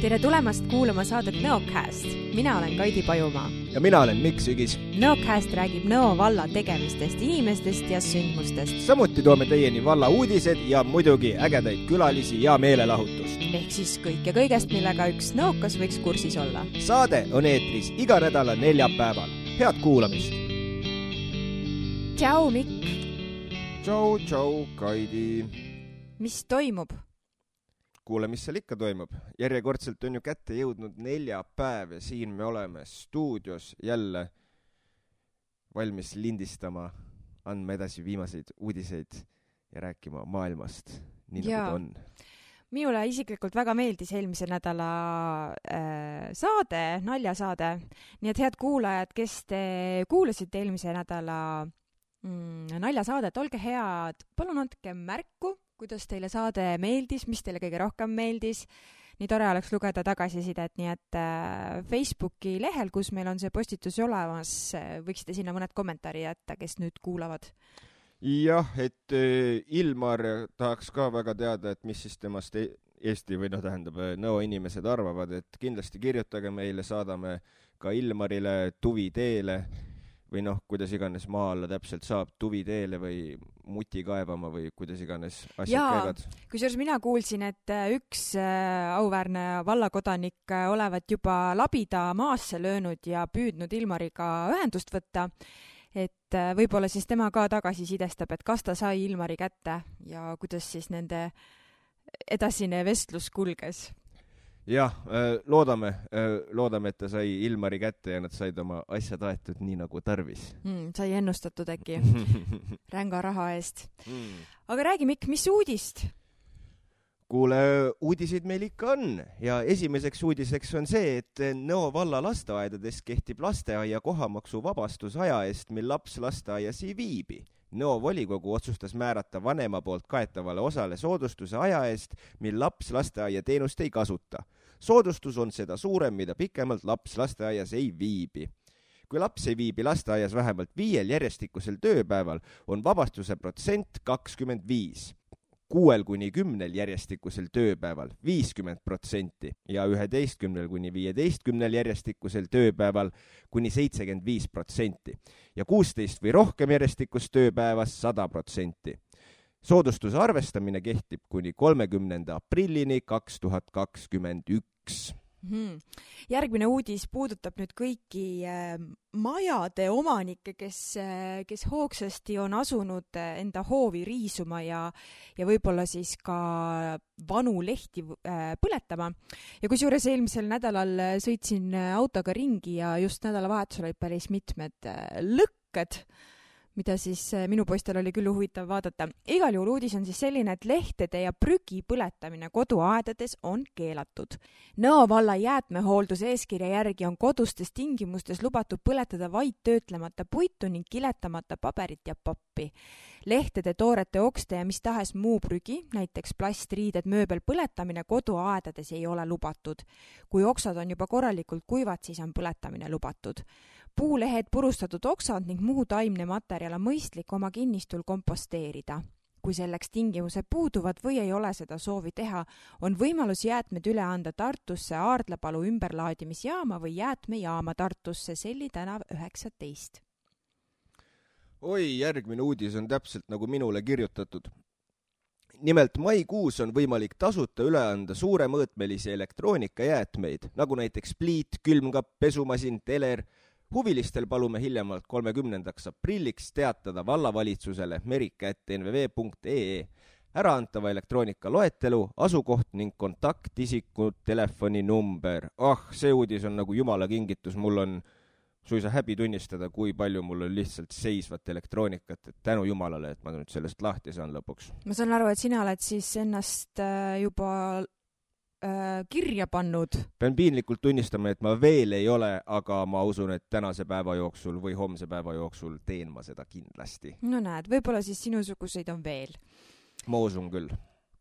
Tere tulemast kuulama saadet Nõocast. Mina olen Kaidi Pajumaa. Ja mina olen Mikk Sügis. Nõocast räägib Nõo valla tegemistest, inimestest ja sündmustest. Samuti toome teieni valla uudised ja muidugi ägedaid külalisi ja meelelahutust. Ehk siis kõik ja kõigest, millega üks nõokas võiks kursis olla. Saade on eetris iga nädala neljapäeval. Head kuulamist! Tšau, Mikk! Tšau, Kaidi! Mis toimub? Kuule, mis seal ikka toimub. Järjekordselt on ju kätte jõudnud neljapäev ja siin me oleme stuudios jälle valmis lindistama, andma edasi viimaseid uudiseid ja rääkima maailmast, nii nagu ta on. Minule isiklikult väga meeldis eelmise nädala saade, naljasaade. Nii et head kuulajad, kes te kuulasite eelmise nädala naljasaadet, olge head, palun andke märku, kuidas teile saade meeldis, mis teile kõige rohkem meeldis. Nii tore oleks lugeda tagasisidet, nii et Facebooki lehel, kus meil on see postitus olemas, võiksite sinna mõned kommentaari jätta, kes nüüd kuulavad. Jah, et Ilmar tahaks ka väga teada, et mis siis temast Eesti või tähendab Nõo inimesed arvavad, et kindlasti kirjutage meile, saadame ka Ilmarile Tuviteele või kuidas iganes maa alla täpselt saab, Tuviteele või muti kaevama või kuidas iganes asjad käivad. Kusjuures mina kuulsin, et üks auväärne vallakodanik olevat juba labida maasse löönud ja püüdnud Ilmariga ühendust võtta, et võib-olla siis tema ka tagasi sidestab, et kas ta sai Ilmari kätte ja kuidas siis nende edasine vestlus kulges. Jah, loodame, et ta sai Ilmari kätte ja nad said oma asjad aetud nii nagu tarvis. Sai ennustatud äkki ränga raha eest. Aga räägi, Mikk, mis uudist? Kuule, uudiseid meil ikka on ja esimeseks uudiseks on see, et Nõo valla lasteaedades kehtib lasteaia kohamaksu vabastus aja eest, mil laps lasteaias ei viibi. Nõo volikogu otsustas määrata vanema poolt kaetavale osale soodustuse aja eest, mil laps lasteaia teenust ei kasuta. Soodustus on seda suurem, mida pikemalt laps lasteaias ei viibi. Kui laps ei viibi lasteaias vähemalt 5 järjestikusel tööpäeval, on vabastuse protsent 25. 6-10 järjestikusel tööpäeval 50% ja 11-15 järjestikusel tööpäeval kuni 75% ja 16 või rohkem järjestikust tööpäevas 100%. Soodustuse arvestamine kehtib kuni 30. aprillini 2021. Järgmine uudis puudutab nüüd kõiki majade omanikke, kes hoogsasti on asunud enda hoovi riisuma ja võib-olla siis ka vanu lehti põletama. Ja kusjuures eelmisel nädalal sõitsin autoga ringi ja just nädalavahetusel olid päris mitmed lõkked, mida siis minu poistel oli küll huvitav vaadata. Igal juhul uudis on siis selline, et lehtede ja prügi põletamine koduaedades on keelatud. Nõo valla jäätmehoolduse eeskirja järgi on kodustes tingimustes lubatud põletada vaid töötlemata puitu ning kiletamata paberit ja pappi. Lehtede, toorete, okste ja mis tahes muu prügi, näiteks plastriided, mööbel põletamine koduaedades ei ole lubatud. Kui oksad on juba korralikult kuivad, siis on põletamine lubatud. Puulehed, purustatud oksad ning muu taimne materjal on mõistlik oma kinnistul komposteerida. Kui selleks tingimused puuduvad või ei ole seda soovi teha, on võimalus jäätmed üle anda Tartusse Aardlapalu ümberlaadimisjaama või jäätmejaama Tartusse Selli tänav 19. Oi, järgmine uudis on täpselt nagu minule kirjutatud. Nimelt maikuus on võimalik tasuta üle anda suuremõõtmelisi elektroonikajäätmeid, nagu näiteks pliit, külmkapp, pesumasin, teler. Huvilistel palume hiljemalt 30. aprilliks teatada vallavalitsusele merika@nvv.ee äraantava elektroonika loetelu, asukoht ning kontaktisiku telefoninumber. See uudis on nagu jumala kingitus, mul on suisa häbi tunnistada, kui palju mul on lihtsalt seisvat elektroonikat, et tänu jumalale, et ma nüüd sellest lahti saan lõpuks. Ma saan aru, et sina oled siis ennast juba kirja pannud. Pean piinlikult tunnistama, et ma veel ei ole, aga ma usun, et tänase päeva jooksul või homse päeva jooksul teen ma seda kindlasti. No näed, võib-olla siis sinusuguseid on veel. Ma usun küll.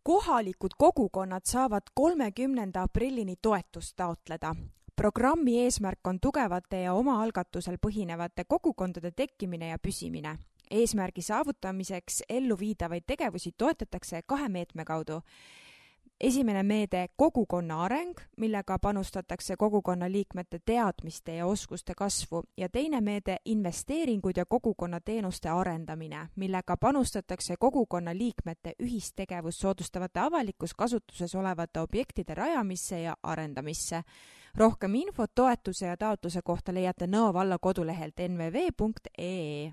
Kohalikud kogukonnad saavad 30. aprillini toetust taotleda. Programmi eesmärk on tugevate ja omaalgatusel põhinevate kogukondade tekkimine ja püsimine. Eesmärgi saavutamiseks elluviidavaid tegevusi toetatakse 2 meetme kaudu. Esimene meede kogukonna areng, millega panustatakse kogukonna liikmete teadmiste ja oskuste kasvu, ja teine meede investeeringud ja kogukonna teenuste arendamine, millega panustatakse kogukonna liikmete ühistegevust soodustavate avalikus kasutuses olevate objektide rajamisse ja arendamisse. Rohkem infot toetuse ja taotluse kohta leiate Nõo valla kodulehelt nvv.ee.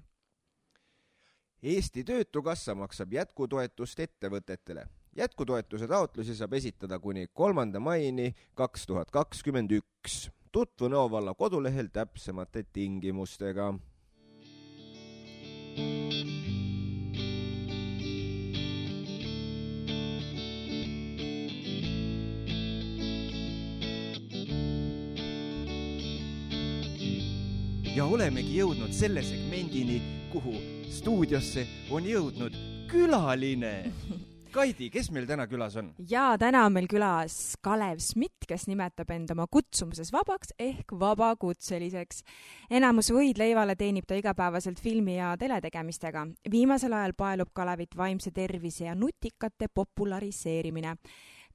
Eesti Töötukassa maksab jätkutoetust ettevõtetele. Jätkutoetuse taotlusi saab esitada kuni 3. maini 2021. Tutvu Nõo valla kodulehel täpsemate tingimustega. Ja olemegi jõudnud selle segmendini, kuhu stuudiosse on jõudnud külaline. Kaidi, kes meil täna külas on? Ja täna on meil külas Kalev Smit, kes nimetab end oma kutsumuses vabaks ehk vabakutseliseks. Enamus võidleivale teenib ta igapäevaselt filmi ja teletegemistega. Viimasel ajal paelub Kalevit vaimse tervise ja nutikate populariseerimine.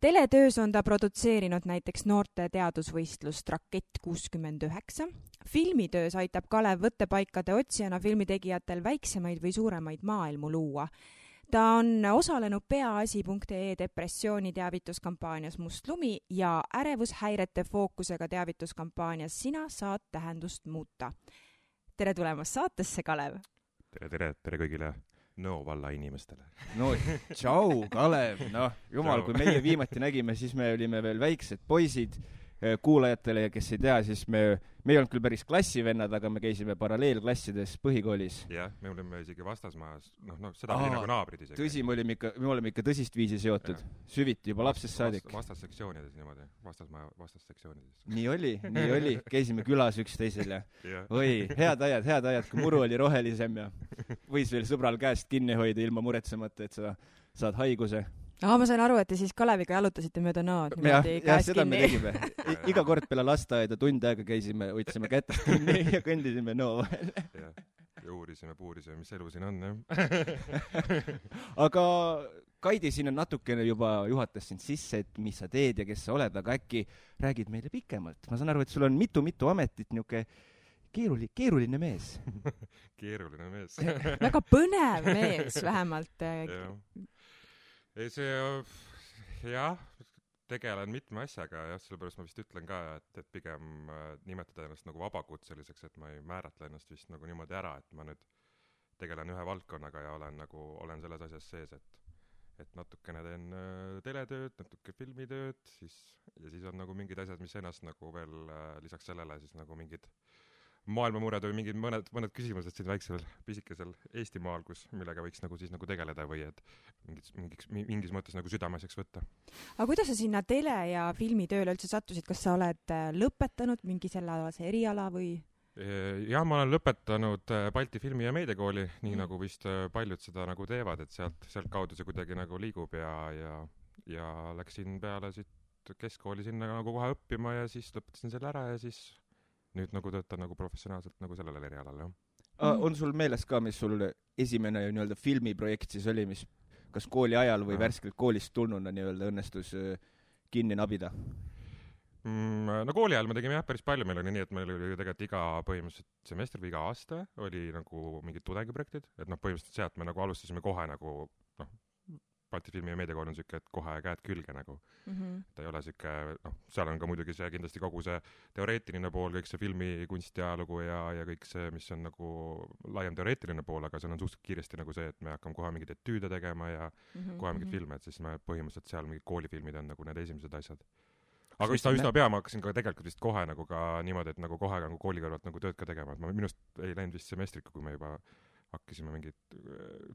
Teletöös on ta produtseerinud näiteks noorte teadusvõistlust Rakett 69. Filmitöös aitab Kalev võttepaikade otsijana filmitegijatel väiksemaid või suuremaid maailmu luua. Ta on osalenud peaasi.ee depressiooni teavituskampaanias Must lumi ja ärevushäirete fookusega teavituskampaanias Sina saad tähendust muuta. Tere tulemast saatesse, Kalev! Tere kõigile Nõo valla inimestele. No, tšau, Kalev! No, jumal, kui meie viimati nägime, siis me olime veel väiksed poisid. Kuulajatele, kes ei tea, siis me ei olnud küll päris klassivennad, aga me käisime paralleelklassides põhikoolis. Jah, me olime isegi vastasmajas, seda oli nagu naabrid isegi. Tõsi, me oleme ikka tõsist viisi seotud, süviti juba lapsest saadik. Vastassektsioonides niimoodi, vastassektsioonides. Nii oli, käisime külas üksteisel ja oi, head ajad, kui muru oli rohelisem ja võis veel sõbral käest kinni hoida ilma muretsemata, et sa saad haiguse. Ma sain aru, et te siis Kaleviga jalutasite mööda Nõod. Ja seda me tegime. Iga kord peale lasteaeda tund aega käisime, võtsime kätest kinni ja kõndisime Nõo vahel. Ja uurisime, mis elu siin on. Ja. Aga Kaidi siin on natukene juba juhatas sind sisse, et mis sa teed ja kes sa oled, aga äkki räägid meile pikemalt. Ma saan aru, et sul on mitu ametit, niuke keeruline mees. Keeruline mees. Väga põnev mees vähemalt. Jah, tegelen mitme asjaga, sellepärast ma vist ütlen ka, et pigem nimetada ennast nagu vabakutseliseks, et ma ei määratle ennast vist nagu niimoodi ära, et ma nüüd tegelen ühe valdkonnaga ja olen selles asjas sees, et natukene teen teletööd, natuke filmitööd, ja siis on nagu mingid asjad, mis ennast nagu veel lisaks sellele siis nagu mingid maailmamured või mingid mõned küsimused siin väiksel pisikesel Eestimaal, millega võiks nagu siis nagu tegeleda või et mingis mõttes nagu südameseks võtta. Aga kuidas sa sinna tele- ja filmitööle üldse sattusid? Kas sa oled lõpetanud mingi sellealase eriala või? Jah, ma olen lõpetanud Balti filmi- ja meediakooli, nii nagu vist paljud seda nagu teevad, et sealt kaudu see kuidagi nagu liigub ja läksin peale siit keskkooli sinna nagu kohe õppima ja siis lõpetasin selle ära ja siis nüüd nagu töötan nagu professionaalselt nagu sellele erialal, jah. On sul meeles ka, mis sul esimene nii-öelda filmiprojekt siis oli, mis kas kooli ajal või värskelt koolist tulnuna nii-öelda õnnestus kinni nabida? No kooli ajal me tegime päris palju, meil oli nii, et meil oli tegelikult iga põhimõtteliselt semester või iga aasta oli nagu mingid tudengiprojektid, et põhimõtteliselt sealt me nagu alustasime kohe nagu Balti filmi- ja meediakool on siuke, et kohe käed külge nagu. Ta ei ole siuke, seal on ka muidugi see kindlasti kogu see teoreetiline pool, kõik see filmi kunstiajalugu ja kõik see, mis on nagu laiem teoreetiline pool, aga seal on suhteliselt kiiresti nagu see, et me hakkame kohe mingid etüüde tegema ja kohe mingid filme, et siis me põhimõtteliselt seal mingid koolifilmid on nagu need esimesed asjad. Aga vist üsna pea ma hakkasin ka tegelikult vist kohe nagu ka niimoodi, et nagu kohe nagu kooli kõrvalt nagu tööd ka tegema, et ma minust ei läinud vist semestrika, kui me juba hakkasime mingit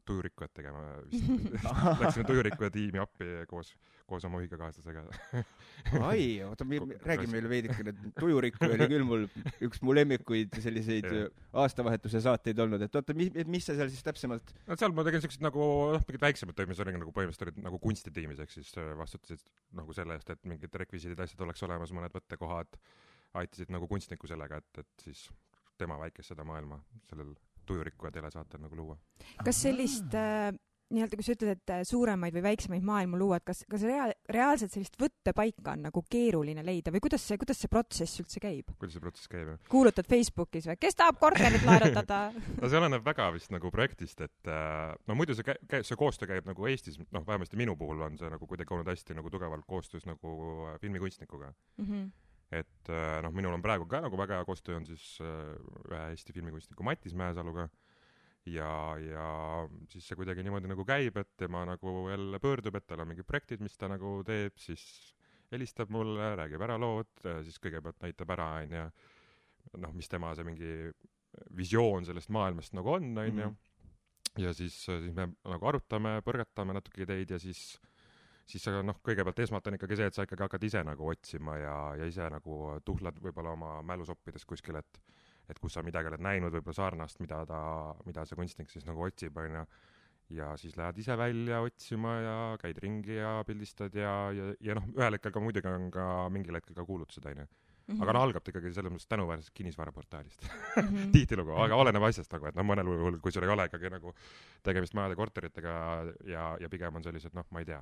tujurikkujat tegema. Läksime tujurikkuja tiimi appi koos oma ühikakaaslasega. Ai, räägi meile veidikene. Tujurikkuja oli küll üks mu lemmikuid selliseid aastavahetuse saateid olnud. Et oota, mis sa seal siis täpsemalt? No seal ma tegin sellised nagu mingid väiksemad töö, mis oli nagu põhimõtteliselt olid nagu kunstitiimis, ehk siis vastutasid nagu selle eest, et mingid rekvisiidid asjad oleks olemas, mõned võttekohad, aitasid nagu kunstniku sellega, et siis tema väikest seda maailma sellel tujurikku ja telesaatel nagu luua. Kas sellist nii-öelda, kui sa ütled, et suuremaid või väiksemaid maailmu luua, et kas reaalselt sellist võttepaika on nagu keeruline leida või kuidas see protsess üldse käib? Kuidas see protsess käib? Kuulutad Facebookis või? Kes tahab korterit laenutada? No see oleneb väga vist nagu projektist, et no muidu see koostöö käib nagu Eestis, noh vähemasti minu puhul on see nagu kuidagi olnud hästi nagu tugevalt koostöös nagu filmikunstnikuga. Et noh, minul on praegu ka nagu väga hea koostöö on siis ühe Eesti filmikunstniku Mattis Mäesaluga ja siis see kuidagi niimoodi nagu käib, et tema nagu jälle pöördub, et tal on mingid projektid, mis ta nagu teeb, siis helistab mulle, räägib ära lood, siis kõigepealt näitab ära, ja noh, mis tema see mingi visioon sellest maailmast nagu on, ja siis me nagu arutame, põrgatame natuke ideid ja siis noh, kõigepealt esmalt on ikkagi see, et sa ikkagi hakkad ise nagu otsima ja ise nagu tuhlad võib-olla oma mälusoppides kuskil, et kus sa midagi oled näinud võib-olla sarnast, mida see kunstnik siis nagu otsib, ja siis lähed ise välja otsima ja käid ringi ja pildistad ja noh, ühel hetkel ka muidugi on ka mingil hetkel ka kuulutused, aga no algab ikkagi selles mõttes tänuväärsest kinnisvaraportaalist. Tihtilugu, aga oleneb asjast nagu, et no mõnel juhul, kui sul ei ole ikkagi nagu tegemist majade korteritega ja pigem on sellised, noh, ma ei tea,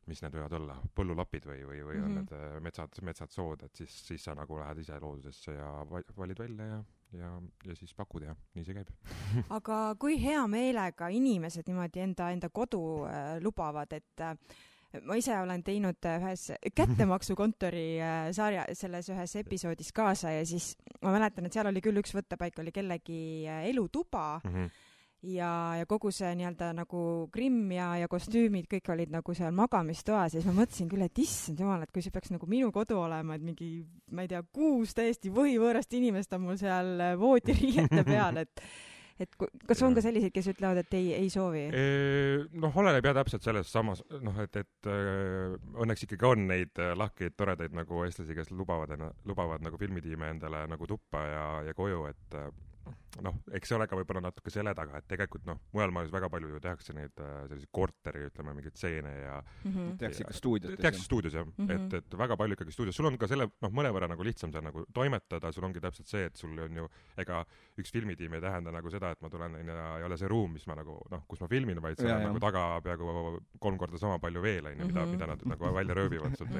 mis need võivad olla, põllulapid või on need metsad sood, et siis sa nagu lähed ise loodusesse ja valid välja ja siis pakud ja nii see käib. Aga kui hea meelega inimesed niimoodi enda kodu lubavad, et ma ise olen teinud ühes kättemaksukontori sarja, selles ühes episoodis kaasa ja siis ma mäletan, et seal oli küll üks võttepaik, oli kellegi elutuba, ja kogu see nii-öelda nagu grimm ja kostüümid kõik olid nagu seal magamistoas ja siis ma mõtlesin küll, et issand jumal, et kui see peaks nagu minu kodu olema, et mingi, ma ei tea, 6 täiesti võhivõõrast inimest on mul seal voodiriiete peal, et kas on ka selliseid, kes ütlevad, et ei soovi? Noh, oleneb jah täpselt selles samas, noh, et õnneks ikkagi on neid lahkeid, toredaid nagu eestlasi, kes lubavad nagu filmitiime endale nagu tuppa ja koju, et noh, eks see ole ka võib-olla natuke selle taga, et tegelikult noh, mujal maailmas väga palju ju tehakse neid selliseid korteri, ütleme, mingeid stseene ja tehakse ikka stuudios. Tehakse stuudios, jah. Et väga palju ikkagi stuudios. Sul on ka selle, noh, mõnevõrra nagu lihtsam seal nagu toimetada, sul ongi täpselt see, et sul on ju, ega üks filmitiim ei tähenda nagu seda, et ma tulen ja ei ole see ruum, mis ma nagu, noh, kus ma filmin, vaid see on nagu taga peaaegu 3 korda sama palju veel, mida nad nagu välja rööbivad sult,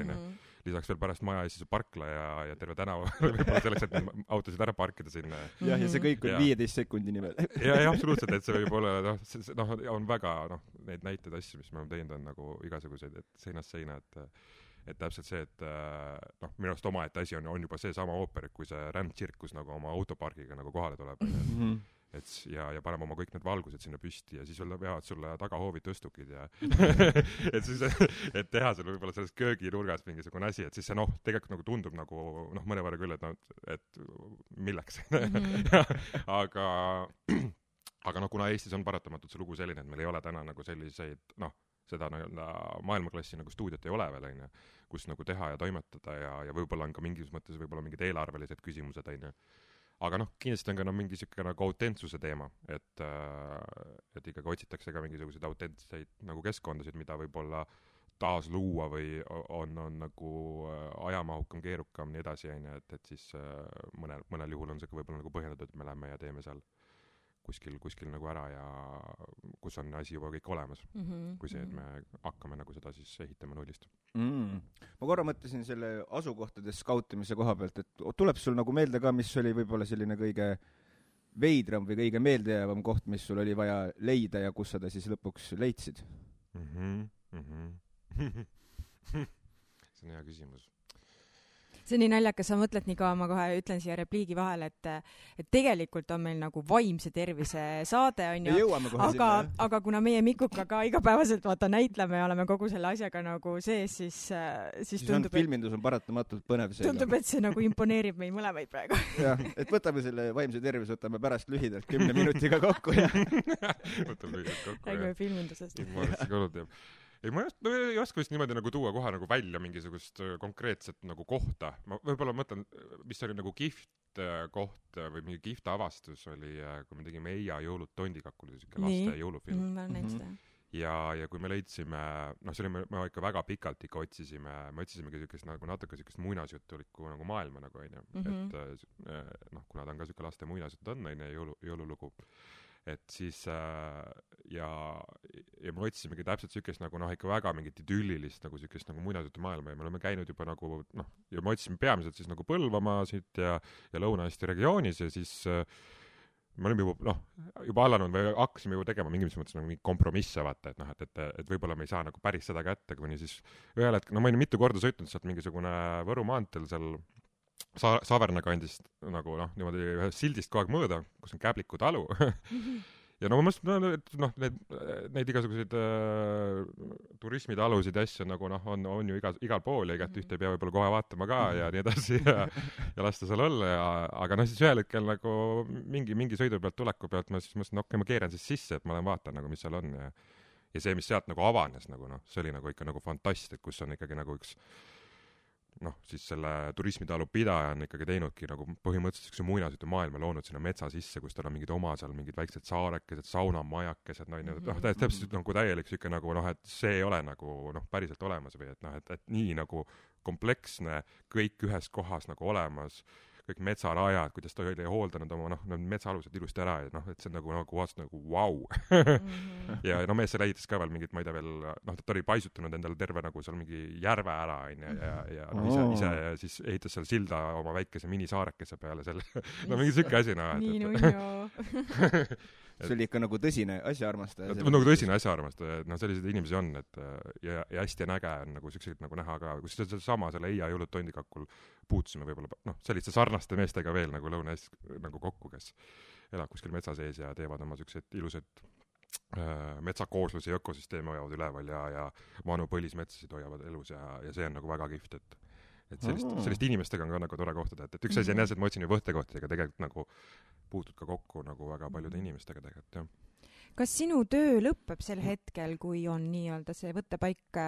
lisaks veel pärast maja ees parkla ja terve tänava võib-olla selleks, et neid autosid ära parkida sinna. Ja see kõik on 15 sekundini veel. Ja absoluutselt, et see võib olla, noh, on väga, noh, neid näiteid asju, mis me oleme teinud, on nagu igasuguseid, et seinast seina, et täpselt see, et noh, minu arust omaette asi on juba see sama ooper, kui see rändtsirkus nagu oma autopargiga nagu kohale tuleb. Et ja paneme oma kõik need valgused sinna püsti ja siis veavad sulle tagahoovid tõstukid ja et siis, et teha seal võib-olla selles kööginurgas mingisugune asi, et siis see noh, tegelikult nagu tundub nagu noh, mõnevõrra küll, et milleks. aga noh, kuna Eestis on paratamatult see lugu selline, et meil ei ole täna nagu selliseid, noh, seda maailmaklassi nagu stuudiot ei ole veel, kus nagu teha ja toimetada ja võib-olla on ka mingis mõttes võib-olla mingid eelarvelised küsimused, aga noh, kindlasti on ka mingi siuke nagu autentsuse teema, et ikkagi otsitakse ka mingisuguseid autentseid nagu keskkondasid, mida võib-olla taas luua või on nagu ajamahukam, keerukam, nii edasi, et siis mõnel juhul on see ka võib-olla nagu põhjendatud, et me lähme ja teeme seal kuskil nagu ära ja kus on asi juba kõik olemas, kui see, et me hakkame nagu seda siis ehitama nullist. Ma korra mõtlesin selle asukohtade skautimise koha pealt, et tuleb sul nagu meelde ka, mis oli võib-olla selline kõige veidram või kõige meeldejäävam koht, mis sul oli vaja leida ja kus sa ta siis lõpuks leidsid? See on hea küsimus. See on nii naljakas, sa mõtled nii kaua, ma kohe ütlen siia repliigi vahel, et tegelikult on meil nagu vaimse tervise saade, on ju, aga kuna meie Mikuga ka igapäevaselt näitleme ja oleme kogu selle asjaga nagu sees, siis tundub, et filmindus on paratamatult põnev seega. Tundub, et see nagu imponeerib meil mõlemaid praegu. Jah, et võtame selle vaimse tervise, võtame pärast lühidalt 10 minutiga kokku ja võtame lühidalt kokku. Räägime filmindusest. Ei, ma ei oska vist niimoodi nagu tuua kohe nagu välja mingisugust konkreetset nagu kohta. Ma võib-olla mõtlen, mis oli nagu kihvt koht või mingi kihvt avastus oli, kui me tegime Eija jõulud Tondikakul, selline laste jõulufilm. Ma näin seda. ja kui me leidsime, see oli, me ikka väga pikalt ikka otsisimegi siukest nagu natuke siukest muinasjutulikku nagu maailma nagu onju, et kuna ta on ka siuke laste muinasjutt on onju, jõululugu, et siis ja me otsisimegi täpselt siukest nagu ikka väga mingit idüllilist nagu siukest nagu muinasjutu maailma ja me oleme käinud juba nagu ja me otsisime peamiselt siis nagu Põlvamaasid ja Lõuna-Eesti regioonis ja siis me olime juba alanud või hakkasime juba tegema mingis mõttes nagu mingi kompromisse vaata, et võib-olla me ei saa nagu päris seda kätte, kuni siis ühel hetkel, ma olin mitu korda sõitnud sealt mingisugune Võru maanteel seal Saverna kandist nagu niimoodi ühest sildist kogu aeg mööda, kus on Käbliku talu ja ma mõtlesin, et neid igasuguseid turismitalusid ja asju nagu on ju igal pool ja igat ühte ei pea võib-olla kohe vaatama ka ja nii edasi ja lasta seal olla aga siis ühel hetkel nagu mingi sõidu pealt, tuleku pealt ma siis mõtlesin, okei, ma keeran siis sisse, et ma lähen vaatan nagu, mis seal on ja see, mis sealt nagu avanes nagu see oli nagu ikka nagu fantastik, kus on ikkagi nagu üks siis selle turismitalu pidaja on ikkagi teinudki nagu põhimõtteliselt üks muinasjutu maailma loonud sinna metsa sisse, kus tal on mingid oma seal mingid väiksed saarekesed, saunamajakesed, täpselt nagu täielik siuke nagu et see ei ole nagu päriselt olemas või et nii nagu kompleksne, kõik ühes kohas nagu olemas, kõik metsarajad, kuidas ta oli hooldanud oma metsaalused ilusti ära ja et see on nagu vastu nagu vau. ja mees seal ehitas ka veel mingit, ma ei tea veel, ta oli paisutanud endale terve nagu seal mingi järve ära ja ise siis ehitas seal silda oma väikese minisaarekese peale selle. Mingi siuke asi see oli ikka nagu tõsine asjaarmastaja. Nagu tõsine asjaarmastaja, et selliseid inimesi on, et ja hästi näge on nagu siukseid nagu näha ka, kus sama selle Eia jõulud tondikakul puutusime võib-olla, selliste sarnaste meestega veel nagu Lõuna-Eestis nagu kokku, kes elab kuskil metsa sees ja teevad oma siukseid ilusaid metsakoosluse ja ökosüsteemi hoiavad üleval ja vanu põlismetsasid hoiavad elus ja see on nagu väga kihvt, et sellist inimestega on ka nagu tore kohtada, et üks asi on jah, et ma otsin ju võttekohtadega tegelikult nagu puutud ka kokku nagu väga paljude inimestega tegelikult, jah. Kas sinu töö lõpeb sel hetkel, kui on nii-öelda see võttepaik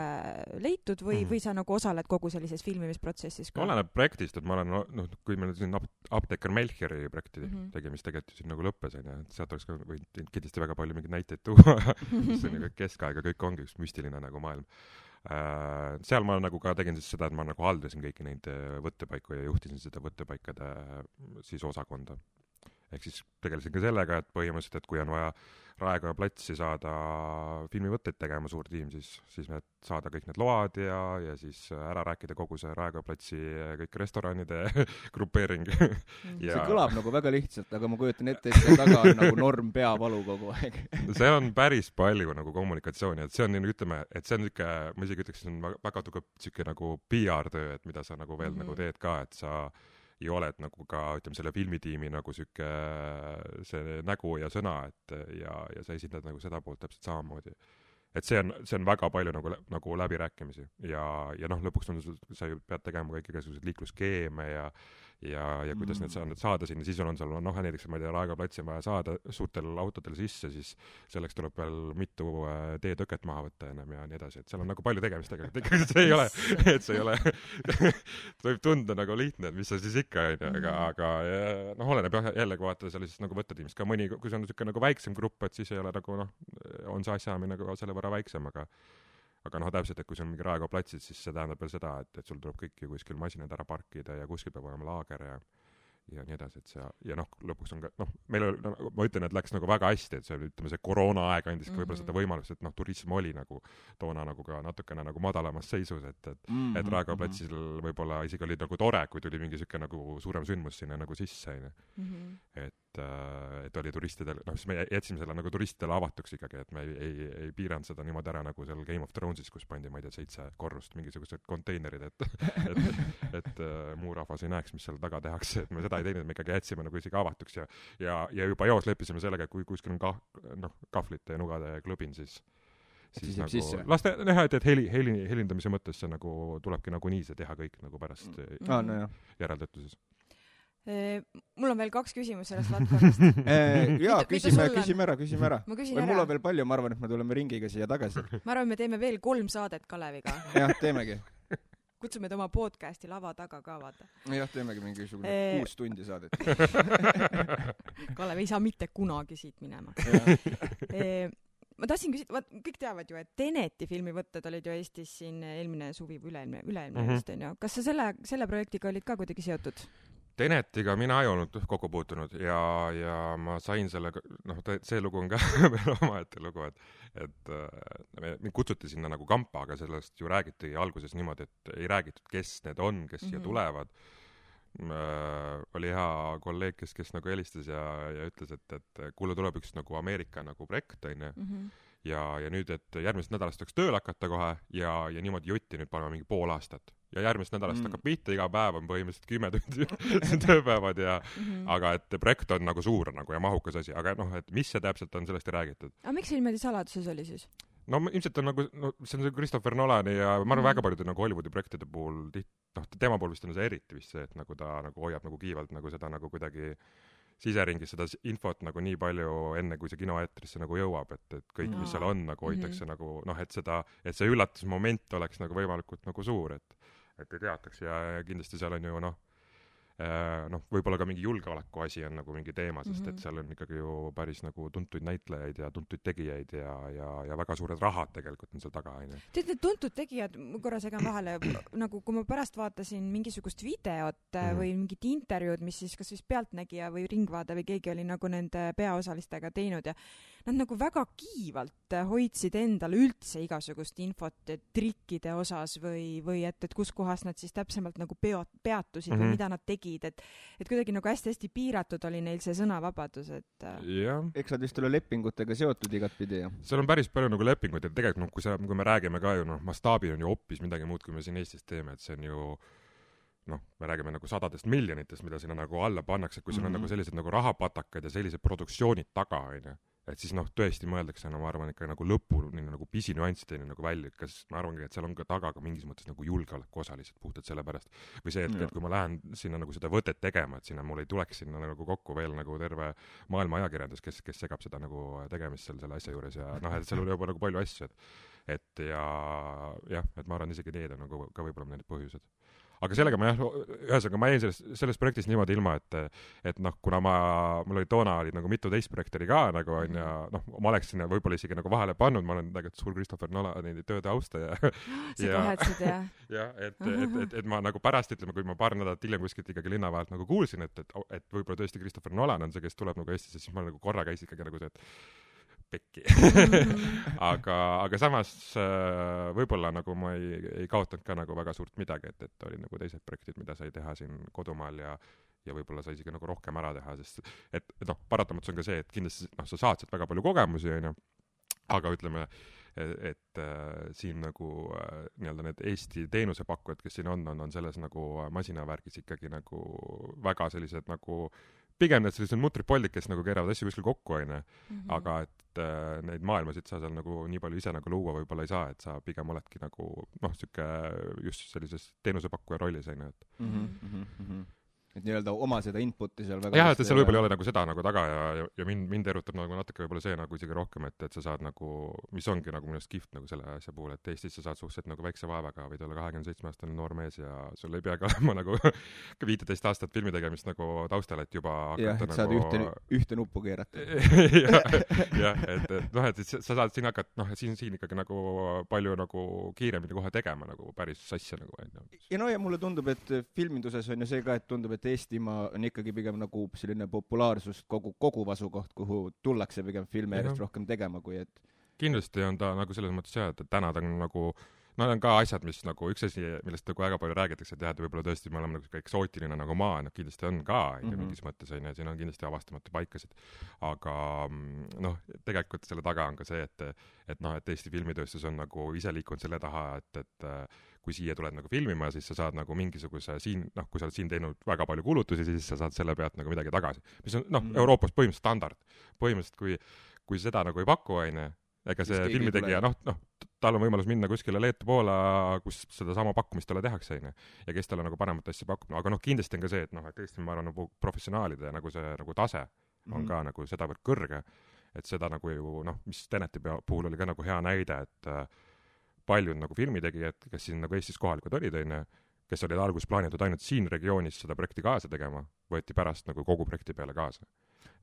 leitud või sa nagu osaled kogu sellises filmimisprotsessis ka? Oleneb projektist, et ma olen, kui meil siin Apteeker Melchiori projekti tegemist tegelikult siin nagu lõppes, et sealt oleks ka võinud kindlasti väga palju mingeid näiteid tuua, see on ju keskaega, kõik ongi üks müstiline nagu maailm. Seal ma nagu ka tegin siis seda, et ma nagu haldasin kõiki neid võttepaiku ja juhtisin seda võttepaikade siis osakonda. Ehk siis tegelesin ka sellega, et põhimõtteliselt, et kui on vaja Raekoja platsi saada filmivõtteid tegema suur tiim, siis me saada kõik need load ja siis ära rääkida kogu see Raekoja platsi kõik restoranide grupeering. See kõlab nagu väga lihtsalt, aga ma kujutan ette, et see taga on nagu norm peavalu kogu aeg. See on päris palju nagu kommunikatsiooni, et see on, ütleme, et see on niisugune, ma isegi ütleks, see on väga tugev niisugune nagu PR-töö, et mida sa nagu veel nagu teed ka, et sa ja oled nagu ka, ütleme, selle filmitiimi nagu siuke see nägu ja sõna, et ja sa esindad nagu seda poolt täpselt samamoodi. Et see on väga palju nagu läbirääkimisi ja lõpuks on sa ju pead tegema kõik igasugused liikluskeeme ja kuidas need saada sinna, siis on seal, näiteks, ma ei tea, Raekoja platsi on vaja saada suurtel autodel sisse, siis selleks tuleb veel mitu teetõket maha võtta ennem ja nii edasi, et seal on nagu palju tegemist tegelikult, ikkagi see ei ole, võib tunda nagu lihtne, et mis see siis ikka on, aga oleneb jällegi vaata sellisest nagu võttetiimist ka mõni, kui see on niisugune nagu väiksem grupp, et siis ei ole nagu on see asjaamine nagu selle võrra väiksem, aga täpselt, et kui see on mingi Raekoja platsid, siis see tähendab veel seda, et sul tuleb kõik ju kuskil masinad ära parkida ja kuskil peab olema laager ja nii edasi, et see, ja lõpuks on ka, meil oli, ma ütlen, et läks nagu väga hästi, et see, ütleme, see koroona aeg andis ka võib-olla seda võimalust, et turism oli nagu toona nagu ka natukene nagu madalamas seisus, et Raekoja platsil võib-olla isegi oli nagu tore, kui tuli mingi siuke nagu suurem sündmus sinna nagu sisse, et oli turistidel, siis me jätsime selle nagu turistidele avatuks ikkagi, et me ei piiranud seda niimoodi ära nagu seal Game of Thronesis, kus pandi, ma ei tea, 7 korrust mingisugused konteinerid, et muu rahvas ei näeks, mis seal taga tehakse, et me seda ei teinud, me ikkagi jätsime nagu isegi avatuks ja juba joos leppisime sellega, et kui kuskil on kahvlite ja nugade klõbin, siis nagu laste näha, et helindamise mõttes see nagu tulebki nagu nii see teha kõik nagu pärast järeltöötluses. Mul on veel 2 küsimust sellest valdkonnast. Jaa, küsime ära. Mul on veel palju, ma arvan, et me tuleme ringiga siia tagasi. Ma arvan, me teeme veel 3 saadet Kaleviga. Jah, teemegi. Kutsume oma podcasti lava taga ka, vaata. Jah, teemegi mingisugune 6 tundi saadet. Kalev ei saa mitte kunagi siit minema. ma tahtsin küsida, kõik teavad ju, et Teneti filmivõtted olid ju Eestis siin eelmine suvi või üleilmne vist on ju. Kas sa selle projektiga olid ka kuidagi seotud? Tenetiga mina ei olnud kokku puutunud ja ma sain sellega, see lugu on ka veel omaette lugu, et mind kutsuti sinna nagu kampa, aga sellest ju räägiti alguses niimoodi, et ei räägitud, kes need on, kes siia tulevad. Oli hea kolleeg, kes nagu helistas ja ütles, et kuule tuleb üks nagu Ameerika nagu projekt, ja nüüd, et järgmisest nädalast võiks tööl hakata kohe ja niimoodi jutti nüüd paneme mingi pool aastat. Ja järgmisest nädalast hakkab pihta, iga päev on põhimõtteliselt 10 tundi tööpäevad aga et projekt on nagu suur nagu ja mahukas asi, aga et mis see täpselt on, sellest ei räägitud. Aga miks see niimoodi saladuses oli siis? No ilmselt on nagu, see on see Christopher Nolani ja ma arvan väga paljude nagu Hollywoodi projektide puhul, tema puhul vist on see eriti vist see, et nagu ta nagu hoiab nagu kiivalt nagu seda nagu kuidagi siseringis seda infot nagu nii palju enne, kui see kinoeetrisse nagu jõuab, et kõik, mis seal on, nagu hoitakse nagu, et see üllatusmoment oleks nagu võimalikult nagu suur, et ei teataks ja kindlasti seal on ju võib-olla ka mingi julgeoleku asi on nagu mingi teema, sest et seal on ikkagi ju päris nagu tuntuid näitlejaid ja tuntuid tegijaid ja väga suured rahad tegelikult on seal taga, on ju. Tead, need tuntud tegijad, korra segan vahele, nagu kui ma pärast vaatasin mingisugust videot või mingit intervjuud, mis siis kas vist Pealtnägija või Ringvaade või keegi oli nagu nende peaosalistega teinud ja nad nagu väga kiivalt hoidsid endale üldse igasugust infot trikkide osas või et kus kohas nad siis täpsemalt nagu peatusid või mida nad tegid. Et kuidagi nagu hästi-hästi piiratud oli neil see sõnavabadus, et eks nad vist ole lepingutega seotud igat pidi, jah? Seal on päris palju nagu lepinguid, et tegelikult kui me räägime ka ju, mastaabil on ju hoopis midagi muud, kui me siin Eestis teeme, et see on ju me räägime nagu sadadest miljonitest, mida sinna nagu alla pannakse, kui seal on nagu sellised nagu rahapatakad ja sellised produktsioonid taga, on ju. Et siis tõesti mõeldakse, ma arvan, ikka nagu lõpuni nagu pisinüanssideni nagu välja, kas ma arvangi, et seal on ka taga ka mingis mõttes nagu julgeoleku osa lihtsalt puhtalt selle pärast. Või see, et kui ma lähen sinna nagu seda võtet tegema, et sinna mul ei tuleks sinna nagu kokku veel nagu terve maailma ajakirjandus, kes segab seda nagu tegemist selle asja juures ja et seal oli juba nagu palju asju, et et ma arvan isegi need on nagu ka võib-olla need põhjused. Aga sellega ühesõnaga ma jäin selles projektis niimoodi ilma, et kuna mul oli toona oli nagu mitu teist projekti ka nagu on ja ma oleks sinna võib-olla isegi nagu vahele pannud, ma olen tegelikult suur Christopher Nolani tööde austaja. Seda vahetsid, jah? Jah, et ma nagu pärast ütleme, kui ma paar nädalat hiljem kuskilt ikkagi linna vahelt nagu kuulsin, et võib-olla tõesti Christopher Nolan on see, kes tuleb nagu Eestisse, siis ma nagu korra käisin ikkagi nagu see, et pekki. aga samas võib-olla nagu ma ei kaotanud ka nagu väga suurt midagi, et oli nagu teised projektid, mida sai teha siin kodumaal ja võib-olla sai isegi nagu rohkem ära teha, sest et paratamatus on ka see, et kindlasti sa saad sealt väga palju kogemusi, on ju, aga ütleme, et siin nagu nii-öelda need Eesti teenusepakkujad, kes siin on selles nagu masinavärgis ikkagi nagu väga sellised nagu pigem need sellised mutripoldid, kes nagu keeravad asju kuskil kokku, on ju, aga et neid maailmasid sa seal nagu nii palju ise nagu luua võib-olla ei saa, et sa pigem oledki nagu siuke just sellises teenusepakkuja rollis, on ju, et nii-öelda oma seda inputi seal väga jah, et seal võib-olla ei ole nagu seda nagu taga ja mind erutab nagu natuke võib-olla see nagu isegi rohkem, et sa saad nagu, mis ongi nagu minust kihvt nagu selle asja puhul, et Eestis sa saad suhteliselt nagu väikse vaevaga võid olla 27-aastane noor mees ja sul ei peagi olema nagu 15 aastat filmi tegemist nagu taustal, et juba hakata et nagu saad ühte nuppu keerata. jah, et sa saad siin hakata, siin ikkagi nagu palju nagu kiiremini kohe tegema nagu päris asja nagu. Ja ja mulle tundub, et filminduses on ju see ka, et tundub, et Eestimaa on ikkagi pigem nagu selline populaarsust koguv asukoht, kuhu tullakse pigem filme järjest rohkem tegema, kui et kindlasti on ta nagu selles mõttes jah, et täna ta on nagu need on ka asjad, mis nagu üks asi, millest nagu väga palju räägitakse, et jah, et võib-olla tõesti me oleme nagu eksootiline nagu maa, kindlasti on ka mingis mõttes, on ju, siin on kindlasti avastamatu paikasid, aga tegelikult selle taga on ka see, et Eesti filmitööstus on nagu ise liikunud selle taha, et kui siia tuled nagu filmima, siis sa saad nagu mingisuguse siin, kui sa oled siin teinud väga palju kulutusi, siis sa saad selle pealt nagu midagi tagasi, mis on Euroopas põhimõtteliselt standard. Põhimõtteliselt, kui seda nagu ei paku, on ju, ega see filmitegija, tal on võimalus minna kuskile Leetu Poola, kus seda sama pakkumist talle tehakse, on ju, ja kes talle nagu paremat asja pakub. Aga kindlasti on ka see, et Eesti, ma arvan, nagu professionaalide nagu see nagu tase on ka nagu sedavõrd kõrge, et seda nagu ju, mis Teneti puhul oli ka nagu hea näide, et paljud nagu filmitegijad, kes siin nagu Eestis kohalikud olid, kes olid alguses plaanitud ainult siin regioonis seda projekti kaasa tegema, võeti pärast nagu kogu projekti peale kaasa.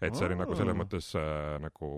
et see oli nagu selles mõttes nagu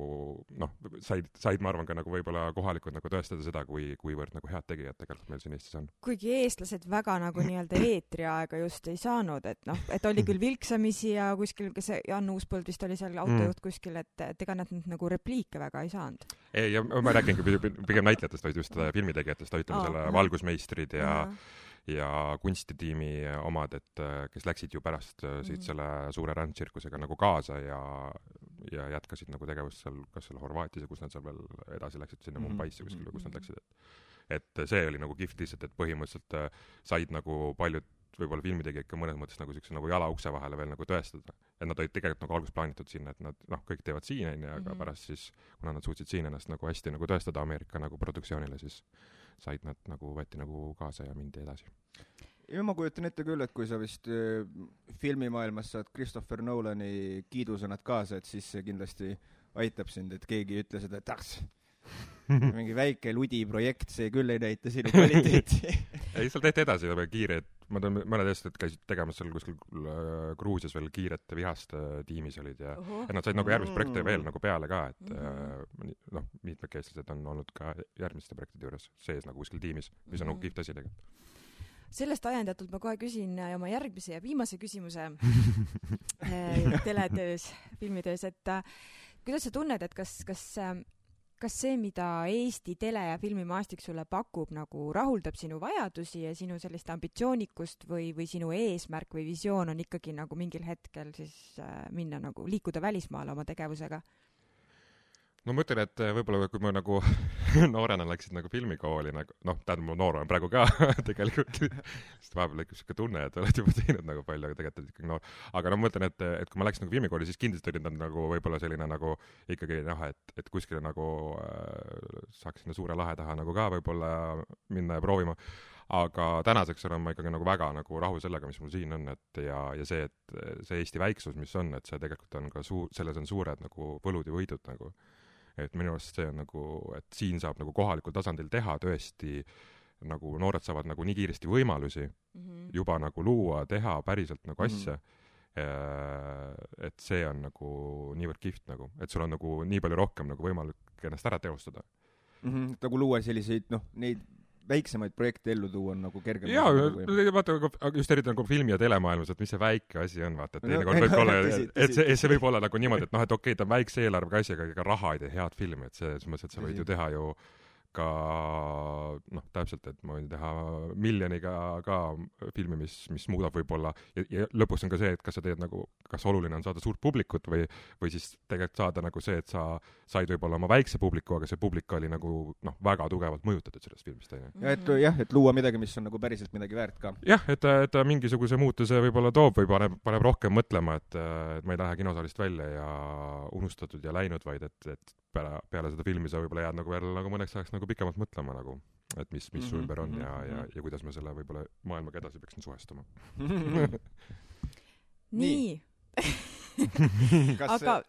noh, said ma arvan ka nagu võib-olla kohalikud nagu tõestada seda, kuivõrd nagu head tegijad tegelikult meil siin Eestis on. Kuigi eestlased väga nagu nii-öelda eetriaega just ei saanud, et noh, et oli küll vilksamisi ja kuskil, kes Jan Uuspõld vist oli seal autojuht kuskil, et ega nad nagu repliike väga ei saanud. Ei, ja ma räägingi pigem näitlejatest, vaid just filmitegijatest, ütleme selle valgusmeistrid ja kunstitiimi omad, et kes läksid ju pärast siit selle suure rändtsirkusega nagu kaasa ja jätkasid nagu tegevust seal, kas seal Horvaatias ja kus nad seal veel edasi läksid sinna Mumbaisse kuskil või kus nad läksid. Et see oli nagu kihvt lihtsalt, et põhimõtteliselt said nagu paljud võib-olla filmitegijad ka mõnes mõttes nagu siukse nagu jala ukse vahele veel nagu tõestada. Et nad olid tegelikult nagu alguses plaanitud sinna, et nad kõik teevad siin onju, aga pärast siis, kuna nad suutsid siin ennast nagu hästi nagu tõestada Ameerika nagu produktsioonile, siis said nad nagu võeti nagu kaasa ja mindi edasi. Ja ma kujutan ette küll, et kui sa vist filmimaailmas saad Christopher Nolani kiidusõnad kaasa, et siis see kindlasti aitab sind, et keegi ütle seda, et mingi väike ludi projekt, see küll ei näita sinu kvaliteeti. Ei, seal tehti edasi kiired, ma tean, mõned eestlased käisid tegemas seal kuskil Gruusias veel kiiret vihast tiimis olid ja nad said nagu järgmist projekte veel nagu peale ka, et mitmed eestlased on olnud ka järgmiste projektide juures sees nagu kuskil tiimis, mis on nagu kihvt asi tegelikult. Sellest ajendatult ma kohe küsin oma järgmise ja viimase küsimuse teletöös, filmitöös, et kuidas sa tunned, et kas see, mida Eesti tele- ja filmimaastik sulle pakub, nagu rahuldab sinu vajadusi ja sinu sellist ambitsioonikust või sinu eesmärk või visioon on ikkagi nagu mingil hetkel siis minna nagu liikuda välismaale oma tegevusega? No ma mõtlen, et võib-olla kui ma nagu noorena läksid nagu filmikooli, nagu, tähendab, ma noor olen praegu ka tegelikult, sest vahepeal lõikus siuke tunne, et oled juba teinud nagu palju, aga tegelikult ikkagi noor. Aga ma mõtlen, et kui ma läksin nagu filmikooli, siis kindlasti olid nad nagu võib-olla selline nagu ikkagi et kuskile nagu saaks sinna suure lahe taha nagu ka võib-olla minna ja proovima. Aga tänaseks olen ma ikkagi nagu väga nagu rahul sellega, mis mul siin on, et ja see, et see Eesti väiksus, mis on, et see tegelikult on ka selles on suured nagu võlud ja võidud nagu. Et minu arust see on nagu, et siin saab nagu kohalikul tasandil teha tõesti, nagu noored saavad nagu nii kiiresti võimalusi juba nagu luua, teha päriselt nagu asja, et see on nagu niivõrd kihvt nagu, et sul on nagu nii palju rohkem nagu võimalik ennast ära teostada. Nagu luua selliseid, neid väiksemaid projekte ellu tuua on nagu kergem. Jaa, vaata, just eriti nagu filmi- ja telemaailmas, et mis see väike asi on, vaata, et teinekord võib olla, et see võib olla nagu niimoodi, et okei, ta on väikse eelarvega asi, aga raha ei tee head filmi, et see mõttes, et sa võid ju teha ju ka täpselt, et ma võin teha miljoniga ka filmi, mis muudab võib-olla ja lõpuks on ka see, et kas sa teed nagu, kas oluline on saada suurt publikut või siis tegelikult saada nagu see, et sa said võib-olla oma väikse publiku, aga see publik oli nagu väga tugevalt mõjutatud sellest filmist. Ja et luua midagi, mis on nagu päriselt midagi väärt ka. Jah, et ta mingisuguse muutuse võib-olla toob või paneb rohkem mõtlema, et ma ei lähe kinosaalist välja ja unustatud ja läinud, vaid et peale seda filmi sa võib-olla jääd nagu veel nagu mõneks ajaks nagu pikemalt mõtlema nagu, et mis su ümber on ja kuidas me selle võib-olla maailmaga edasi peaksin suhestuma. Nii. Aga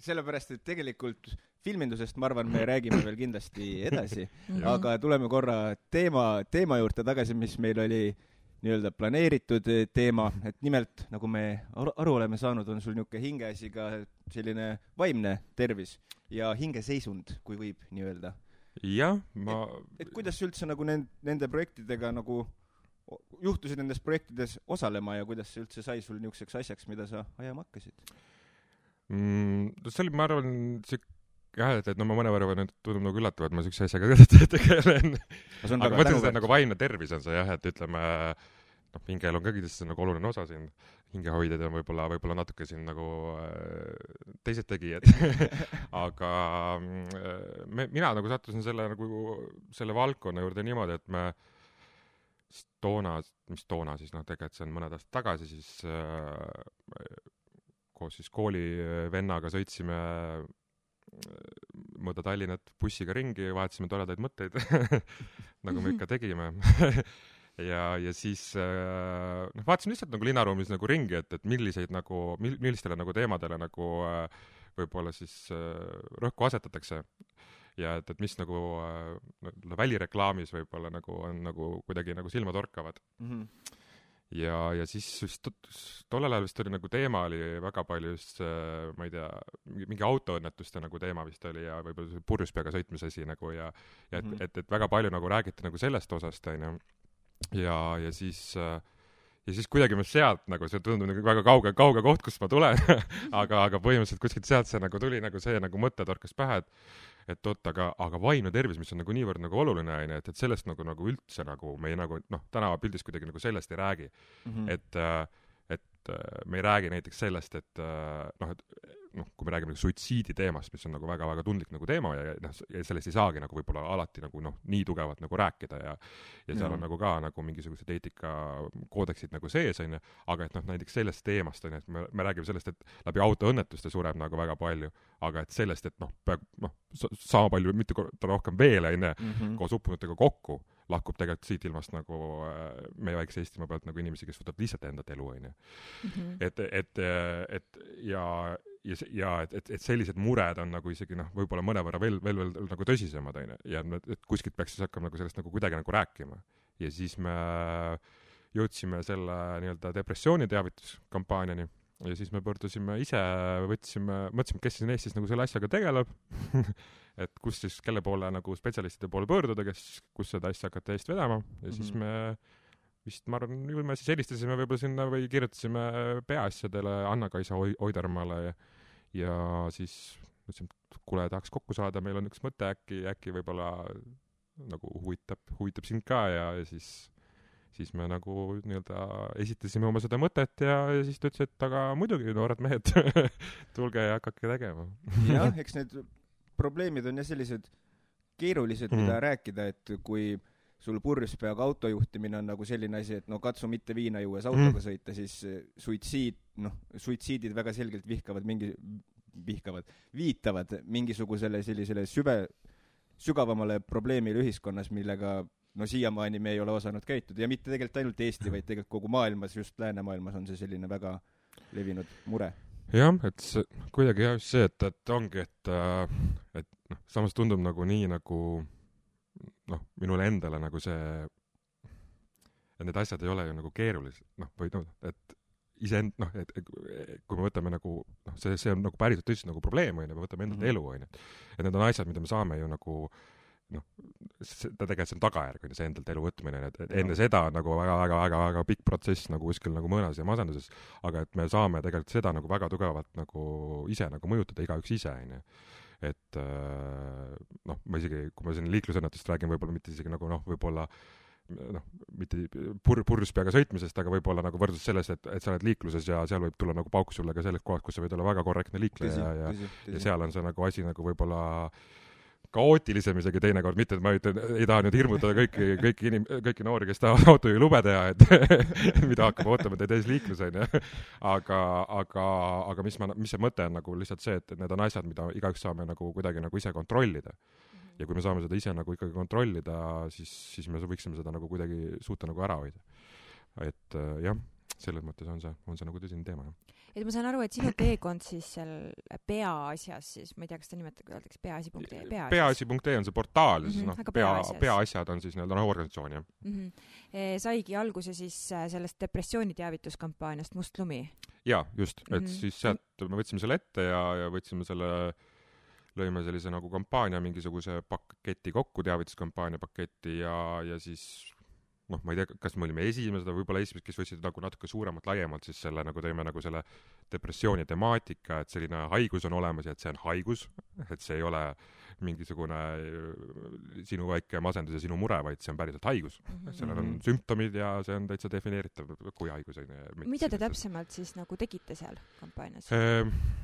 sellepärast, et tegelikult filmindusest, ma arvan, me räägime veel kindlasti edasi, aga tuleme korra teema juurde tagasi, mis meil oli nii-öelda planeeritud teema, et nimelt, nagu me aru oleme saanud, on sul niisugune hingeasi ka selline vaimne tervis ja hingeseisund, kui võib nii öelda. Jah, et kuidas üldse nagu nende projektidega nagu juhtusid nendes projektides osalema ja kuidas see üldse sai sul niisuguseks asjaks, mida sa ajama hakkasid? See oli, ma arvan, et ma mõnevõrra tundub nagu üllatav, et ma niisuguse asjaga tegelen. Aga mõtlen seda nagu vaimne tervis on see jah, et ütleme, hingel on ka kindlasti nagu oluline osa siin. Hingehoidjad on võib-olla natuke siin nagu teised tegijad. Aga mina nagu sattusin selle valdkonna juurde niimoodi, et me toona siis tegelikult see on mõned aastad tagasi siis koos siis koolivennaga sõitsime mööda Tallinnat bussiga ringi, vahetasime toredaid mõtteid, nagu me ikka tegime. ja siis vaatasime lihtsalt nagu linnaruumis nagu ringi, et millistele nagu teemadele nagu võib-olla siis rõhku asetatakse. Ja et mis nagu välireklaamis võib-olla nagu on nagu kuidagi nagu silmatorkavad. ja siis tollel ajal vist oli nagu teema oli väga palju just, ma ei tea, mingi autoõnnetuste nagu teema vist oli ja võib-olla see purjus peaga sõitmise asi nagu ja et väga palju nagu räägiti nagu sellest osast, onju. Ja siis kuidagi ma sealt nagu, see tundub nagu väga kauge koht, kust ma tulen aga põhimõtteliselt kuskilt sealt see nagu tuli nagu see nagu mõte torkas pähe, et oot, aga vaimne tervis, mis on nagu niivõrd nagu oluline, onju, et sellest nagu üldse nagu me ei nagu, tänavapildis kuidagi nagu sellest ei räägi. Et me ei räägi näiteks sellest, et kui me räägime suitsiidi teemast, mis on nagu väga-väga tundlik nagu teema ja sellest ei saagi nagu võib-olla alati nagu nii tugevalt nagu rääkida ja seal on nagu ka nagu mingisugused eetikakoodeksid nagu sees, onju, aga et näiteks sellest teemast, onju, et me räägime sellest, et läbi autoõnnetuste sureb nagu väga palju, aga et sellest, et sama palju, mitte rohkem veel, onju, koos uppunutega kokku lahkub tegelikult siit ilmast nagu meie väikse Eestimaa pealt nagu inimesi, kes võtavad lihtsalt enda elu, onju. Et sellised mured on nagu isegi võib-olla mõnevõrra veel nagu tõsisemad, onju. Ja et kuskilt peaks siis hakkama nagu sellest nagu kuidagi nagu rääkima. Ja siis me jõudsime selle nii-öelda depressiooni teavituskampaaniani ja siis me pöördusime ise, mõtlesime, kes siin Eestis nagu selle asjaga tegeleb et kus siis, kelle poole nagu spetsialistide poole pöörduda, kus seda asja hakata eest vedama ja siis me vist, ma arvan, me siis helistasime võib-olla sinna või kirjutasime peaasjadele Anna-Kaisa Oidermaale ja siis mõtlesime, et kuule, tahaks kokku saada, meil on üks mõte, äkki võib-olla nagu huvitab sind ka ja siis me nagu nii-öelda esitasime oma seda mõtet ja siis ta ütles, et aga muidugi, noored mehed, tulge ja hakake tegema. Jah, eks need probleemid on ja sellised keerulised, mida rääkida, et kui sul purjus peaga autojuhtimine on nagu selline asi, et katsu mitte viina juues autoga sõita, siis suitsiidid väga selgelt viitavad mingisugusele sellisele sügavamale probleemile ühiskonnas, millega siiamaani me ei ole osanud käituda ja mitte tegelikult ainult Eesti, vaid tegelikult kogu maailmas, just läänemaailmas on see selline väga levinud mure. Jah, et see, kuidagi jah, see, et ongi, et samas tundub nagu nii nagu minule endale nagu see, et need asjad ei ole ju nagu keerulised, et et kui me võtame nagu, see on nagu päriselt tõsiselt nagu probleem, me võtame endalt elu, et need on asjad, mida me saame ju nagu tegelikult see on tagajärg, see endalt elu võtmine, et enne seda on nagu väga pikk protsess nagu kuskil nagu mõõnas ja masenduses, aga et me saame tegelikult seda nagu väga tugevalt nagu ise nagu mõjutada igaüks ise, et ma isegi, kui ma siin liiklusõnnetust räägin, võib-olla mitte isegi nagu võib-olla mitte purjus peaga sõitmisest, aga võib-olla nagu võrdlus selles, et sa oled liikluses ja seal võib tulla nagu pauk sulle ka selles kohas, kus sa võid olla väga korrektne liikleja ja seal on see nagu asi nagu võib-olla kaootilisem isegi teinekord, mitte et ma ei taha nüüd hirmutada kõiki noori, kes tahavad autojuhi lube teha, et mida hakkab ootama teid ees liiklus, onju. Aga mis see mõte on nagu lihtsalt see, et need on asjad, mida igaüks saame nagu kuidagi nagu ise kontrollida. Ja kui me saame seda ise nagu ikkagi kontrollida, siis me võiksime seda nagu kuidagi suuta nagu ära hoida. Et jah, selles mõttes on see nagu tõsine teema, jah. Et ma saan aru, et sinu teekond siis seal peaasjas siis, ma ei tea, kas ta nimetab, kui öeldakse peaasi.ee. Peaasi.ee on see portaal, siis peaasjad on siis nii-öelda organisatsioon, jah. Saigi alguse siis sellest depressiooni teavituskampaaniast Must lumi. Jaa, just, et siis sealt me võtsime selle ette ja võtsime lõime sellise nagu kampaania, mingisuguse paketi kokku, teavituskampaania paketi ja siis ma ei tea, kas me olime esimesed, võib-olla esimesed, kes võtsid nagu natuke suuremalt, laiemalt siis selle nagu teeme nagu selle depressiooni temaatika, et selline haigus on olemas ja et see on haigus, et see ei ole mingisugune sinu väike masendus ja sinu mure, vaid see on päriselt haigus. Sellel on sümptomid ja see on täitsa defineeritav kui haigus. Mida te täpsemalt siis nagu tegite seal kampaanias?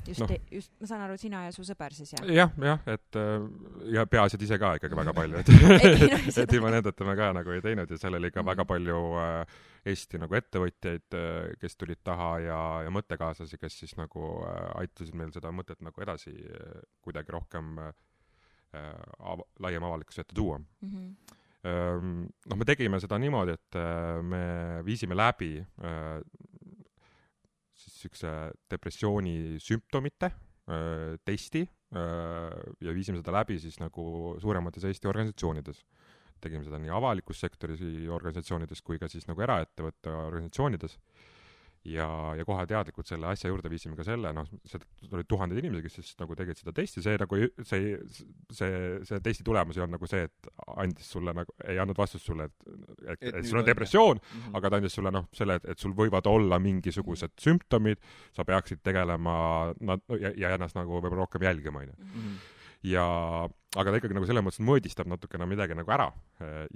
Just, ma saan aru, sina ja su sõber siis, jah? Jah, et ja peaasjad ise ka ikkagi väga palju, et ilma nendeta me ka nagu ei teinud ja seal oli ka väga palju Eesti nagu ettevõtjaid, kes tulid taha ja mõttekaaslasi, kes siis nagu aitasid meil seda mõtet nagu edasi kuidagi rohkem laiem avalikkuse ette tuua. Me tegime seda niimoodi, et me viisime läbi siis üks depressiooni sümptomite testi ja viisime seda läbi siis nagu suuremates Eesti organisatsioonides. tegime seda nii avalikus sektoris organisatsioonides kui ka siis nagu eraettevõtte organisatsioonides. Ja kohe teadlikult selle asja juurde viisime ka selle, seda olid tuhanded inimesed, kes siis nagu tegid seda testi, see nagu see testi tulemus ei olnud nagu see, et andis sulle nagu, ei andnud vastust sulle, et sul on depressioon, aga ta andis sulle selle, et sul võivad olla mingisugused sümptomid, sa peaksid tegelema ja ennast nagu võib-olla rohkem jälgima, aga ta ikkagi nagu selle mõttes mõõdistab natukene midagi nagu ära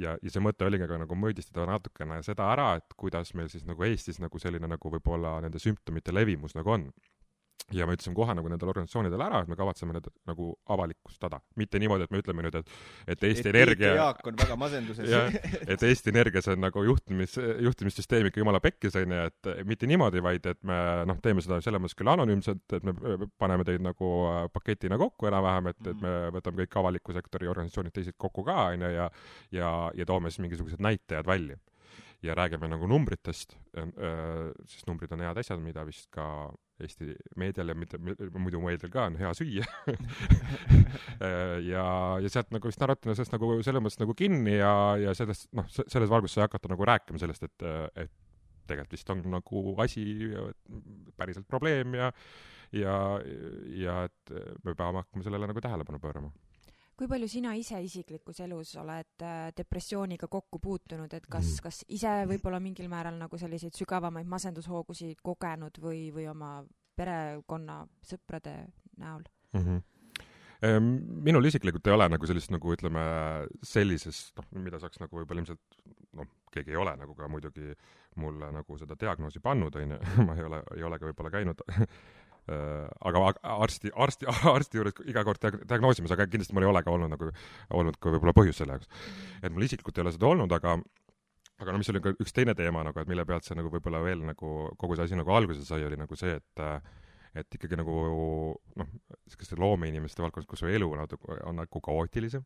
ja see mõte oligi ka nagu mõõdistada natukene seda ära, et kuidas meil siis nagu Eestis nagu selline nagu võib-olla nende sümptomite levimus nagu on. Ja me ütlesime kohe nagu nendele organisatsioonidele ära, et me kavatseme need nagu avalikustada. Mitte niimoodi, et me ütleme nüüd, et Eesti Energia... Jaak on väga masenduses. Et Eesti Energia see on nagu juhtimissüsteem ikka jumala pekkis, et mitte niimoodi, vaid et me teeme seda selles mõttes küll anonüümselt, et me paneme teid nagu paketina kokku enam-vähem, et me võtame kõik avaliku sektori organisatsioonid teised kokku ka ja toome siis mingisugused näitajad välja. Ja räägime nagu numbritest, sest numbrid on head asjad, mida vist ka Eesti meedial ja muidu meedial ka on hea süüa. ja sealt nagu vist narratina sellest nagu selles mõttes nagu kinni ja selles valguses sai hakata nagu rääkima sellest, et tegelikult vist on nagu asi päriselt probleem ja et me peame hakkama sellele nagu tähelepanu pöörama. Kui palju sina ise isiklikus elus oled depressiooniga kokku puutunud, et kas ise võib-olla mingil määral nagu selliseid sügavamaid masendushoogusid kogenud või oma perekonna sõprade näol? Minul isiklikult ei ole nagu sellist nagu ütleme sellises, mida saaks nagu võib-olla ilmselt, keegi ei ole nagu ka muidugi mulle nagu seda diagnoosi pannud, ma ei ole ka võib-olla käinud aga arsti juures iga kord diagnoosimas, aga kindlasti mul ei ole ka olnud ka võib-olla põhjus selle jaoks. Et mul isiklikult ei ole seda olnud, aga mis oli ka üks teine teema, nagu, et mille pealt see nagu võib-olla veel nagu kogu see asi nagu alguse sai, oli nagu see, et ikkagi nagu loomeinimeste valdkonnas, kus su elu on nagu kaootilisem,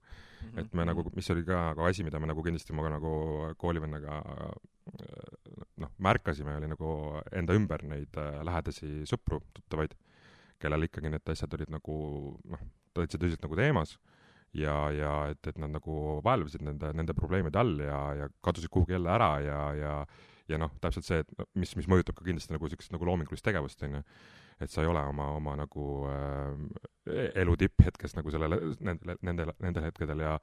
et me nagu, mis oli ka nagu asi, mida me nagu kindlasti ma nagu koolivennaga märkasime, oli nagu enda ümber neid lähedasi sõpru, tuttavaid, kellel ikkagi need asjad olid nagu tõsiselt nagu teemas ja et nad nagu vaelvasid nende probleemide all ja kadusid kuhugi jälle ära ja täpselt see, et mis mõjutab ka kindlasti nagu sellist nagu loomingulist tegevust, et sa ei ole oma nagu elu tipphetkes nagu nendel hetkedel ja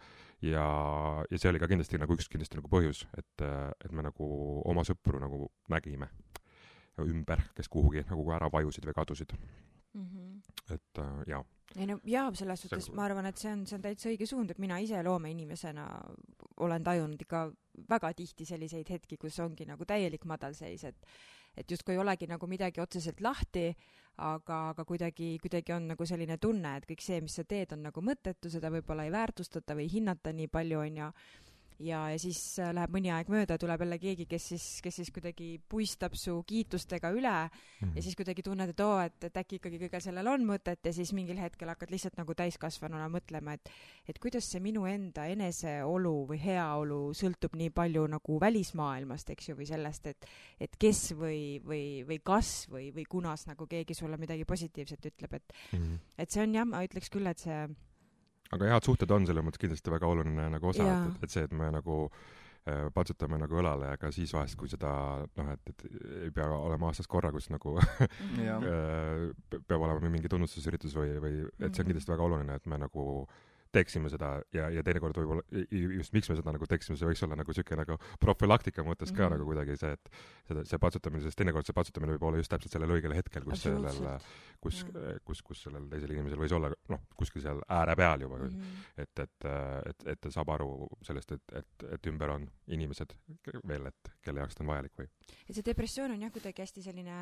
see oli ka kindlasti nagu üks nagu põhjus, et me nagu oma sõpru nagu nägime ümber, kes kuhugi nagu ära vajusid või kadusid. Et jaa. Selles suhtes ma arvan, et see on täitsa õige suund, et mina ise loomeinimesena olen tajunud ikka väga tihti selliseid hetki, kus ongi nagu täielik madalseis, et justkui ei olegi nagu midagi otseselt lahti, aga kuidagi on nagu selline tunne, et kõik see, mis sa teed, on nagu mõttetu, seda võib-olla ei väärtustata või hinnata nii palju, ja siis läheb mõni aeg mööda, tuleb jälle keegi, kes siis kuidagi puistab su kiitustega üle ja siis kuidagi tunned, et äkki ikkagi kõigel sellel on mõtet ja siis mingil hetkel hakkad lihtsalt nagu täiskasvanuna mõtlema, et kuidas see minu enda eneseolu või heaolu sõltub nii palju nagu välismaailmast, eks ju, või sellest, et kes või kas või kunas nagu keegi sulle midagi positiivset ütleb, et see on ma ütleks küll, et see aga head suhted on selles mõttes kindlasti väga oluline nagu osa, et see, et me nagu patsutame nagu õlale, aga siis vahest, kui seda, et ei pea olema aastas korra, kus nagu peab olema mingi tunnustusüritus või et see on kindlasti väga oluline, et me nagu teeksime seda ja teinekord võib-olla just miks me seda nagu teeksime, see võiks olla nagu siuke nagu profülaktika mõttes ka nagu kuidagi see, et see patsutamine, sest teinekord see patsutamine võib olla just täpselt sellel õigel hetkel, kus sellel teisel inimesel võis olla kuskil seal ääre peal juba, et ta saab aru sellest, et ümber on inimesed veel, et kelle jaoks ta on vajalik või. Et see depressioon on kuidagi hästi selline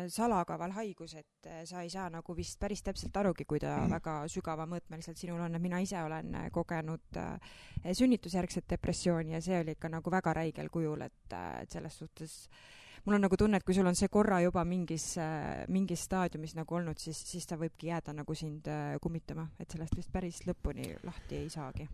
salakaval haigus, et sa ei saa nagu vist päris täpselt arugi, kui ta väga sügava mõõtmeliselt sinul on, et mina ise olen kogenud sünnitusjärgset depressiooni ja see oli ikka nagu väga räigel kujul, et selles suhtes mul on nagu tunne, et kui sul on see korra juba mingis staadiumis nagu olnud, siis ta võibki jääda nagu sind kummitama, et sellest vist päris lõpuni lahti ei saagi.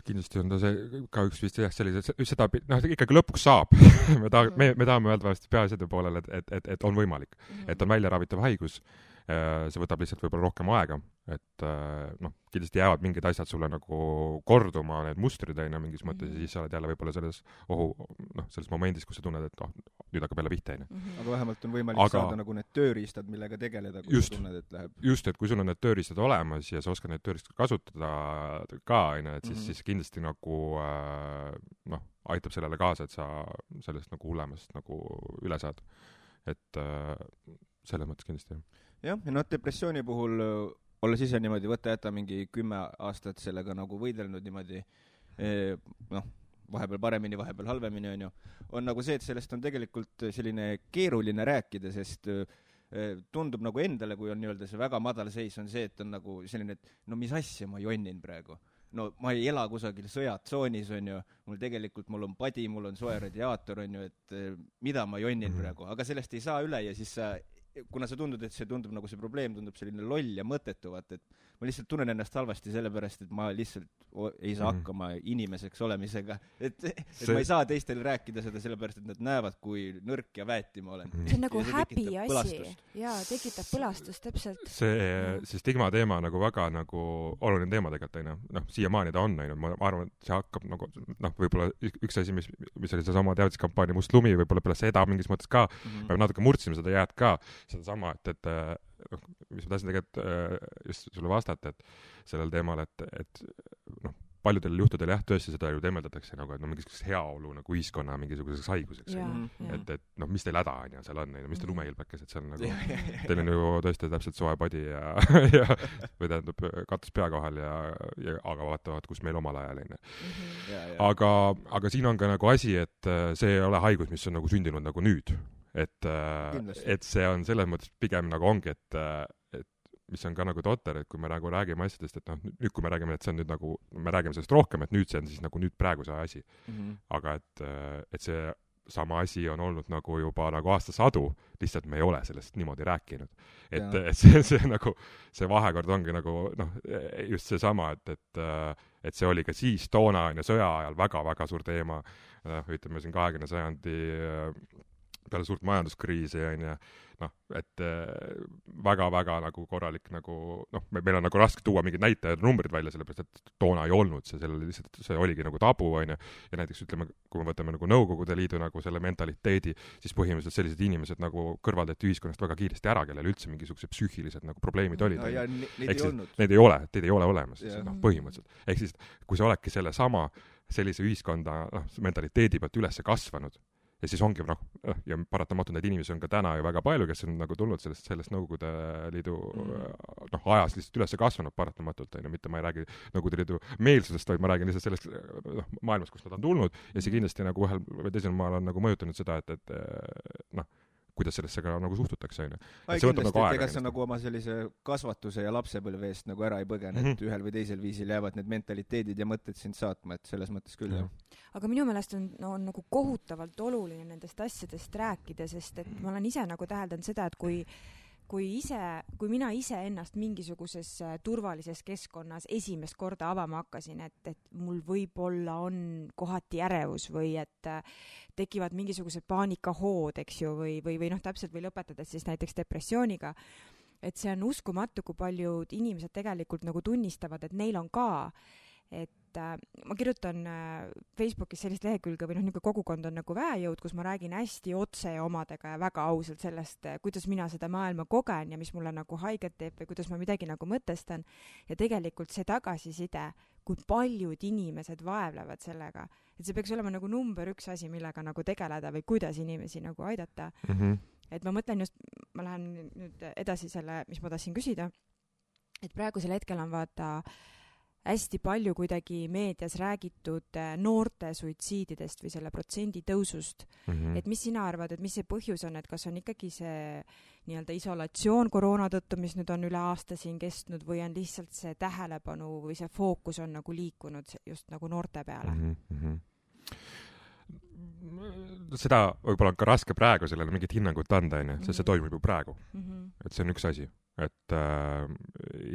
Kindlasti on ta see ka üks vist sellise, seda ikkagi lõpuks saab. me tahame öelda peaasjade poolel, et on võimalik, et on välja ravitav haigus, see võtab lihtsalt võib-olla rohkem aega, et noh, kindlasti jäävad mingid asjad sulle nagu korduma, need mustrid on mingis mõttes ja siis sa oled jälle võib-olla selles selles momendis, kus sa tunned, et nüüd hakkab jälle pihta. Aga vähemalt on võimalik saada nagu need tööriistad, millega tegeleda, kui sa tunned, et läheb. Just, et kui sul on need tööriistad olemas ja sa oskad need tööriistad kasutada ka, et siis kindlasti nagu aitab sellele kaasa, et sa sellest nagu hullemast nagu üle saad. Et selles mõttes kindlasti. Jah, ja depressiooni puhul olles ise niimoodi võtta mingi 10 aastat sellega nagu võidelnud niimoodi, vahepeal paremini, vahepeal halvemini on nagu see, et sellest on tegelikult selline keeruline rääkida, sest tundub nagu endale, kui on nii-öelda see väga madal seis, on see, et on nagu selline, et no mis asja ma jonnin praegu. No ma ei ela kusagil sõjatsoonis, mul on padi, mul on soe radiaator, et mida ma jonnin praegu, aga sellest ei saa üle ja siis kuna sa tundud, et see tundub nagu see probleem tundub selline loll ja mõttetuvat, et ma lihtsalt tunnen ennast halvasti sellepärast, et ma lihtsalt ei saa hakkama inimeseks olemisega, et ma ei saa teistel rääkida seda sellepärast, et nad näevad, kui nõrk ja väeti ma olen. See on nagu häbi asi. Jaa, tekitab põlastust, täpselt. See stigma teema nagu väga nagu oluline teema tegelikult, siiamaani ta on, ma arvan, et see hakkab nagu, võib-olla üks asi, mis oli see sama teavistuskampaania Must lumi, võib-olla peale seda mingis mõttes ka, me natuke murdsime seda jääd ka, seda sama, et mis ma tahtsin tegelikult just sulle vastata, et sellel teemal, et paljudel juhtudel tõesti seda ju temeldatakse nagu, et mingisuguseks heaolu nagu ühiskonna mingisuguseks haiguseks. Et mis teil häda on ja seal on, mis teil lumehilbekes, et seal nagu, teil on ju tõesti täpselt soe padi või tähendab katus pea kohal aga vaatavad, kus meil omal ajal on. Aga siin on ka nagu asi, et see ei ole haigus, mis on nagu sündinud nagu nüüd. Et see on selles mõttes pigem nagu ongi, et mis on ka nagu totter, et kui me nagu räägime asjadest, et nüüd kui me räägime, et see on nüüd nagu, me räägime sellest rohkem, et nüüd see on siis nagu nüüd praegu see asi. Aga et see sama asi on olnud nagu juba nagu aastasadu, lihtsalt me ei ole sellest niimoodi rääkinud. Et see nagu, see vahekord ongi nagu, just see sama, et see oli ka siis toona sõja ajal väga-väga suur teema, ütleme siin 20. sajandi peale suurt majanduskriisi et väga-väga nagu korralik nagu, meil on nagu raske tuua mingid näitajad, numbrid välja, sellepärast, et toona ei olnud see oligi nagu tabu, ja näiteks ütleme, kui me võtame nagu Nõukogude Liidu nagu selle mentaliteedi, siis põhimõtteliselt sellised inimesed nagu kõrvaldati ühiskonnast väga kiiresti ära, kellel üldse mingisugused psüühilised nagu probleemid olid. Need ei ole olemas, põhimõtteliselt. Ehk siis, kui sa oledki sellise ühiskonda mentaliteedi pealt üles kasvanud, ja siis ongi, ja paratamatult neid inimesi on ka täna ju väga palju, kes on nagu tulnud sellest Nõukogude Liidu ajas lihtsalt üles kasvanud paratamatult, mitte ma ei räägi Nõukogude Liidu meelsusest, vaid ma räägin lihtsalt sellest maailmast, kus nad on tulnud, ja see kindlasti nagu ühel või teisel maal on nagu mõjutanud seda, et kuidas sellesse ka nagu suhtutakse. Kindlasti, et ega sa nagu oma sellise kasvatuse ja lapsepõlve eest nagu ära ei põgene, et ühel või teisel viisil jäävad need mentaliteedid ja mõtted sind saatma, et selles mõttes küll. Aga minu meelest on nagu kohutavalt oluline nendest asjadest rääkida, sest et ma olen ise nagu täheldanud seda, et kui mina ise ennast mingisuguses turvalises keskkonnas esimest korda avama hakkasin, et mul võib-olla on kohati ärevus või et tekivad mingisugused paanikahood, eks ju, või täpselt või lõpetades siis näiteks depressiooniga, et see on uskumatu, kui paljud inimesed tegelikult nagu tunnistavad, et neil on ka, et ma kirjutan Facebookis sellist lehekülge või niisugune kogukond on nagu Väejõud, kus ma räägin hästi otse omadega ja väga ausalt sellest, kuidas mina seda maailma kogen ja mis mulle nagu haiget teeb või kuidas ma midagi nagu mõtestan. Ja tegelikult see tagasiside, kui paljud inimesed vaevlevad sellega, et see peaks olema nagu number 1 asi, millega nagu tegeleda või kuidas inimesi nagu aidata. Et ma mõtlen just, ma lähen nüüd edasi selle, mis ma tahtsin küsida, et praegusel hetkel on vaata hästi palju kuidagi meedias räägitud noorte suitsiididest või selle protsendi tõusust. Et mis sina arvad, et mis see põhjus on, et kas on ikkagi see nii-öelda isolatsioon koroona tõttu, mis nüüd on üle aasta siin kestnud või on lihtsalt see tähelepanu või see fookus on nagu liikunud just nagu noorte peale? Seda võib-olla on ka raske praegu sellele mingit hinnangut anda, sest see toimub ju praegu. Et see on üks asi.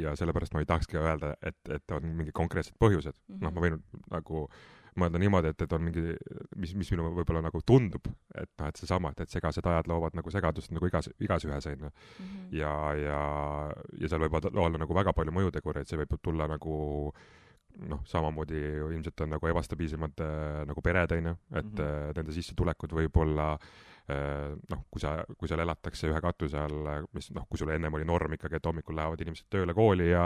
Ja sellepärast ma ei tahakski öelda, et on mingi konkreetsed põhjused. Ma võin nagu mõelda niimoodi, et on mingi, mis minu võib-olla nagu tundub, et noh, et seesama, et segased ajad loovad nagu segadust nagu igas ühes, on ju. Ja seal võib olla nagu väga palju mõjutegureid, see võib tulla nagu noh, samamoodi ilmselt on nagu ebastabiilsemad nagu pered, on ju, et nende sissetulekud võib olla noh, kui seal elatakse ühe katuse all, mis noh, kui sul ennem oli norm ikkagi, et hommikul lähevad inimesed tööle kooli ja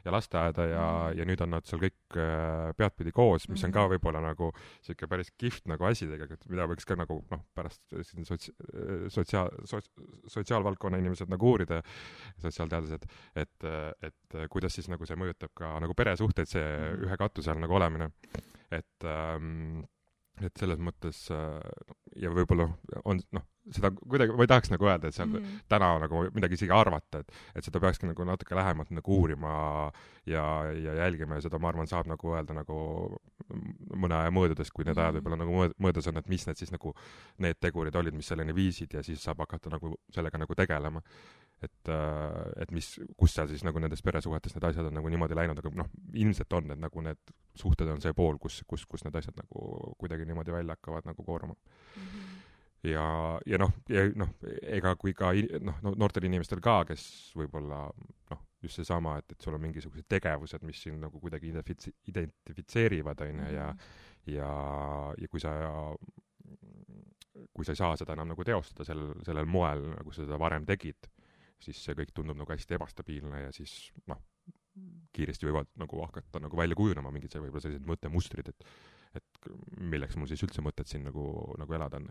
lasteaeda ja nüüd on nad seal kõik peadpidi koos, mis on ka võib-olla nagu siuke päris kihvt nagu asi tegelikult, mida võiks ka nagu noh, pärast siin sotsiaalvaldkonna inimesed nagu uurida, sotsiaalteadlased, et kuidas siis nagu see mõjutab ka nagu peresuhteid, see ühe katuse all nagu olemine, et selles mõttes ja võib-olla on noh, seda kuidagi, ma ei tahaks nagu öelda, et seal täna nagu midagi isegi arvata, et seda peakski nagu natuke lähemalt nagu uurima ja jälgima ja seda, ma arvan, saab nagu öelda nagu mõne aja mõõdudes, kui need ajad võib-olla nagu mõõdus on, et mis need siis nagu need tegurid olid, mis selleni viisid ja siis saab hakata nagu sellega nagu tegelema. Et kus seal siis nagu nendes peresuhetes need asjad on nagu niimoodi läinud, aga noh, ilmselt on, et nagu need suhted on see pool, kus need asjad nagu kuidagi niimoodi välja hakkavad nagu kooruma. Ja noh, ega kui ka noh, noortel inimestel ka, kes võib-olla noh, just seesama, et sul on mingisugused tegevused, mis siin nagu kuidagi identifitseerivad, on ja kui sa ei saa seda enam nagu teostada sellel moel, nagu sa seda varem tegid, siis see kõik tundub nagu hästi ebastabiilne ja siis noh, kiiresti võivad nagu hakata nagu välja kujunema mingid võib-olla sellised mõttemustrid, et milleks mul siis üldse mõtet siin nagu elada on.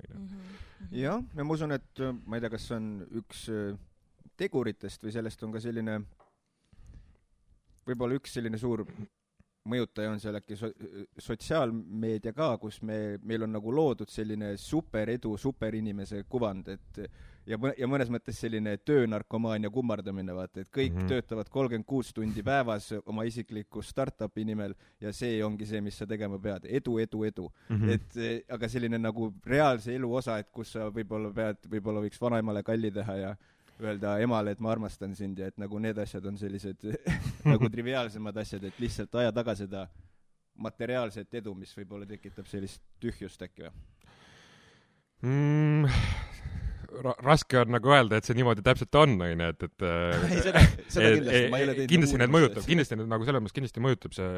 Jah, ja ma usun, et ma ei tea, kas on üks teguritest või sellest on ka selline, võib-olla üks selline suur mõjutaja on seal äkki sotsiaalmeedia ka, kus meil on nagu loodud selline superedu, superinimese kuvand, et ja mõnes mõttes selline töönarkomaania kummardamine, vaata, et kõik töötavad 36 tundi päevas oma isikliku startupi nimel ja see ongi see, mis sa tegema pead. Edu. Et aga selline nagu reaalse elu osa, et kus sa võib-olla võiks vanaemale kalli teha ja öelda emale, et ma armastan sind ja et nagu need asjad on sellised nagu triviaalsemad asjad, et lihtsalt aja taga seda materiaalset edu, mis võib-olla tekitab sellist tühjust äkki või? Raske on nagu öelda, et see niimoodi täpselt on, et seda kindlasti, ma ei ole teinud kindlasti need mõjutab, kindlasti need nagu selles mõttes kindlasti mõjutab see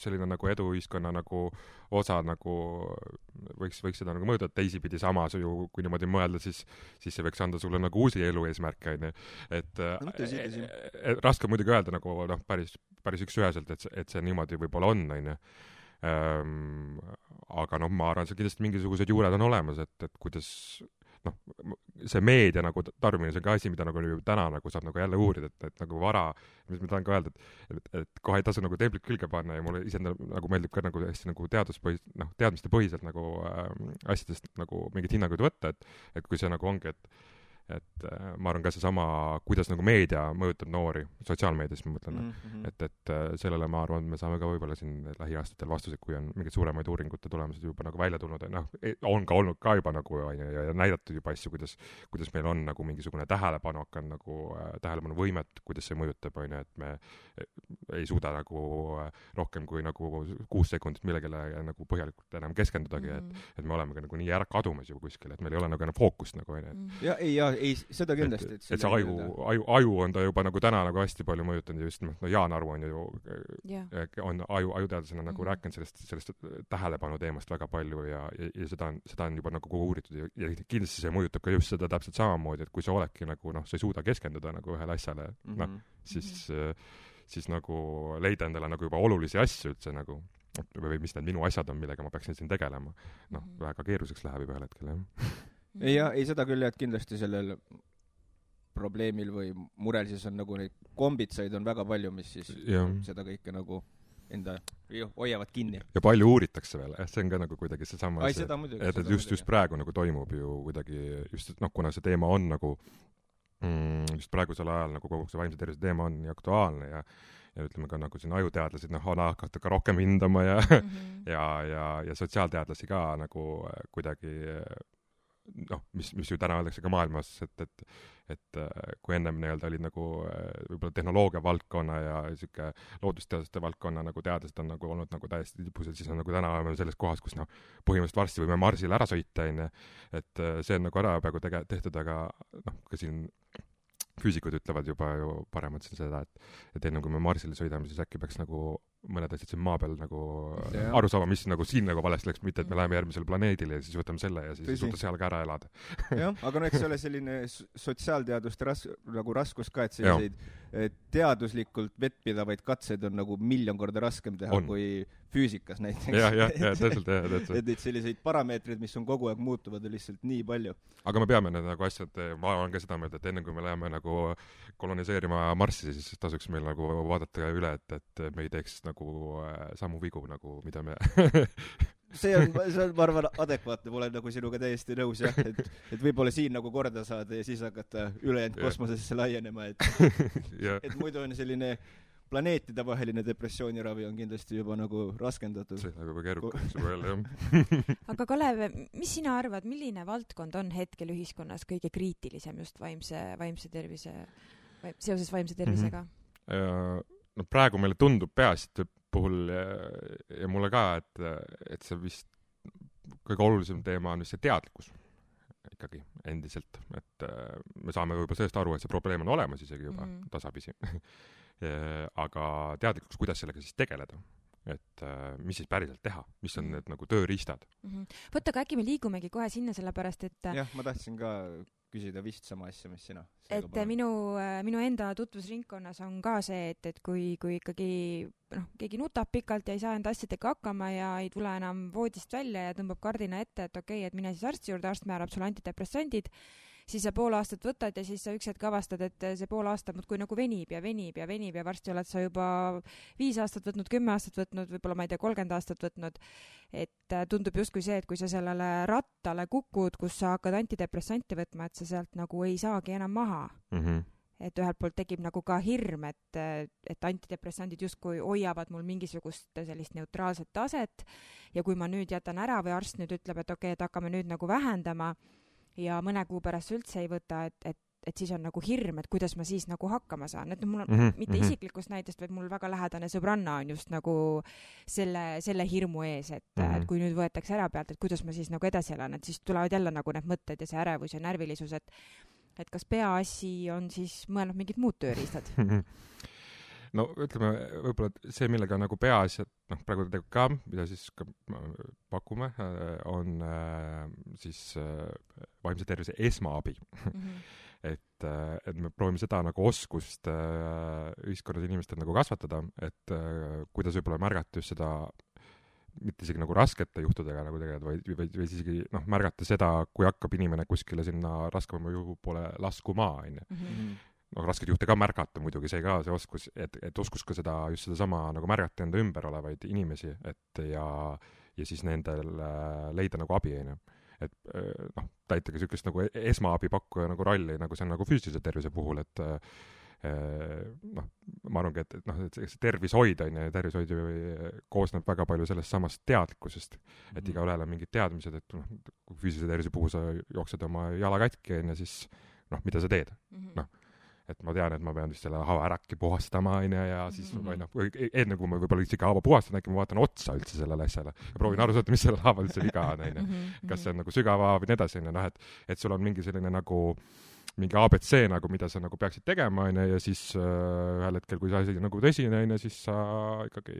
selline nagu eduühiskonna nagu osa nagu võiks seda nagu mõjutada teisipidi samas ju, kui niimoodi mõelda, siis see võiks anda sulle nagu uusi elu eesmärke, et raske muidugi öelda nagu noh, päris üksüheselt, et see niimoodi võib-olla on, aga noh, ma arvan, see kindlasti mingisugused juured on olemas, et kuidas noh, see meedia nagu tarbimine, see on ka asi, mida nagu täna nagu saab nagu jälle uurida, et nagu vara, mis ma tahan ka öelda, et kohe ei tasu nagu templit külge panna ja mulle ise nagu meeldib ka nagu hästi nagu teadmiste põhiselt nagu asjadest nagu mingit hinnanguid võtta, et kui see nagu ongi, et ma arvan ka seesama, kuidas nagu meedia mõjutab noori, sotsiaalmeedias ma mõtlen, et sellele ma arvan, et me saame ka võib-olla siin lähiaastatel vastused, kui on mingid suuremaid uuringute tulemused juba nagu välja tulnud, noh, on ka olnud ka juba nagu ja näidatud juba asju, kuidas meil on nagu mingisugune tähelepanu hakanud nagu tähelepanuvõimet, kuidas see mõjutab, on ju, et me ei suuda nagu rohkem kui nagu 6 sekundit millegile nagu põhjalikult enam keskendudagi, et me oleme ka nagu nii ära kadumas juba kuskil, et meil ei ole nagu enam fookust nagu, on ju. Ei, seda kindlasti. Et see aju on ta juba nagu täna nagu hästi palju mõjutanud ja just Jaan Aru on ju on ajuteadlasena nagu rääkinud sellest tähelepanu teemast väga palju ja seda on juba nagu uuritud ja kindlasti see mõjutab ka just seda täpselt samamoodi, et kui sa oledki nagu noh, sa ei suuda keskenduda nagu ühele asjale, noh, siis nagu leida endale nagu juba olulisi asju üldse nagu või mis need minu asjad on, millega ma peaksin siin tegelema. Noh, väga keeruliseks läheb juba ühel hetkel, jah. Ei, seda küll, et kindlasti sellel probleemil või murel siis on nagu neid kombitsaid on väga palju, mis siis seda kõike nagu enda hoiavad kinni. Ja palju uuritakse veel, see on ka nagu kuidagi seesama, et just praegu nagu toimub ju kuidagi, just noh, kuna see teema on nagu just praegusel ajal nagu kogu see vaimse tervise teema on nii aktuaalne ja ütleme ka nagu siin ajuteadlased on hakata ka rohkem hindama ja sotsiaalteadlasi ka nagu kuidagi noh, mis ju täna öeldakse ka maailmas, et kui ennem nii-öelda olid nagu võib-olla tehnoloogia valdkonna ja siuke loodusteaduste valdkonna nagu teadlased on nagu olnud nagu täiesti tipus, et siis on nagu täna oleme selles kohas, kus noh, põhimõtteliselt varsti võime Marsile ära sõita, onju. Et see on nagu ära peaaegu tehtud, aga noh, ka siin füüsikud ütlevad juba ju paremad seda, et enne kui me Marsile sõidame, siis äkki peaks nagu mõned asjad siin maa peal nagu aru saama, mis nagu siin nagu valesti läks, mitte et me läheme järgmisele planeedile ja siis võtame selle ja siis suuta seal ka ära elada. Jah, aga no eks ole selline sotsiaalteaduste nagu raskus ka, et selliseid teaduslikult vettpidavaid katseid on nagu 1,000,000 korda raskem teha kui füüsikas näiteks. Ja, täpselt. Et selliseid parameetreid, mis on kogu aeg muutuvad, on lihtsalt nii palju. Aga me peame need nagu asjad, ma olen ka seda meelt, et enne kui me läheme nagu koloniseerima Marssi, siis tasuks meil nagu vaadata üle, et me ei teeks nagu samu vigu, nagu mida me see on, ma arvan, adekvaatne, ma olen nagu sinuga täiesti nõus, jah, et võib-olla siin nagu korda saada ja siis hakata ülejäänud kosmosesse laienema, et muidu on selline planeetide vaheline depressiooniravi on kindlasti juba nagu raskendatud. See on juba keerukaks juba jälle, jah. Aga Kalev, mis sina arvad, milline valdkond on hetkel ühiskonnas kõige kriitilisem just vaimse tervise, seoses vaimse tervisega? No praegu meile tundub peaasjade puhul ja mulle ka, et see vist kõige olulisem teema on vist see teadlikkus ikkagi endiselt, et me saame võib-olla sellest aru, et see probleem on olemas isegi juba tasapisi. Aga teadlikkus, kuidas sellega siis tegeleda, et mis siis päriselt teha, mis on need nagu tööriistad. Võtta, aga äkki me liigumegi kohe sinna, sellepärast, et jah, ma tahtsin ka küsida vist sama asja, mis sina. Et minu enda tutvusringkonnas on ka see, et kui ikkagi keegi nutab pikalt ja ei saa enda asjadega hakkama ja ei tule enam voodist välja ja tõmbab kardina ette, et okei, et mine siis arsti juurde, arst määrab sulle antidepressandid, siis sa pool aastat võtad ja siis sa üks hetk avastad, et see pool aastat muudkui nagu venib ja varsti oled sa juba 5 aastat võtnud, 10 aastat võtnud, võib-olla ma ei tea, 30 aastat võtnud. Et tundub justkui see, et kui sa sellele rattale kukud, kus sa hakkad antidepressanti võtma, et sa sealt nagu ei saagi enam maha. Et ühelt poolt tekib nagu ka hirm, et antidepressandid justkui hoiavad mul mingisugust sellist neutraalset taset ja kui ma nüüd jätan ära või arst nüüd ütleb, et okei, et hakkame nüüd nagu vähendama ja mõne kuu pärast üldse ei võta, et siis on nagu hirm, et kuidas ma siis nagu hakkama saan. Et mul on mitte isiklikust näitest, vaid mul väga lähedane sõbranna on just nagu selle hirmu ees, et kui nüüd võetakse ära pealt, et kuidas ma siis nagu edasi elan, et siis tulevad jälle nagu need mõtted ja see ärevus ja närvilisus, et kas peaasi on siis mõelnud mingid muud tööriistad? No ütleme, võib-olla see, millega nagu peaasjad, praegu ka, mida siis ka pakume, on siis vaimse tervise esmaabi. Et me proovime seda nagu oskust ühiskonnas inimestel nagu kasvatada, et kuidas võib-olla märgata just seda, mitte isegi nagu raskete juhtudega nagu tegelikult, vaid isegi märgata seda, kui hakkab inimene kuskile sinna raskema juhu poole laskuma, rasked juhte ka märgata muidugi, see ka see oskus, et oskus ka just sedasama nagu märgata enda ümber olevaid inimesi, et ja siis nendel leida nagu abi, et täitage sükest nagu esmaabi pakkuja nagu rolli, nagu see on nagu füüsilise tervise puhul, et ma arvangi, et see tervishoid tervishoid koosneb väga palju sellest samast teadlikkusest, et igaühel on mingid teadmised, et kui füüsilise tervise puhul sa jooksed oma jala katki, siis mida sa teed, et ma tean, et ma pean vist selle haava ärakki puhastama, ja siis enne kui ma võib-olla isegi haava puhastan, äkki ma vaatan otsa üldse sellele asjale ja proovin aru saada, mis selle haava üldse viga on, kas see on nagu sügava või nii edasi, et sul on mingi selline nagu mingi ABC nagu, mida sa nagu peaksid tegema, ja siis ühel hetkel, kui see asi nagu tõsine, siis sa ikkagi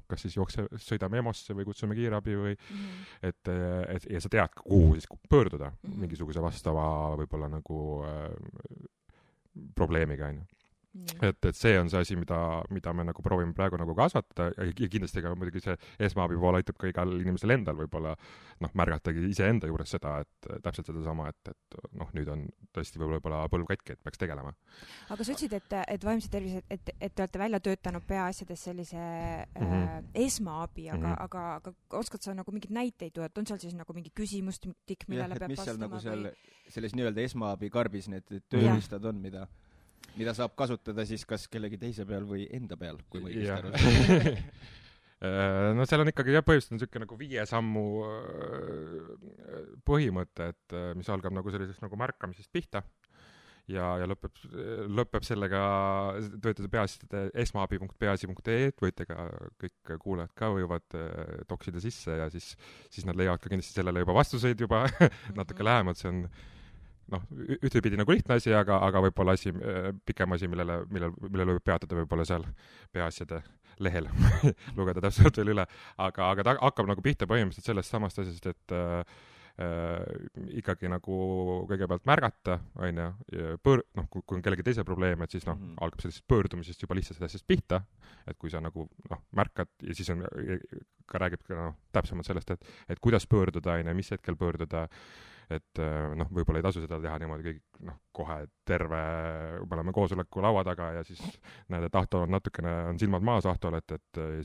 kas siis sõidame EMO-sse või kutsume kiirabi või ja sa tead, kuhu siis pöörduda mingisuguse vastava võib-olla nagu probleemiga, et see on see asi, mida me nagu proovime praegu nagu kasvatada ja kindlasti ka muidugi see esmaabi pool aitab ka igal inimesel endal võib-olla märgatagi iseenda juures seda, et täpselt sedasama, et nüüd on tõesti võib-olla põlv katki, et peaks tegelema. Aga sa ütlesid, et vaimse tervise, et te olete välja töötanud peaasjades sellise esmaabi, aga oskad sa nagu mingid näiteid tuua, et on seal siis nagu mingi küsimustik, millele peab vastama? Mis seal nagu selles nii-öelda esmaabi karbis need tööriistad on, mida saab kasutada siis kas kellegi teise peal või enda peal, kui ma õigesti aru. No seal on ikkagi põhimõtteliselt niisugune nagu 5 sammu põhimõte, et mis algab nagu sellisest nagu märkamisest pihta ja lõpeb sellega, töötada peaasjade esmaabi.peaasi.ee, võite ka kõik kuulajad ka võivad toksida sisse ja siis nad leiavad ka kindlasti sellele juba vastuseid juba natuke lähemalt, see on ühtepidi nagu lihtne asi, aga võib-olla pikem asi, millele võib peatada võib-olla seal peaasjade lehel lugeda täpselt veel üle, aga ta hakkab nagu pihta põhimõtteliselt sellest samast asjast, et ikkagi nagu kõigepealt märgata, on ju, kui on kellegi teise probleem, et siis algab sellisest pöördumisest juba lihtsalt asjast pihta, et kui sa nagu märkad ja siis ka räägib ka täpsemalt sellest, et kuidas pöörduda, on ju, mis hetkel pöörduda, et võib-olla ei tasu seda teha niimoodi kõik kohe terve, me oleme koosoleku laua taga ja siis näed, et Ahto on natukene, on silmad maas Ahtol, et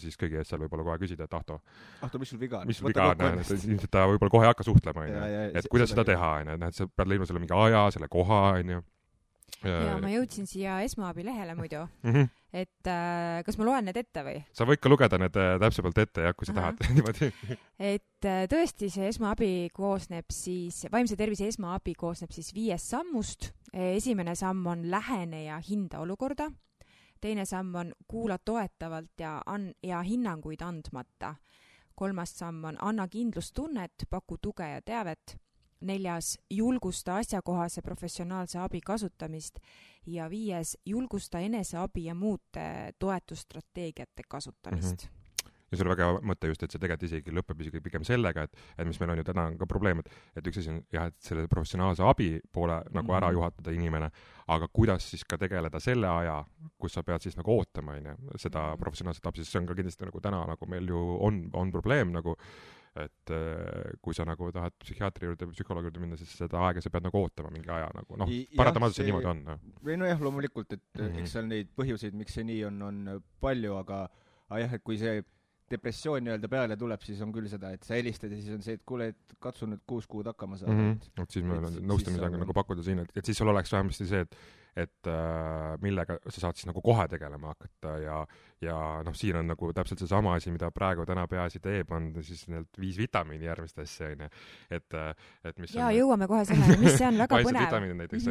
siis kõigi ees seal võib-olla kohe küsida, et Ahto, mis sul viga on? Mis sul viga on, et ilmselt ta võib-olla kohe ei hakka suhtlema, on ju, et kuidas seda teha, on ju, et sa pead leidma selle mingi aja, selle koha, on ju. Ja ma jõudsin siia esmaabi lehele muidu, et kas ma loen need ette või? Sa võid ka lugeda need täpsemalt ette, kui sa tahad niimoodi. Et tõesti see esmaabi koosneb siis, vaimse tervise esmaabi koosneb siis 5 sammust. Esimene samm on lähene ja hinda olukorda. Teine samm on kuula toetavalt ja hinnanguid andmata. 3. samm on anna kindlustunnet, paku tuge ja teavet. 4. julgusta asjakohase professionaalse abi kasutamist ja 5. julgusta eneseabi ja muude toetusstrateegiate kasutamist. Ja see oli väga hea mõte just, et see tegelikult isegi lõpeb isegi pigem sellega, et mis meil on ju täna ka probleem, et üks asi on jah, et selle professionaalse abi poole nagu ära juhatada inimene, aga kuidas siis ka tegeleda selle aja, kus sa pead siis nagu ootama, seda professionaalset abi, sest see on ka kindlasti nagu täna nagu meil ju on probleem nagu, et kui sa nagu tahad psühhiaatri juurde või psühholoogi juurde minna, siis seda aega sa pead nagu ootama mingi aja nagu, paratamatult see niimoodi on. Või jah, loomulikult, et eks seal neid põhjuseid, miks see nii on palju, aga jah, et kui see depressioon nii-öelda peale tuleb, siis on küll seda, et sa helistad ja siis on see, et kuule, et katsu nüüd 6 kuud hakkama saada. Et siis meil on nõustamisega nagu pakkuda siin, et siis sul oleks vähemasti see, et millega sa saad siis nagu kohe tegelema hakata ja siin on nagu täpselt see sama asi, mida praegu täna peaasi teeb, on siis need 5 vitamiini järgmist asja, et mis on... jõuame kohe sellele, mis see on väga põnev. Vitamiinid näiteks,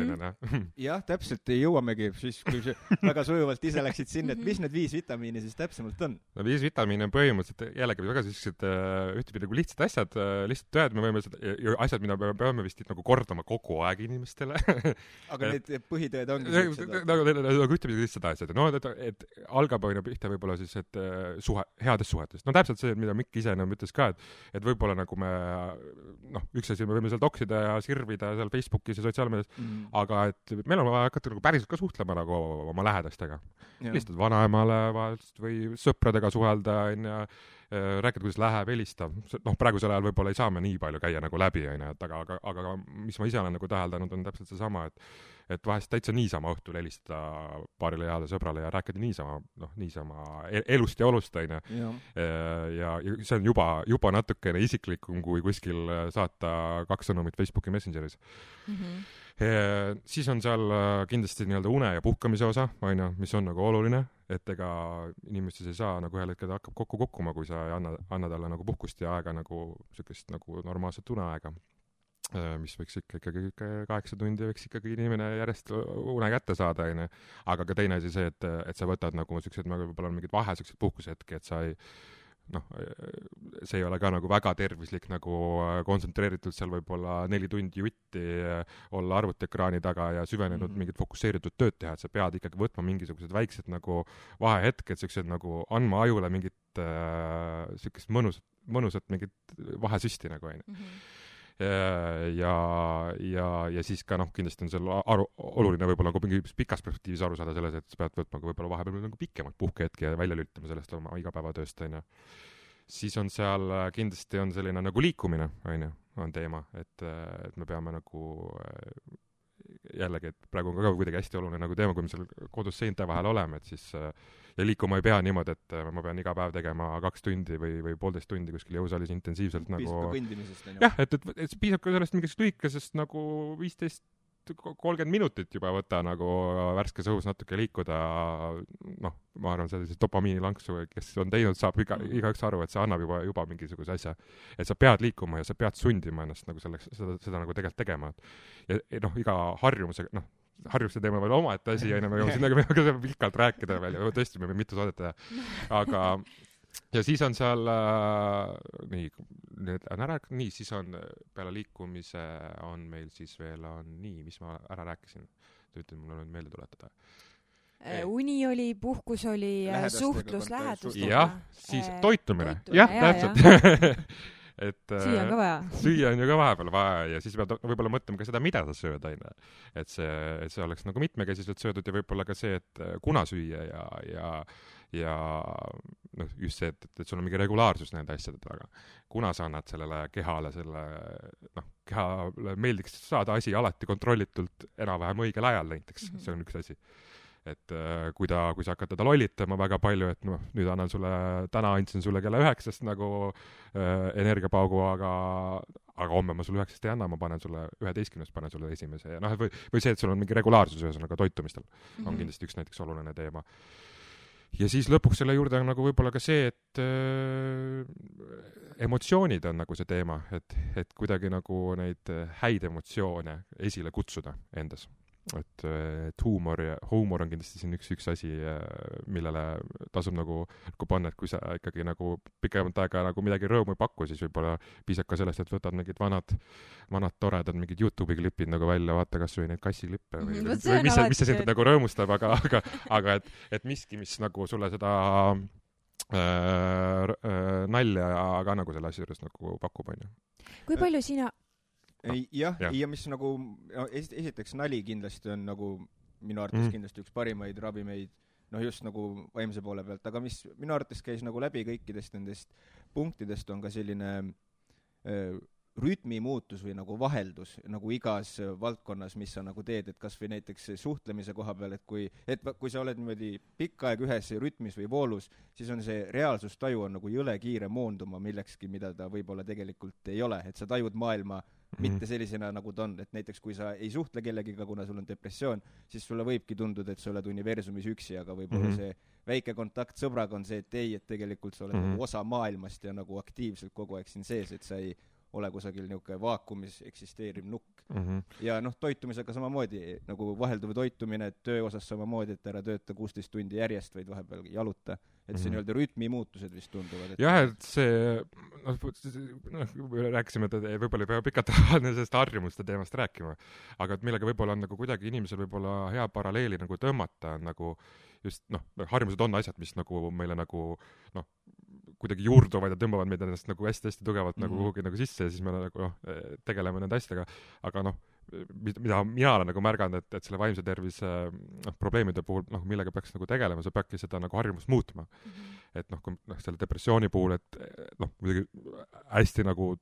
jah, täpselt jõuamegi, siis kui väga sujuvalt ise läksid sinna, et mis need 5 vitamiini siis täpsemalt on? 5 vitamiini on põhimõtteliselt jällegi väga sellised ühtepidi nagu lihtsad asjad, lihtsalt tööd, me võime asjad, mida me peame vist nagu kordama kogu aeg inimestele. Aga need põhitõed ongi nagu ühtepidi lihtsad asjad, et algab pihta võib-olla siis, et headest suhetest. Täpselt see, mida Mikk ise ütles ka, et võib-olla nagu me üks asi me võime seal toksida ja sirvida seal Facebookis ja sotsiaalmeedias, aga et meil on vaja hakata nagu päriselt ka suhtlema nagu oma lähedastega. Lihtsalt vanaemale või sõpradega suhelda, rääkida, kuidas läheb, helistab. Praegusel ajal võib-olla ei saa me nii palju käia nagu läbi, aga mis ma ise olen nagu täheldanud, on täpselt see sama, et vahest täitsa niisama õhtul helistada paarile heale sõbrale ja rääkida niisama elust ja olust, ja see on juba natukene isiklikum, kui kuskil saata 2 sõnumit Facebooki Messengeris. Siis on seal kindlasti nii-öelda une ja puhkamise osa, mis on nagu oluline, et ega inimestes ei saa nagu ühel hetkel hakkab kokku kokkuma, kui sa ei anna talle nagu puhkust ja aega nagu sellist nagu normaalset uneaega, mis võiks ikkagi 8 tundi võiks ikkagi inimene järjest une kätte saada, aga ka teine asi see, et sa võtad nagu sellised, võib-olla on mingid vahe sellised puhkusehetki, et sa ei see ei ole ka nagu väga tervislik nagu kontsentreeritud seal võib-olla 4 tundi jutti olla arvutiekraani taga ja süvenenud mingit fokusseeritud tööd teha, et sa pead ikkagi võtma mingisugused väiksed nagu vahehetked, sellised nagu andma ajule mingit sellist mõnusat mingit vahesüsti nagu ja siis ka kindlasti on seal oluline võib-olla nagu mingi pikas perspektiivis aru saada selles, et sa pead võtma võib-olla vahepeal nagu pikemalt puhkehetki ja välja lülitama sellest oma igapäevatööst, Siis on seal kindlasti on selline nagu liikumine, on teema, et me peame nagu jällegi, et praegu on ka kuidagi hästi oluline nagu teema, kui me seal kodus seinte vahel oleme, et siis ja liikuma ei pea niimoodi, et ma pean iga päev tegema 2 tundi või 1,5 tundi kuskil jõusaalis intensiivselt nagu... Piisab ka kõndimisest, jah, et piisab ka sellest mingist lühikesest nagu 15 30 minutit juba võta nagu värskes õhus natuke liikuda, noh, ma arvan, sellise dopamiinilanksu, kes on teinud, saab igaüks aru, et see annab juba mingisuguse asja. Et sa pead liikuma ja sa pead sundima ennast nagu selleks, seda nagu tegelikult tegema. Ja noh, iga harjumusega, noh, harjuste teema veel omaette asi, ja me jõuame sinna pikalt rääkida veel ja tõesti me mitu saadet teha. Aga ja siis on seal siis on peale liikumise on meil siis veel mis ma ära rääkisin, ütled mulle nüüd meelde tuletada. Uni oli, puhkus oli, suhtlus lähedustega. Jah, siis toitumine. Jah, täpselt. Süüa on ka vaja. Süüa on ju ka vahepeal vaja ja siis pead võib-olla mõtlema ka seda, mida sa sööd aina. Et see oleks nagu mitmekesiselt söödud ja võib-olla ka see, et kuna süüa ja noh, just see, et sul on mingi regulaarsus nende asjade taga. Kuna sa annad sellele kehale kehale meeldiks saada asi alati kontrollitult enam-vähem õigel ajal näiteks, see on üks asi. Et kui sa hakkad teda lollitama väga palju, et noh, nüüd täna andsin sulle kella 9 nagu energiapaugu, aga homme ma sulle 9 ei anna, ma panen sulle 11, panen sulle esimese ja noh, või see, et sul on mingi regulaarsus ühesõnaga toitumistel on kindlasti üks näiteks oluline teema. Ja siis lõpuks selle juurde on nagu võib-olla ka see, et emotsioonid on nagu see teema, et kuidagi nagu neid häid emotsioone esile kutsuda endas. Et huumor on kindlasti siin üks asi, millele tasub nagu panna, et kui sa ikkagi nagu pikemat aega nagu midagi rõõmu ei paku, siis võib-olla piisab ka sellest, et võtad mingid vanad toredad mingid YouTube'i klipid nagu välja, vaata kas või neid kassiklippe või mis see sind nagu rõõmustab, aga et miski, mis nagu sulle seda nalja ka nagu selle asja juures nagu pakub, on ju. Kui palju sina ja mis nagu esiteks nali kindlasti on nagu minu arvates kindlasti üks parimaid ravimeid, noh just nagu vaimse poole pealt, aga mis minu arvates käis nagu läbi kõikidest nendest punktidest on ka selline rütmi muutus või nagu vaheldus nagu igas valdkonnas, mis sa nagu teed, et kas või näiteks suhtlemise koha peal, et kui sa oled niimoodi pikka aeg ühes rütmis või voolus, siis on see reaalsustaju on nagu jõle kiire moonduma millekski, mida ta võib-olla tegelikult ei ole, et sa tajud maailma mitte sellisena, nagu ta on, et näiteks kui sa ei suhtle kellegiga, kuna sul on depressioon, siis sulle võibki tunduda, et sa oled universumis üksi, aga võib-olla see väike kontakt sõbraga on see, et ei, et tegelikult sa oled nagu osa maailmast ja nagu aktiivselt kogu aeg siin sees, et sa ei ole kusagil niisugune vaakumis eksisteeriv nukk. Ja noh, toitumisega samamoodi, nagu vahelduv toitumine, et töö osas samamoodi, et ära tööta 16 tundi järjest, vaid vahepeal jaluta. Et see nii-öelda rütmi muutused vist tunduvad. Jah, et see, rääkisime, et võib-olla ei pea pikalt sellest harjumuste teemast rääkima, aga et millega võib-olla on nagu kuidagi inimesel võib-olla hea paralleeli nagu tõmmata, nagu just, noh, harjumused on asjad, mis nagu meile nagu, noh, kuidagi juurduvad ja tõmbavad meid ennast nagu hästi-hästi tugevalt nagu kuhugi nagu sisse ja siis me nagu tegeleme nende asjadega, aga noh, mida mina olen nagu märganud, et selle vaimse tervise probleemide puhul, noh, millega peaks nagu tegelema, sa peadki seda nagu harjumust muutma. Et noh, selle depressiooni puhul, et noh, muidugi hästi nagu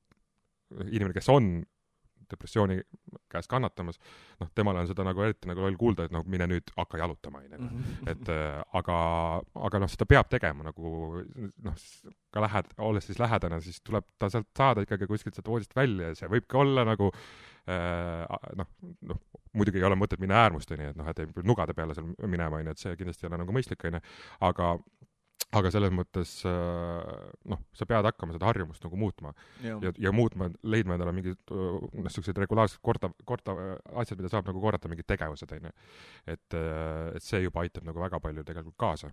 inimene, kes on depressiooni käes kannatamas, noh, temale on seda nagu eriti nagu loll kuulda, et noh, mine nüüd hakka jalutama, et aga noh, seda peab tegema nagu noh, ka olles siis lähedane, siis tuleb ta sealt saada ikkagi kuskilt sealt voodist välja ja see võibki olla nagu noh, muidugi ei ole mõtet minna äärmusteni, et noh, et ei nugade peale seal minema, et see kindlasti ei ole nagu mõistlik, aga selles mõttes noh, sa pead hakkama seda harjumust nagu muutma ja muutma, leidma endale mingid sellised regulaarsed korda asjad, mida saab nagu korrata, mingid tegevused, et see juba aitab nagu väga palju tegelikult kaasa,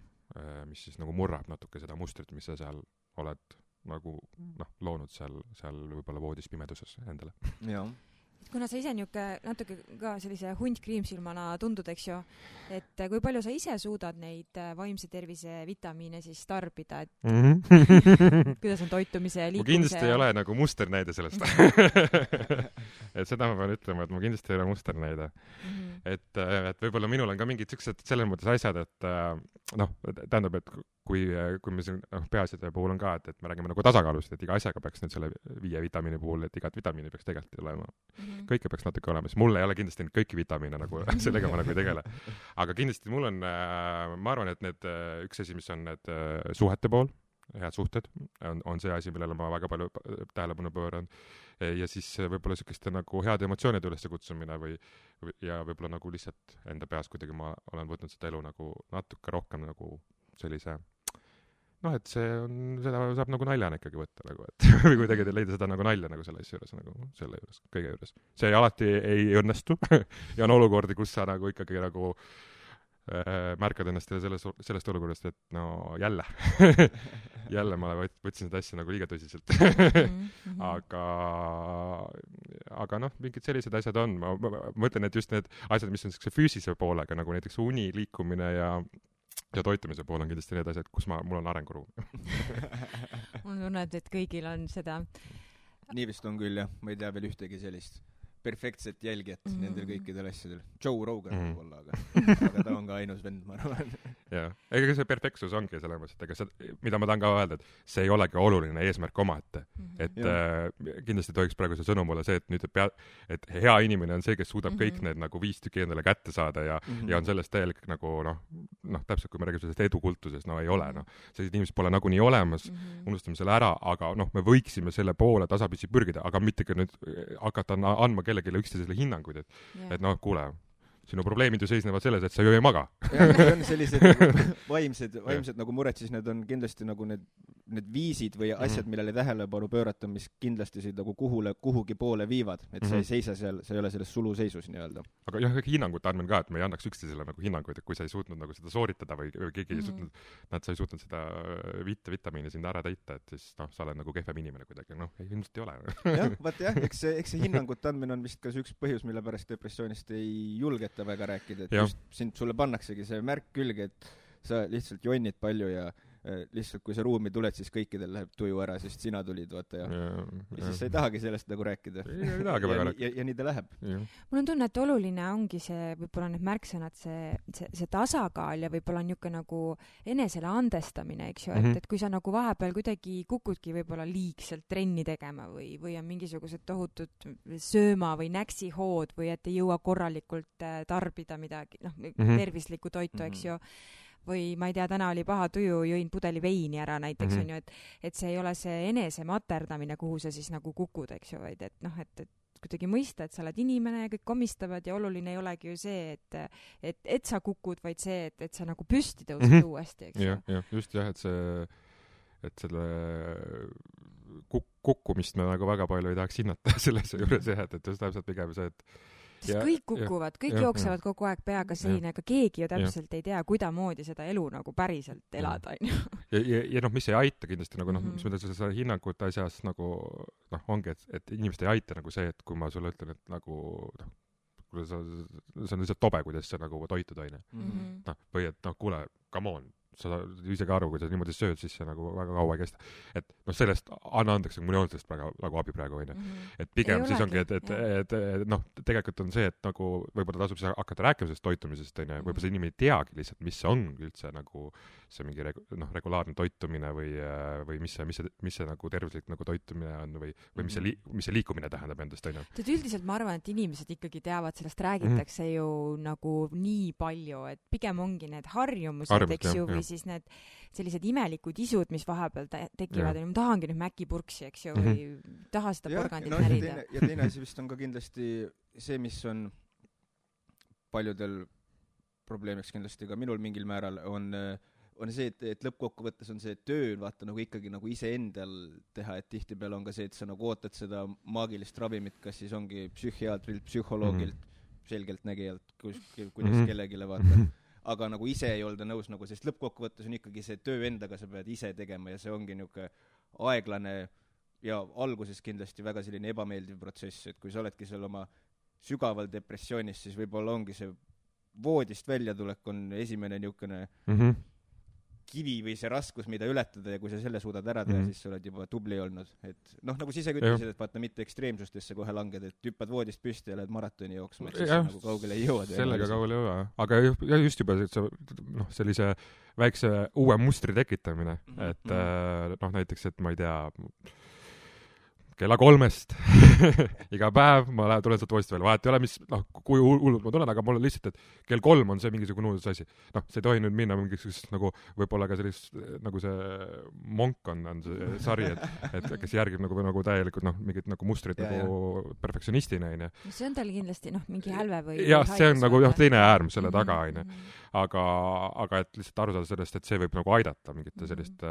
mis siis nagu murrab natuke seda mustrit, mis sa seal oled nagu noh, loonud seal võib-olla voodis pimeduses endale. Jah. Kuna sa ise natuke ka sellise hundkriimsilmana tundud, eks ju, et kui palju sa ise suudad neid vaimse tervise vitamiine siis tarbida, et kuidas on toitumise ja liikumise? Ma kindlasti ei ole nagu musternäide sellest. Et seda ma pean ütlema, et ma kindlasti ei ole musternäide. Et võib-olla minul on ka mingid sellised selles mõttes asjad, et noh, tähendab, et kui me siin peaasjade puhul on ka, et me räägime nagu tasakaalust, et iga asjaga peaks nüüd selle 5 vitamiini puhul, et igat vitamiini peaks tegelikult olema. Kõike peaks natuke olema, sest mul ei ole kindlasti kõiki vitamiine nagu sellega ma nagu ei tegele. Aga kindlasti mul on, ma arvan, et üks asi, mis on need suhete pool, head suhted on see asi, millele ma väga palju tähelepanu pööran. Ja siis võib-olla selliste nagu head emotsioonide ülesse kutsumine ja võib-olla nagu lihtsalt enda peas kuidagi ma olen võtnud seda elu nagu natuke rohkem nagu sellise et seda saab nagu naljana ikkagi võtta nagu, et või kuidagi leida seda nagu nalja nagu selle asja juures, nagu selle juures, kõige juures. See alati ei õnnestu ja on olukordi, kus sa nagu ikkagi nagu märkad ennast sellest olukorrast, et no jälle jälle ma võtsin seda asja nagu liiga tõsiselt aga mingid sellised asjad on, ma mõtlen, et just need asjad, mis on füüsilise poolega, nagu näiteks uni, liikumine ja toitumise pool on kindlasti need asjad, kus mul on arenguruum mul tunneb, et kõigil on seda nii vist on küll jah, ma ei tea veel ühtegi sellist perfektset jälgijat nendel kõikidel asjadel. Joe Rogan võib-olla, aga ta on ka ainus vend, ma arvan. Jah, ega see perfektsus ongi selles mõttes, et ega see, mida ma tahan ka öelda, et see ei olegi oluline eesmärk omaette. Et kindlasti tohiks praegu see sõnum olla see, et nüüd et hea inimene on see, kes suudab kõik need nagu 5 tükki endale kätte saada ja on sellest täielik nagu täpselt kui me räägime sellest edukultusest, ei ole, sellised inimesed pole nagunii olemas, unustame selle ära, aga me võiksime selle poole tasapisi pürgida, aga mitte ka nüüd hakata andma kellelegi üksteisele hinnanguid, et kuule, sinu probleemid ju seisnevad selles, et sa ju ei maga. Kui on sellised vaimsed nagu mured, siis need on kindlasti nagu need viisid või asjad, millele tähelepanu pöörata, mis kindlasti sind nagu kuhugi poole viivad, et sa ei seisa seal, sa ei ole selles suluseisus nii-öelda. Aga jah, hinnangute andmine ka, et me ei annaks üksteisele nagu hinnanguid, et kui sa ei suutnud nagu seda sooritada või keegi ei suutnud, sa ei suutnud seda vitamiini sind ära täita, et siis sa oled nagu kehvem inimene kuidagi, ilmselt ei ole. Jah, vaat jah, eks see hinnangute andmine on vist ka üks põhjus, mille pärast depressioonist ei julgeta väga rääkida, et just sulle pannaksegi see märk külge, et sa lihtsalt jonnid palju ja lihtsalt kui sa ruumi tuled, siis kõikidel läheb tuju ära, sest sina tulid, vaata ja siis sa ei tahagi sellest nagu rääkida. Ja nii ta läheb. Mul on tunne, et oluline ongi see, võib-olla need märksõnad, see tasakaal ja võib-olla niisugune nagu enesele andestamine, eks ju, et kui sa nagu vahepeal kuidagi kukudki võib-olla liigselt trenni tegema või on mingisugused tohutud sööma või näksihood või et ei jõua korralikult tarbida midagi, tervislikku toitu, eks ju, või ma ei tea, täna oli paha tuju, jõin pudeli veini ära näiteks, on ju, et see ei ole see enese materdamine, kuhu sa siis nagu kukud, eks ju, vaid et kuidagi mõista, et sa oled inimene ja kõik komistavad ja oluline ei olegi ju see, et sa kukud, vaid see, et sa nagu püsti tõused uuesti, eks ju. Jah, just jah, et selle kukkumist me nagu väga palju ei tahaks hinnata selles juures jah, et just täpselt pigem see, et kõik kukuvad, kõik jooksevad kogu aeg peaga seina, aga keegi ju täpselt ei tea, kuidamoodi seda elu nagu päriselt elada, on ju. Ja mis ei aita kindlasti nagu mis mõttes seda hinnangute asjas nagu ongi, et inimest ei aita nagu see, et kui ma sulle ütlen, et nagu see on lihtsalt tobe, kuidas sa nagu toitud, on ju. Või et kuule, come on, sa ise ka aru, kui sa niimoodi sööd, siis see nagu väga kaua ei kesta. Et sellest anna andeks, mul ei olnud sellest nagu abi praegu, on ju. Et pigem siis ongi, et tegelikult on see, et nagu võib-olla tasub hakata rääkima sellest toitumisest, on ju, võib-olla see inimene ei teagi lihtsalt, mis see on üldse nagu see mingi regulaarne toitumine või mis see nagu tervislik nagu toitumine on või mis see liikumine tähendab endast, on ju. Üldiselt ma arvan, et inimesed ikkagi teavad, sellest räägitakse ju nagu nii palju, et pigem ongi need harjumused, eks ju, või siis need sellised imelikud isud, mis vahepeal tekivad, ma tahangi nüüd mäkipurksi, eks ju, või taha seda porgandit närida. Ja teine asi vist on ka kindlasti see, mis on paljudel probleemiks kindlasti ka minul mingil määral, on see, et lõppkokkuvõttes on see töö, vaata nagu ikkagi nagu iseendal teha, et tihtipeale on ka see, et sa nagu ootad seda maagilist ravimit, kas siis ongi psühhiaatrilt, psühholoogilt, selgeltnägijalt, kuidas kellegile vaata. Aga nagu ise ei olda nõus nagu, sest lõppkokkuvõttes on ikkagi see töö endaga, sa pead ise tegema ja see ongi niisugune aeglane ja alguses kindlasti väga selline ebameeldiv protsess, et kui sa oledki seal oma sügaval depressioonis, siis võib-olla ongi see voodist väljatulek on esimene niisugune kivi või see raskus, mida ületada ja kui sa selle suudad ära teha, siis sa oled juba tubli olnud. Et nagu sa ise ütlesid, et vaata mitte ekstreemsustesse kohe langed, et hüppad voodist püsti ja lähed maratoni jooksma, et siis nagu kaugele ei jõua. Sellega kaugele ei jõua, aga just juba sellise väikse uue mustri tekitamine, et näiteks, et ma ei tea, kella 3-st iga päev ma tulen sealt voodist välja, vahet ei ole, mis, kui hullult ma tulen, aga mul on lihtsalt, et kell 3 on see mingisugune uudis asi. See ei tohi nüüd minna mingisugust nagu, võib-olla ka sellist, nagu see Monk on see sari, et kes järgib nagu täielikult, mingit nagu mustrit nagu perfektsionistina, on ju. See on tal kindlasti, mingi hälve või... Jah, see on nagu teine äärm selle taga, on ju. Aga et lihtsalt aru saada sellest, et see võib nagu aidata mingite sellist,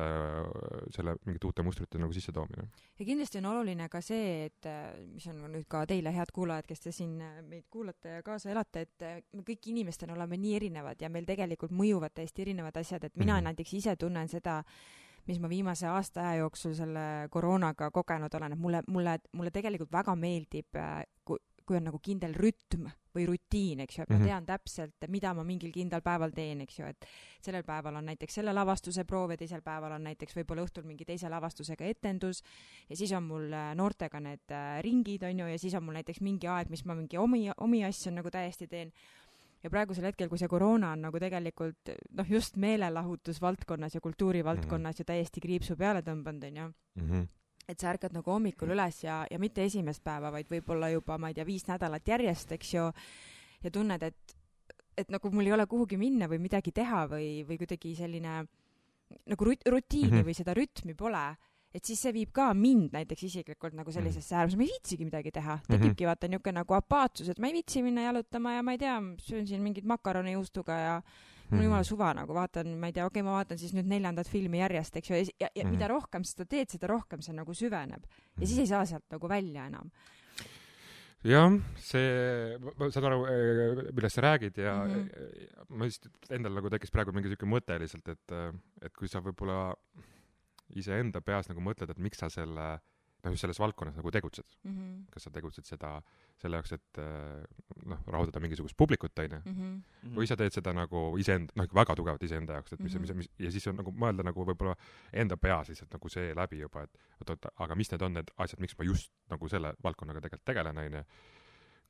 selle mingite uute mustrite nagu sisse toomine. Ja kindlasti on oluline ka see, et mis on nüüd ka teile head kuulajad, kes te siin meid kuulate ja kaasa elate, et me kõik inimestena oleme nii erinevad ja meil tegelikult mõjuvad täiesti erinevad asjad, et mina näiteks ise tunnen seda, mis ma viimase aasta aja jooksul selle koroonaga kogenud olen, et mulle tegelikult väga meeldib, kui on nagu kindel rütm või rutiin, eks ju, et ma tean täpselt, mida ma mingil kindlal päeval teen, eks ju, et sellel päeval on näiteks selle lavastuse proov ja teisel päeval on näiteks võib-olla õhtul mingi teise lavastusega etendus ja siis on mul noortega need ringid, on ju, ja siis on mul näiteks mingi aeg, mis ma mingi omi asju nagu täiesti teen. Ja praegusel hetkel, kui see koroona on nagu tegelikult just meelelahutusvaldkonnas ja kultuurivaldkonnas ja täiesti kriipsu peale tõmbanud, on ju. Et sa ärkad nagu hommikul üles ja mitte esimest päeva, vaid võib-olla juba, ma ei tea, 5 nädalat järjest, eks ju, ja tunned, et nagu mul ei ole kuhugi minna või midagi teha või kuidagi selline nagu rutiini või seda rütmi pole, et siis see viib ka mind näiteks isiklikult nagu sellisesse äärmus, ma ei viitsigi midagi teha. Tekibki vaata niisugune nagu apaatsus, et ma ei viitsi minna jalutama ja ma ei tea, söön siin mingit makaroni juustuga ja mul on jumala suva nagu vaatan, ma ei tea, ma vaatan siis nüüd 4. filmi järjest, eks ju, ja mida rohkem seda teed, seda rohkem see nagu süveneb. Ja siis ei saa sealt nagu välja enam. Jah, ma saan aru, millest sa räägid ja ma just endal nagu tekkis praegu mingi selline mõte lihtsalt, et kui sa võib-olla iseenda peas nagu mõtled, et miks sa just selles valdkonnas nagu tegutsed. Kas sa tegutsed selle jaoks, et rahuldada mingisugust publikut, on ju? Või sa teed seda nagu iseenda, väga tugevalt iseenda jaoks, et ja siis on nagu mõelda nagu võib-olla enda peas lihtsalt nagu see läbi juba, et aga mis need on need asjad, miks ma just nagu selle valdkonnaga tegelikult tegelen, on ju?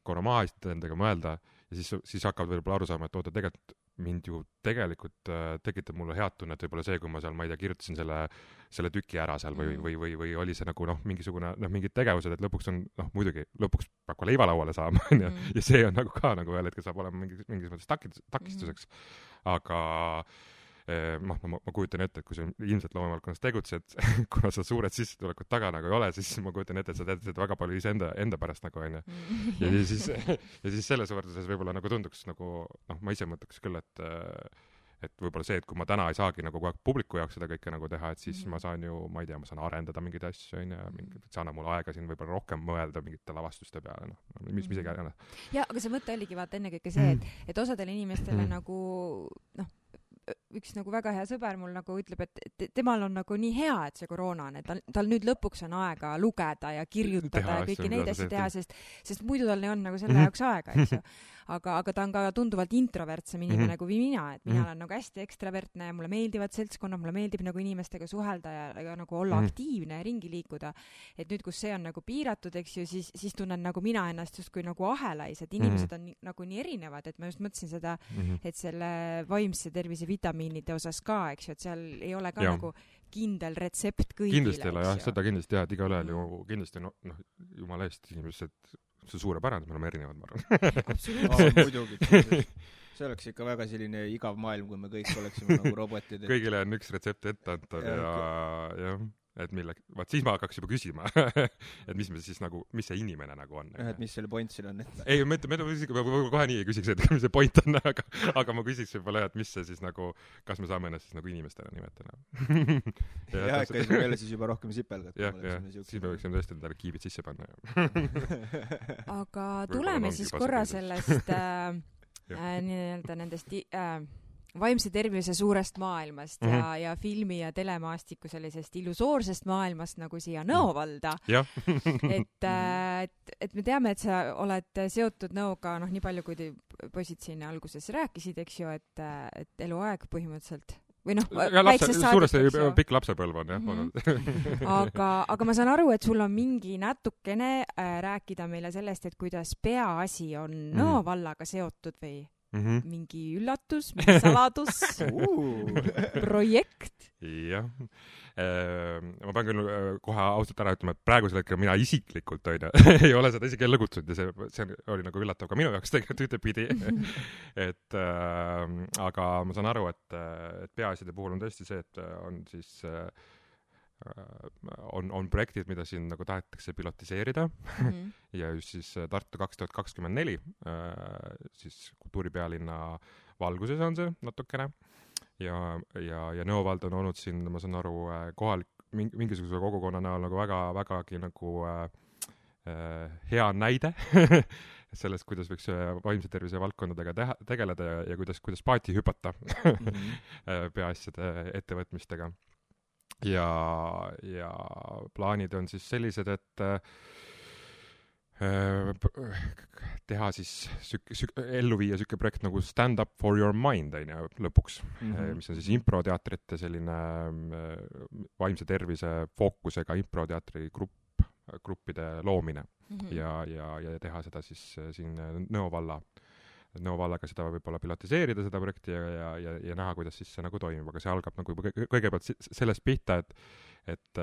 Korra maha istuda endaga mõelda ja siis hakkavad võib-olla aru saama, et oota, tegelikult mind ju tegelikult tekitab mulle head tunnet võib-olla see, kui ma seal, ma ei tea, kirjutasin selle tüki ära seal või oli see nagu mingisugune, mingid tegevused, et lõpuks on, muidugi, lõpuks peab ka leiva lauale saama, on ju, ja see on nagu ka nagu ühel hetkel saab olema mingis mõttes takistuseks, aga ma kujutan ette, et kui sa ilmselt loomevaldkonnas tegutsed, kuna sa suured sissetulekud taga nagu ei ole, siis ma kujutan ette, et sa teed väga palju enda pärast nagu, on ju. Ja siis selles võrdluses võib-olla nagu tunduks nagu, ma ise mõtleks küll, et võib-olla see, et kui ma täna ei saagi nagu kogu aeg publiku jaoks seda kõike nagu teha, et siis ma saan ju, ma ei tea, ma saan arendada mingeid asju, on ju, see annab mulle aega siin võib-olla rohkem mõelda mingite lavastuste peale, mis isegi ei ole. Ja, aga see mõte oligi vaata ennekõike see, et osadele inimestele nagu, üks nagu väga hea sõber mul nagu ütleb, et temal on nagu nii hea, et see koroona on, et tal nüüd lõpuks on aega lugeda ja kirjutada ja kõiki neid asju teha, sest muidu tal ei olnud nagu selle jaoks aega, eks ju. Aga ta on ka tunduvalt introvertsem inimene kui mina, et mina olen nagu hästi ekstravertne ja mulle meeldivad seltskonnad, mulle meeldib nagu inimestega suhelda ja nagu olla aktiivne ja ringi liikuda. Et nüüd, kus see on nagu piiratud, eks ju, siis tunnen nagu mina ennast justkui nagu ahelais, et inimesed on nagu nii erinevad, et ma just mõtlesin seda, et selle vaimse tervise vitamiinide osas ka, eks ju, et seal ei ole ka nagu kindel retsept kõigile. Kindlasti ei ole, jah, seda kindlasti jah, et iga ühel ju kindlasti, jumala eest inimesed, see suurepärane, me oleme erinevad, ma arvan. Absoluutselt. Muidugi. See oleks ikka väga selline igav maailm, kui me kõik oleksime nagu robotid. Kõigile on üks retsept ette antud ja et vaat siis ma hakkaks juba küsima, et mis me siis nagu, mis see inimene nagu on. Et mis selle point siin on? Ei, ma kohe nii ei küsiks, et mis see point on, aga ma küsiks võib-olla, et mis see siis nagu, kas me saame ennast siis nagu inimestena nimetada. Jah, et me jälle siis juba rohkem sipelgad. Jah, siis me võiksime tõesti endale kiibid sisse panna. Aga tuleme siis korra sellest nii-öelda nendest vaimse tervise suurest maailmast ja filmi ja telemaastiku sellisest illusoorsest maailmast nagu siia Nõovalda. et me teame, et sa oled seotud Nõoga, nii palju, kui poisid siin alguses rääkisid, eks ju, et eluaeg põhimõtteliselt või väiksest suuresti pikk lapsepõlv on, jah. Aga ma saan aru, et sul on mingi natukene rääkida meile sellest, et kuidas peaasi on Nõo vallaga seotud või? mingi üllatus, mingi saladus, projekt? Jah. Ma pean küll kohe ausalt ära ütlema, et praegusel hetkel mina isiklikult ei ole seda isegi jälle kutsunud ja see oli nagu üllatav ka minu jaoks tegelikult ühtepidi. Aga ma saan aru, et peaasjade puhul on tõesti see, et on siis on projektid, mida siin nagu tahetakse pilotiseerida ja just siis Tartu 2024 siis kultuuripealinna valguses on see natukene ja Nõo vald on olnud siin, ma saan aru, mingisuguse kogukonna näol nagu vägagi nagu hea näide sellest, kuidas võiks vaimse tervise valdkondadega tegeleda ja kuidas paati hüpata peaasjade ettevõtmistega. Ja plaanid on siis sellised, et teha siis ellu viia selline projekt nagu Stand Up for Your Mind lõpuks, mis on siis improteatrite selline vaimse tervise fookusega improteatri gruppide loomine ja teha seda siis siin Nõo vallaga seda võib-olla pilotiseerida, seda projekti ja näha, kuidas siis see nagu toimib, aga see algab nagu kõigepealt sellest pihta, et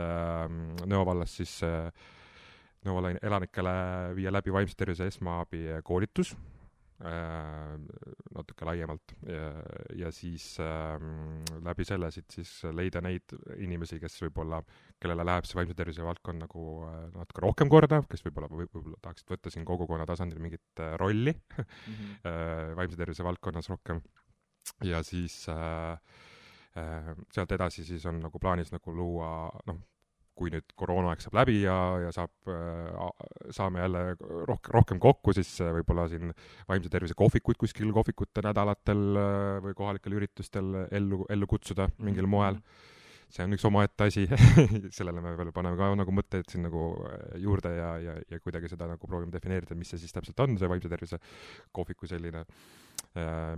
Nõo vallas siis Nõo valla elanikele viia läbi vaimse tervise esmaabi koolitus natuke laiemalt ja siis läbi selle siis leida neid inimesi, kes võib-olla, kellele läheb see vaimse tervise valdkond nagu natuke rohkem korda, kes võib-olla tahaksid võtta siin kogukonna tasandil mingit rolli vaimse tervise valdkonnas rohkem ja siis sealt edasi siis on nagu plaanis nagu luua, kui nüüd koroonaaeg saab läbi ja saame jälle rohkem kokku, siis võib-olla siin vaimse tervise kohvikuid kuskil kohvikute nädalatel või kohalikel üritustel ellu kutsuda mingil moel. See on üks omaette asi, sellele me veel paneme ka nagu mõtteid siin nagu juurde ja kuidagi seda nagu proovime defineerida, mis see siis täpselt on, see vaimse tervise kohviku selline,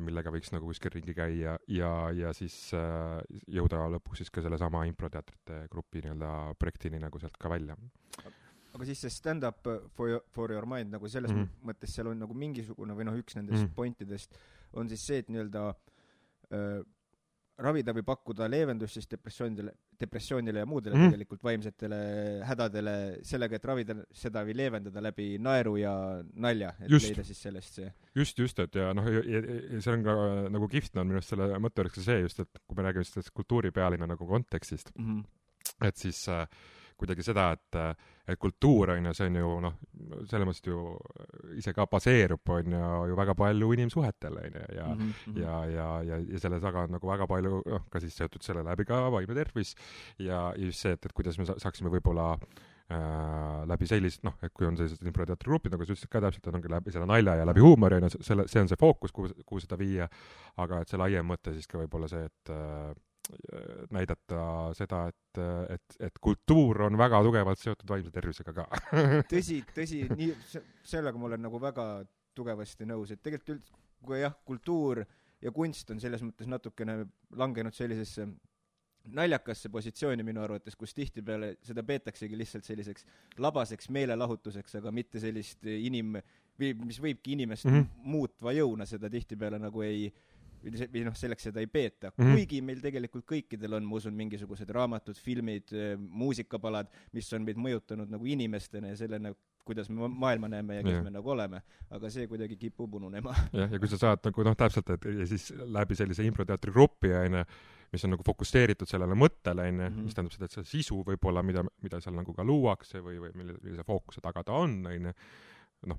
millega võiks nagu kuskil ringi käia ja siis jõuda lõpuks siis ka selle sama improteatrite grupi nii-öelda projektini nagu sealt ka välja. Aga siis see Stand Up for Your Mind nagu selles mõttes seal on nagu mingisugune või üks nendest pointidest on siis see, et nii-öelda ravida või pakkuda leevendust siis depressioonile ja muudele tegelikult vaimsetele hädadele sellega, et ravida seda või leevendada läbi naeru ja nalja, et leida siis sellest see. Just, et ja see on ka nagu kihvt on minu arust selle mõtte oleks see just, et kui me räägime sellest kultuuripealinna nagu kontekstist, et siis kuidagi seda, et kultuur on ju, see on ju selles mõttes ju ise ka baseerub on ju väga palju inimsuhetel ja selle taga on nagu väga palju ka siis seotud selle läbi ka vaimne tervis ja just see, et kuidas me saaksime võib-olla läbi sellist, et kui on sellised improteatrigrupid, nagu sa ütlesid ka täpselt, ongi läbi selle nalja ja läbi huumori, see on see fookus, kuhu seda viia, aga et see laiem mõte siis ka võib-olla see, et näidata seda, et kultuur on väga tugevalt seotud vaimse tervisega ka. Tõsi, nii, sellega ma olen nagu väga tugevasti nõus, et tegelikult kui jah, kultuur ja kunst on selles mõttes natukene langenud sellisesse naljakasse positsiooni minu arvates, kus tihtipeale seda peetaksegi lihtsalt selliseks labaseks meelelahutuseks, aga mitte sellist mis võibki inimest muutva jõuna seda tihtipeale nagu või selleks seda ei peeta. Kuigi meil tegelikult kõikidel on, ma usun, mingisugused raamatud, filmid, muusikapalad, mis on meid mõjutanud nagu inimestena ja sellena, kuidas me maailma näeme ja kes me nagu oleme. Aga see kuidagi kipub ununema. Ja kui sa saad nagu täpselt, ja siis läbi sellise improteatri gruppi, mis on nagu fokuseeritud sellele mõttele, mis tähendab seda, et see sisu võib-olla, mida seal nagu ka luuakse või millise fookuse taga ta on,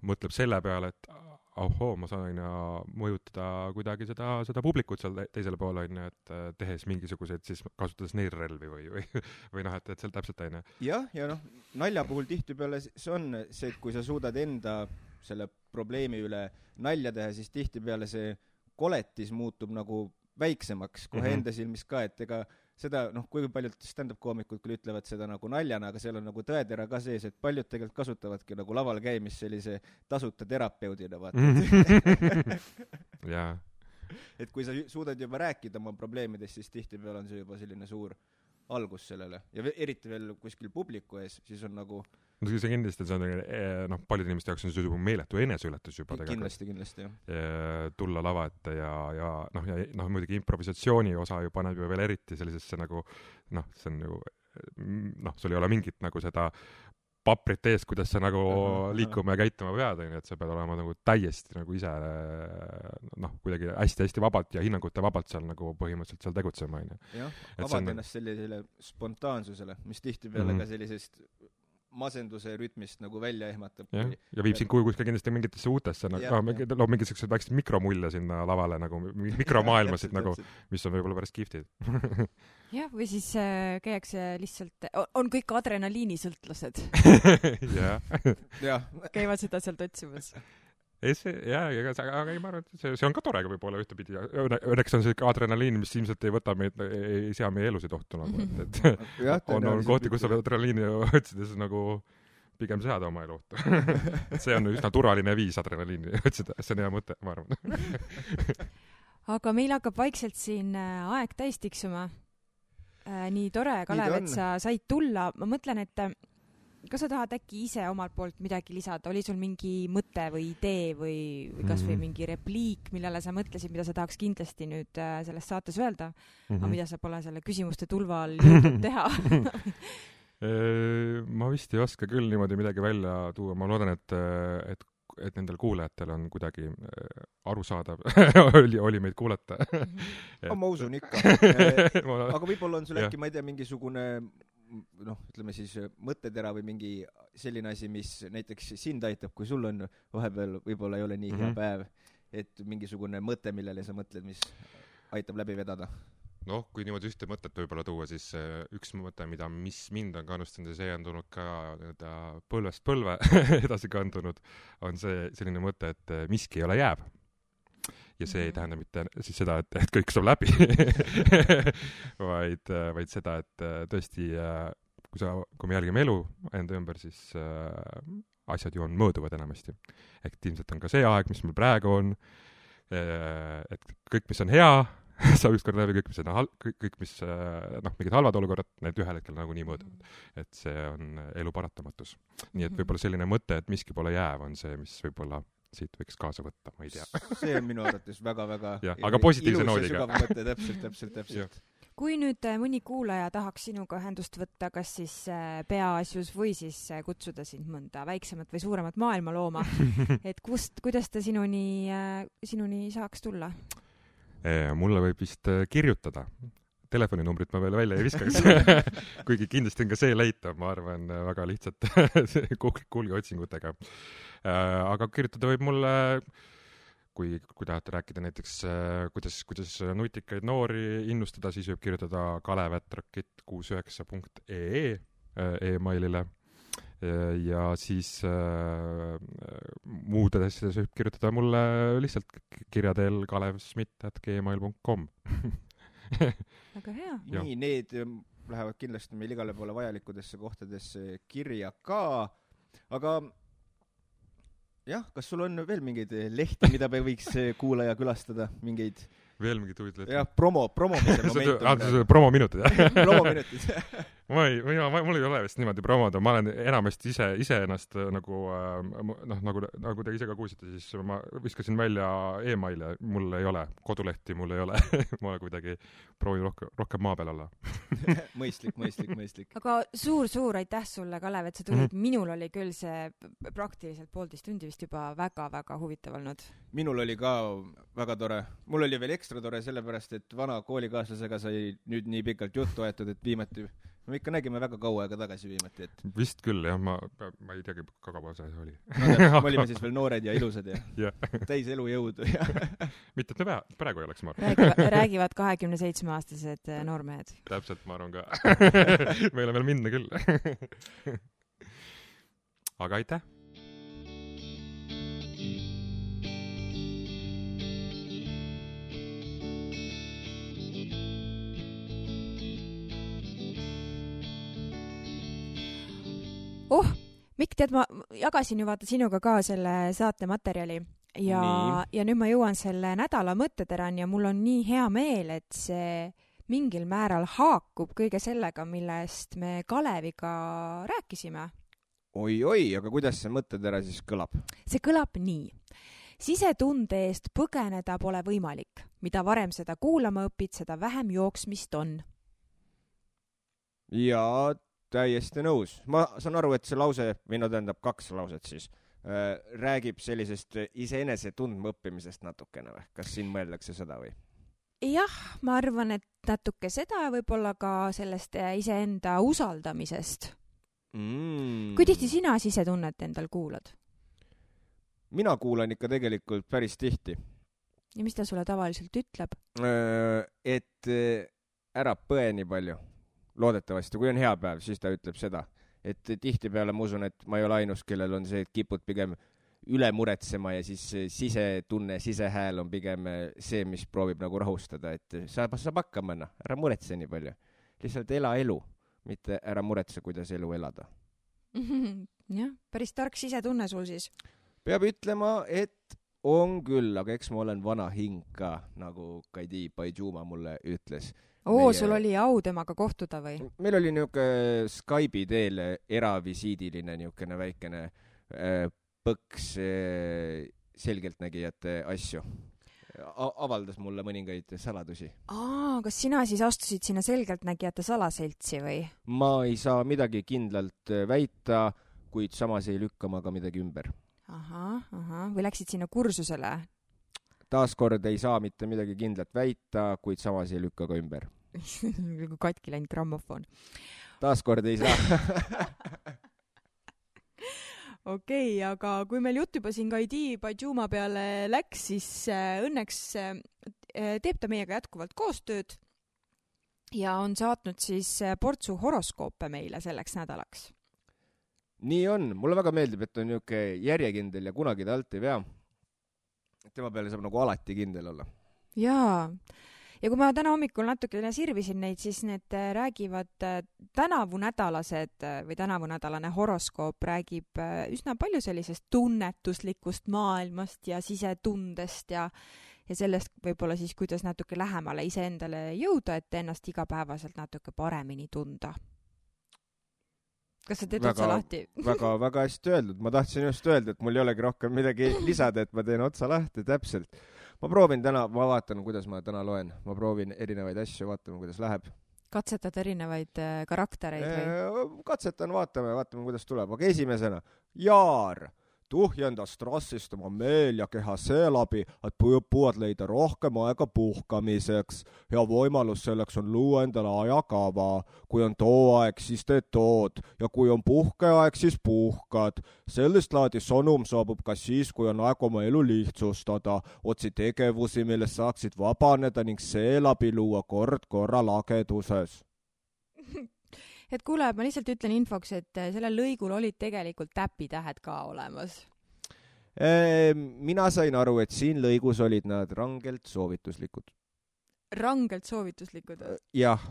mõtleb selle peale, et ma saan mõjutada kuidagi seda publikut seal teisele poole, et tehes mingisuguseid, siis kasutades neilrelvi või et seal täpselt Jah, ja nalja puhul tihtipeale see on see, et kui sa suudad enda selle probleemi üle nalja teha, siis tihtipeale see koletis muutub nagu väiksemaks kohe enda silmis ka, et ega seda, kui paljud stand-up-koomikud küll ütlevad seda nagu naljana, aga seal on nagu tõetera ka sees, et paljud tegelikult kasutavadki nagu laval käimist sellise tasuta terapeudina, vaata. Jaa. Et kui sa suudad juba rääkida oma probleemidest, siis tihtipeale on see juba selline suur algus sellele. Ja eriti veel kuskil publiku ees, siis on nagu no see kindlasti see on paljude inimeste jaoks on see juba meeletu eneseületus juba kindlasti jah. Tulla lava ette ja muidugi improvisatsiooni osa ju paneb ju veel eriti sellisesse nagu see on ju sul ei ole mingit nagu seda paprit ees, kuidas sa nagu liikuma ja käituma pead, et sa pead olema nagu täiesti nagu ise kuidagi hästi-hästi vabalt ja hinnangute vabalt seal nagu põhimõtteliselt seal tegutsema. Jah, avad ennast sellisele spontaansusele, mis tihtipeale ka sellisest masenduse rütmist nagu välja ehmatab. Ja viib sind kuskil kindlasti mingitesse uutesse, loob mingisugused väiksed mikromulje sinna lavale, nagu mikromaailmasid, nagu, mis on võib-olla päris kihvtid. Jah, või siis käiakse lihtsalt, on kõik adrenaliinisõltlased. Käivad seda sealt otsimas. Aga ei, ma arvan, et see on ka tore võib-olla ühtepidi. Õnneks on see adrenaliin, mis ilmselt ei võta meid, ei sea meie elusid ohtu nagu, et on kohti, kus sa adrenaliini otsides nagu pigem seada oma elu ohtu. See on üsna turvaline viis adrenaliini otsida, see on hea mõte, ma arvan. Aga meil hakkab vaikselt siin aeg täis tiksuma. Nii tore, Kalev, et sa said tulla. Ma mõtlen, et kas sa tahad äkki ise omalt poolt midagi lisada? Oli sul mingi mõte või idee või kas või mingi repliik, millele sa mõtlesid, mida sa tahaks kindlasti nüüd selles saates öelda, aga mida sa pole selle küsimuste tulva all jõudnud teha? Ma vist ei oska küll niimoodi midagi välja tuua. Ma loodan, et nendel kuulajatel on kuidagi arusaadav oli meid kuulata. Ma usun ikka. Aga võib-olla on sul äkki, ma ei tea, mingisugune ütleme siis mõttetera või mingi selline asi, mis näiteks sind aitab, kui sul on vahepeal võib-olla ei ole nii hea päev, et mingisugune mõte, millele sa mõtled, mis aitab läbi vedada. Kui niimoodi ühte mõtet võib-olla tuua, siis üks mõte, mis mind on kannustanud ja see on tulnud ka põlvest põlve edasi kandunud, on see selline mõte, et miski ei ole jääb. Ja see ei tähenda mitte siis seda, et kõik saab läbi, vaid seda, et tõesti, kui me jälgime elu enda ümber, siis asjad ju on mõõduvad enamasti. Ehk ilmselt on ka see aeg, mis meil praegu on, et kõik, mis on hea, saab ükskord läbi, kõik, mis mingid halvad olukorrad, need ühel hetkel nagu nii mõõduvad. Et see on elu paratamatus. Nii et võib-olla selline mõte, et miski pole jääv, on see, mis võib-olla siit võiks kaasa võtta, ma ei tea. See on minu arvates väga-väga aga positiivse noodiga. Ilus ja sügav mõte, täpselt. Kui nüüd mõni kuulaja tahaks sinuga ühendust võtta, kas siis peaasjus või siis kutsuda sind mõnda väiksemat või suuremat maailmalooma, et kuidas ta sinuni saaks tulla? Mulle võib vist kirjutada. Telefoninumbrit ma veel välja ei viskaks. Kuigi kindlasti on ka see leitav, ma arvan, väga lihtsalt Google otsingutega. Aga kirjutada võib mulle, kui tahate rääkida näiteks, kuidas nutikaid noori innustada, siis võib kirjutada kalev@rakett69.ee e-mailile. Ja siis muudes asjades võib kirjutada mulle lihtsalt kirja teel kalevsmit@gmail.com. Väga hea. Nii, need lähevad kindlasti meil igale poole vajalikudesse kohtadesse kirja ka, aga jah, kas sul on veel mingeid lehti, mida me võiks kuulaja külastada, mingeid veel mingid huvitavad lehti? Jah, promomise momentum. Promominutid, jah? Promominutid. Mul ei ole vist niimoodi promoda, ma olen enamasti ise ennast nagu te ise ka kuulsite, siis ma viskasin välja e-maile, mul ei ole, kodulehti mul ei ole, ma kuidagi proovin rohkem maa peal olla. Mõistlik. Aga suur aitäh sulle, Kalev, et sa tulid. Minul oli küll see praktiliselt 1,5 tundi vist juba väga-väga huvitav olnud. Minul oli ka väga tore. Mul oli veel ekstra tore sellepärast, et vana koolikaaslasega sai nüüd nii pikalt juttu aetud, et viimati me ikka nägime väga kaua aega tagasi viimati. Et... Vist küll, jah. Ma ei teagi, kaua see oli. Me olime siis veel noored ja ilusad ja täis elujõudu. Mitte, et me praegu ei oleks, ma arvan. Räägivad 27-aastased noormehed. Täpselt, ma arvan ka. Meil on veel minna küll. Aga aitäh! Mikk, tead, ma jagasin ju vaata sinuga ka selle saate materjali ja nüüd ma jõuan selle nädala mõtteterani ja mul on nii hea meel, et see mingil määral haakub kõige sellega, millest me Kaleviga rääkisime. oi, aga kuidas see mõttetera siis kõlab? See kõlab nii. Sisetunde eest põgeneda pole võimalik. Mida varem seda kuulama õpid, seda vähem jooksmist on. Ja täiesti nõus. Ma saan aru, et see lause, või no tähendab 2 lauset siis, räägib sellisest iseenese tundma õppimisest natukene või? Kas siin mõeldakse seda või? Jah, ma arvan, et natuke seda võib-olla ka sellest iseenda usaldamisest. Kui tihti sina sisetunnet endal kuulad? Mina kuulan ikka tegelikult päris tihti. Ja mis ta sulle tavaliselt ütleb? Et ära põe nii palju. Loodetavasti, kui on hea päev, siis ta ütleb seda. Et tihtipeale ma usun, et ma ei ole ainus, kellel on see, et kipud pigem üle muretsema ja siis sisetunne, sisehääl on pigem see, mis proovib nagu rahustada, et saab hakkama, ära muretse nii palju. Lihtsalt ela elu, mitte ära muretse, kuidas elu elada. Jah, päris tark sisetunne sul siis. Peab ütlema, et on küll, aga eks ma olen vana hing ka, nagu Kaidi Paidžuma mulle ütles. Sul oli au temaga kohtuda või? Meil oli niisugune Skype'i teel eravisiidiline niisugune väikene põks selgeltnägijate asju. Avaldas mulle mõningaid saladusi. Kas sina siis astusid sinna selgeltnägijate salaseltsi või? Ma ei saa midagi kindlalt väita, kuid samas ei lükka ma ka midagi ümber. Või läksid sinna kursusele? Taaskord ei saa mitte midagi kindlat väita, kuid samas ei lükka ka ümber. Kui katki läinud grammofon. Taaskord ei saa. Okei, aga kui meil jutt juba siin Kaidi Paidžuma peale läks, siis õnneks teeb ta meiega jätkuvalt koostööd ja on saatnud siis portsu horoskoope meile selleks nädalaks. Nii on. Mulle väga meeldib, et on niisugune järjekindel ja kunagi ta alt ei vea. Tema peale saab nagu alati kindel olla. Jaa. Ja kui ma täna hommikul natukene sirvisin neid, siis need räägivad tänavunädalane horoskoop räägib üsna palju sellisest tunnetuslikust maailmast ja sisetundest ja sellest võib-olla siis, kuidas natuke lähemale iseendale jõuda, et ennast igapäevaselt natuke paremini tunda. Kas sa teed otsa lahti? Väga hästi öeldud. Ma tahtsin just öelda, et mul ei olegi rohkem midagi lisada, et ma teen otsa lahti täpselt. Ma proovin täna, ma vaatan, kuidas ma täna loen. Ma proovin erinevaid asju, vaatame, kuidas läheb. Katsetad erinevaid karaktereid või? Katsetan, vaatame, kuidas tuleb. Aga esimesena, Jaar tuhjenda strassist oma meel ja keha seeläbi, et püüad leida rohkem aega puhkamiseks. Hea võimalus selleks on luua endale ajakava. Kui on too aeg, siis teed tood. Ja kui on puhkeaeg, siis puhkad. Sellist laadi sõnum saabub ka siis, kui on aeg oma elu lihtsustada. Otsi tegevusi, millest saaksid vabaneda ning seeläbi luua kord korra lageduses. Et kuule, ma lihtsalt ütlen infoks, et sellel lõigul olid tegelikult täpitähed ka olemas. Mina sain aru, et siin lõigus olid nad rangelt soovituslikud. Rangelt soovituslikud? Jah,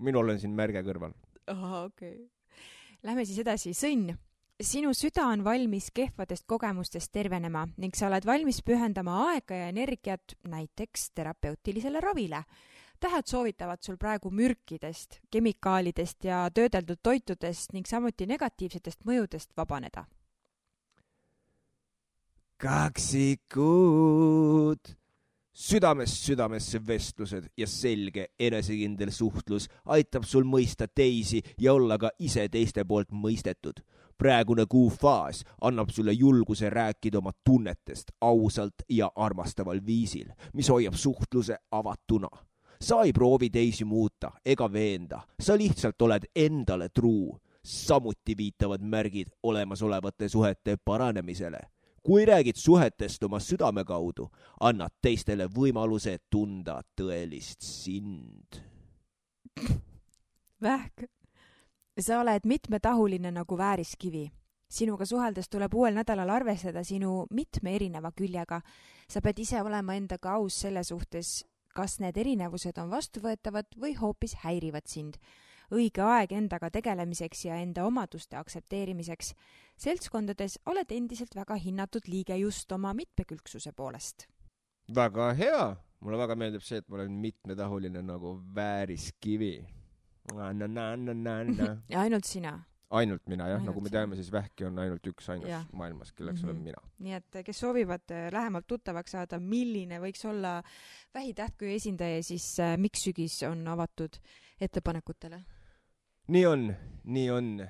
minul on siin märge kõrval. Okei. Lähme siis edasi. Sõnn. Sinu süda on valmis kehvadest kogemustest tervenema ning sa oled valmis pühendama aega ja energiat näiteks terapeutilisele ravile. Tähed soovitavad sul praegu mürkidest, kemikaalidest ja töödeldud toitudest ning samuti negatiivsetest mõjudest vabaneda. Kaksikud! Südamest südamesse vestlused ja selge enesekindel suhtlus aitab sul mõista teisi ja olla ka ise teiste poolt mõistetud. Praegune kuufaas annab sulle julguse rääkida oma tunnetest ausalt ja armastaval viisil, mis hoiab suhtluse avatuna. Sa ei proovi teisi muuta ega veenda, sa lihtsalt oled endale truu. Samuti viitavad märgid olemasolevate suhete paranemisele. Kui räägid suhetest oma südame kaudu, annad teistele võimaluse tunda tõelist sind. Vähk. Sa oled mitmetahuline nagu vääriskivi. Sinuga suheldes tuleb uuel nädalal arvestada sinu mitme erineva küljega. Sa pead ise olema endaga aus selle suhtes, kas need erinevused on vastuvõetavad või hoopis häirivad sind. Õige aeg endaga tegelemiseks ja enda omaduste aktsepteerimiseks. Seltskondades oled endiselt väga hinnatud liige just oma mitmekülgsuse poolest. Väga hea. Mulle väga meeldib see, et ma olen mitmetahuline nagu vääriskivi. Ja ainult sina. ainult mina, jah, Ainult nagu me sina. teame, siis vähki on ainult üks ainus Jah. maailmas, kelleks olen mina. Nii et kes soovivad lähemalt tuttavaks saada, milline võiks olla vähitähtkuju esindaja, siis Miks sügis on avatud ettepanekutele. Nii on.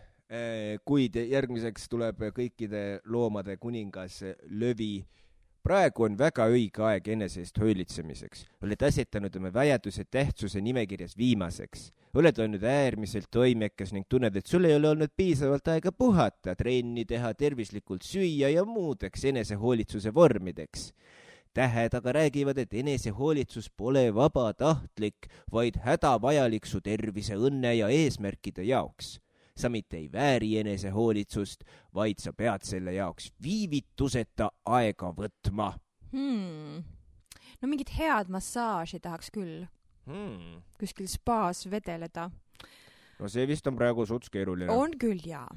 Kuid järgmiseks tuleb kõikide loomade kuningas Lövi. Praegu on väga õige aeg enese eest hoolitsemiseks. Oled asetanud oma vajaduse tähtsuse nimekirjas viimaseks. Oled olnud äärmiselt toimekas ning tunned, et sul ei ole olnud piisavalt aega puhata, trenni teha, tervislikult süüa ja muudeks enesehoolitsuse vormideks. Tähed aga räägivad, et enesehoolitsus pole vabatahtlik, vaid hädavajalik su tervise, õnne ja eesmärkide jaoks. Sa mitte ei vääri enesehoolitsust, vaid sa pead selle jaoks viivituseta aega võtma. No mingit head massaaži tahaks küll. Kuskil spaas vedeleda. No see vist on praegu suts keeruline. On küll, jaa.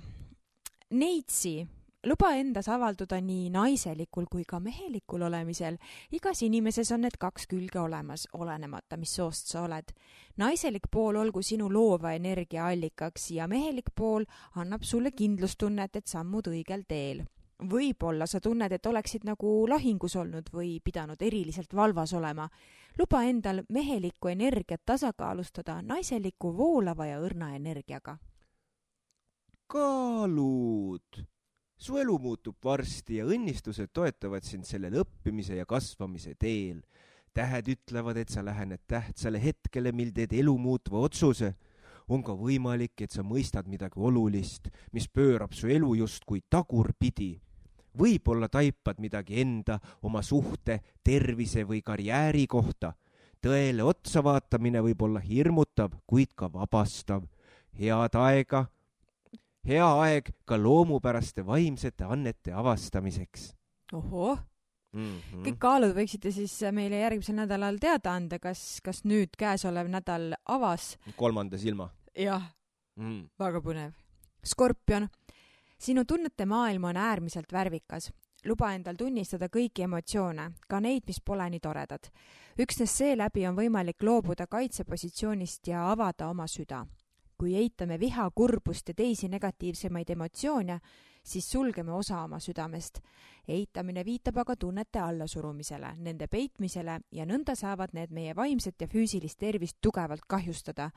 Neitsi, luba endas avalduda nii naiselikul kui ka mehelikul olemisel. Igas inimeses on need kaks külge olemas, olenemata, mis soost sa oled. Naiselik pool olgu sinu loova energia allikaks ja mehelik pool annab sulle kindlustunnet, et sammud õigel teel. Võib-olla sa tunned, et oleksid nagu lahingus olnud või pidanud eriliselt valvas olema. Luba endal mehelikku energiat tasakaalustada naiseliku voolava ja õrna energiaga. Kaalud! Su elu muutub varsti ja õnnistused toetavad sind sellel õppimise ja kasvamise teel. Tähed ütlevad, et sa lähened tähtsale hetkele, mil teed elu muutva otsuse. On ka võimalik, et sa mõistad midagi olulist, mis pöörab su elu justkui tagurpidi. Võib-olla taipad midagi enda, oma suhte, tervise või karjääri kohta. Tõele otsa vaatamine võib olla hirmutav, kuid ka vabastav. Hea aeg ka loomupäraste vaimsete annete avastamiseks. Ohoo! Kõik kaalud võiksite siis meile järgmisel nädalal teada anda, kas nüüd käesolev nädal avas. 3. silma. Jah, väga põnev. Skorpion, sinu tunnete maailm on äärmiselt värvikas. Luba endal tunnistada kõiki emotsioone, ka neid, mis pole nii toredad. Üksnes seeläbi on võimalik loobuda kaitsepositsioonist ja avada oma süda. Kui eitame viha, kurbust ja teisi negatiivsemaid emotsioone, siis sulgeme osa oma südamest. Eitamine viitab aga tunnete allasurumisele, nende peitmisele ja nõnda saavad need meie vaimset ja füüsilist tervist tugevalt kahjustada.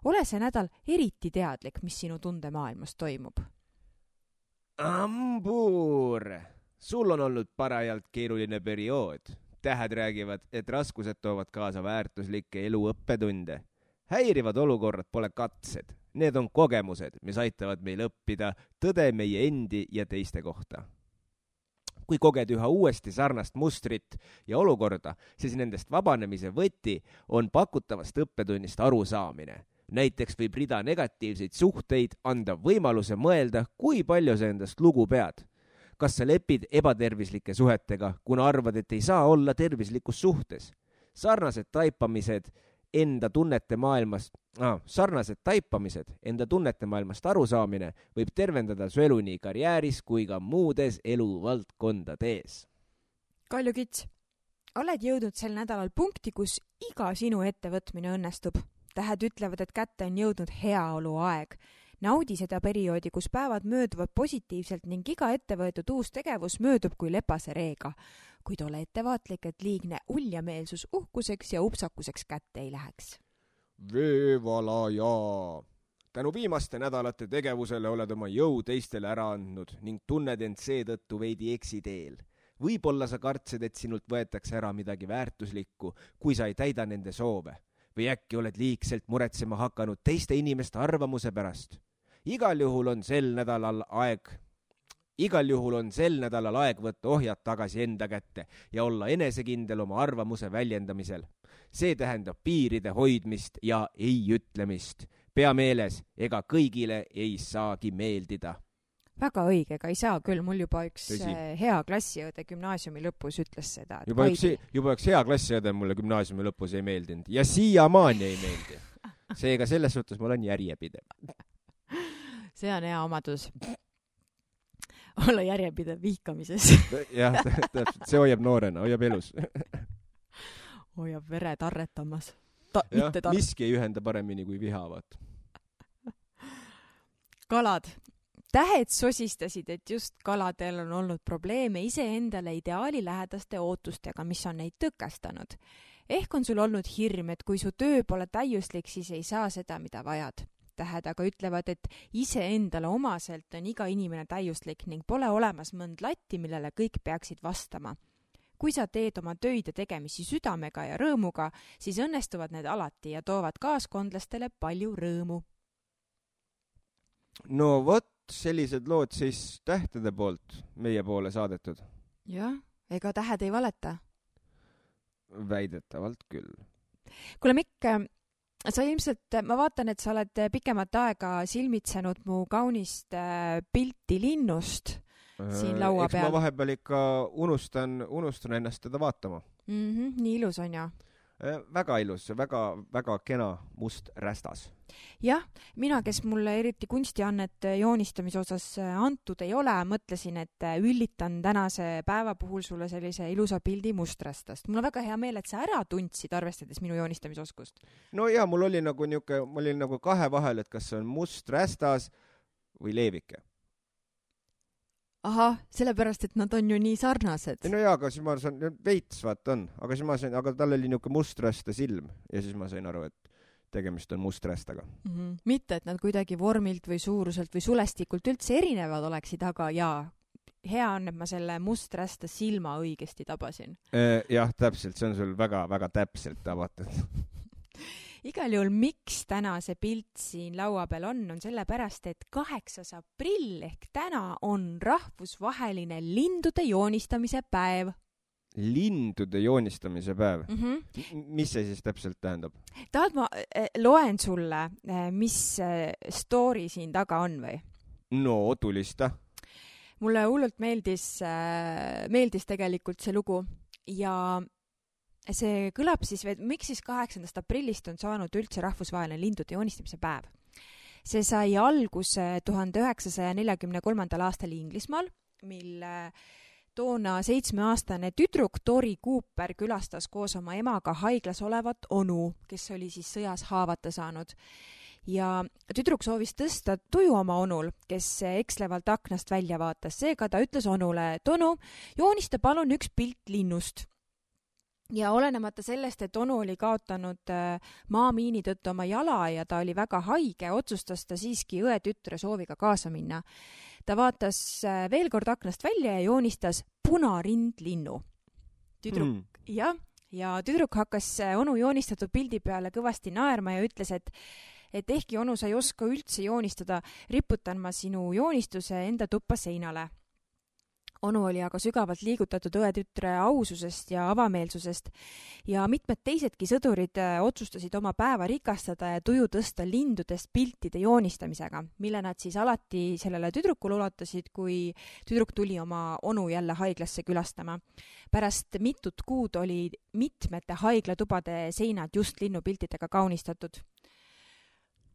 Ole see nädal eriti teadlik, mis sinu tundemaailmas toimub. Ambuur! Sul on olnud parajalt keeruline periood. Tähed räägivad, et raskused toovad kaasa väärtuslikke eluõppetunde. Häirivad olukorrad pole katsed. Need on kogemused, mis aitavad meil õppida tõde meie endi ja teiste kohta. Kui koged üha uuesti sarnast mustrit ja olukorda, siis nendest vabanemise võti on pakutavast õppetunnist arusaamine. Näiteks võib rida negatiivseid suhteid anda võimaluse mõelda, kui palju sa endast lugu pead. Kas sa lepid ebatervislike suhetega, kuna arvad, et ei saa olla tervislikus suhtes? Sarnased taipamised enda tunnete maailmast arusaamine võib tervendada su elu nii karjääris kui ka muudes eluvaldkondades. Kalju Kits, oled jõudnud sel nädalal punkti, kus iga sinu ettevõtmine õnnestub. Tähed ütlevad, et kätte on jõudnud heaolu aeg. Naudi seda perioodi, kus päevad mööduvad positiivselt ning iga ettevõetud uus tegevus möödub kui lepase reega. Kuid ole ettevaatlik, et liigne uljameelsus uhkuseks ja upsakuseks kätte ei läheks. Veevalaja! Tänu viimaste nädalate tegevusele oled oma jõu teistele ära andnud ning tunned end seetõttu veidi eksiteel. Võib-olla sa kartsid, et sinult võetakse ära midagi väärtuslikku, kui sa ei täida nende soove. Või äkki oled liigselt muretsema hakanud teiste inimeste arvamuse pärast. Igal juhul on sel nädalal aeg võtta ohjad tagasi enda kätte ja olla enesekindel oma arvamuse väljendamisel. See tähendab piiride hoidmist ja ei ütlemist. Pea meeles, ega kõigile ei saagi meeldida. Väga õige, ega ei saa küll. Mul juba üks Tõsi. hea klassiõde gümnaasiumi lõpus ütles seda. Juba üks hea klassiõde mulle gümnaasiumi lõpus ei meeldinud ja siiamaani ei meeldi. Seega selles suhtes ma olen järjepidev. See on hea omadus. Olla järjepidev vihkamises. Jah, täpselt. See hoiab noorena, hoiab elus. Hoiab vere tarretamas. Miski ei ühenda paremini kui vihavad. Kalad. tähed sosistasid, et just kaladel on olnud probleeme iseendale ideaali lähedaste ootustega, mis on neid tõkestanud. Ehk on sul olnud hirm, et kui su töö pole täiuslik, siis ei saa seda, mida vajad. Tähed aga ütlevad, et iseendale omaselt on iga inimene täiuslik ning pole olemas mõnd latti, millele kõik peaksid vastama. Kui sa teed oma töid ja tegemisi südamega ja rõõmuga, siis õnnestuvad need alati ja toovad kaaskondlastele palju rõõmu. No vot, sellised lood siis tähtede poolt meie poole saadetud. Jah, ega tähed ei valeta. Väidetavalt küll. Kuule Mikk, sa ilmselt, ma vaatan, et sa oled pikemat aega silmitsenud mu kaunist pilti linnust siin laua peal. Eks ma vahepeal ikka unustan ennast teda vaatama. Nii ilus on ja? Väga ilus, väga kena must rästas. Jah, mina, kes mulle eriti kunstiannet joonistamise osas antud ei ole, mõtlesin, et üllitan tänase päeva puhul sulle sellise ilusa pildi musträstast. Mul on väga hea meel, et sa ära tundsid, arvestades minu joonistamisoskust. No ja, mul oli nagu kahe vahel, et kas see on must rästas või leevike. Aha, sellepärast, et nad on ju nii sarnased. No jaa, aga siis ma saan, veits vaat on, aga tal oli niuke musträsta silm ja siis ma sain aru, et tegemist on musträstaga. Mitte, et nad kuidagi vormilt või suuruselt või sulestikult üldse erinevad oleksid, aga jaa, hea on, et ma selle musträsta silma õigesti tabasin. Jah, täpselt, see on sul väga täpselt tabatud. Igal juhul, miks täna see pilt siin laua peal on sellepärast, et 8. aprill ehk täna on rahvusvaheline lindude joonistamise päev. Lindude joonistamise päev? Mis see siis täpselt tähendab? Tahad ma loen sulle, mis story siin taga on või? No, tulista. Mulle hullult meeldis tegelikult see lugu ja see kõlab siis, miks siis 8. aprillist on saanud üldse rahvusvaheline lindude joonistamise päev. See sai alguse 1943. aastal Inglismaal, mil toona 7-aastane tüdruk Tori Cooper külastas koos oma emaga haiglas olevat onu, kes oli siis sõjas haavata saanud. Ja tüdruk soovis tõsta tuju oma onul, kes ekslevalt aknast välja vaatas. Seega ta ütles onule, et onu, joonista palun üks pilt linnust. Ja olenemata sellest, et onu oli kaotanud maamiini tõttu oma jala ja ta oli väga haige, otsustas ta siiski õe tütre sooviga kaasa minna. Ta vaatas veel kord aknast välja ja joonistas punarindlinnu. Ja tüdruk hakkas onu joonistatud pildi peale kõvasti naerma ja ütles, et ehkki onu sa ei oska üldse joonistada, riputan ma sinu joonistuse enda tuppa seinale. Onu oli aga sügavalt liigutatud õetütre aususest ja avameelsusest ja mitmed teisedki sõdurid otsustasid oma päeva rikastada ja tuju tõsta lindudest piltide joonistamisega, mille nad siis alati sellele tüdrukule ulatasid, kui tüdruk tuli oma onu jälle haiglasse külastama. Pärast mitut kuud oli mitmete haiglatubade seinad just linnupiltidega kaunistatud.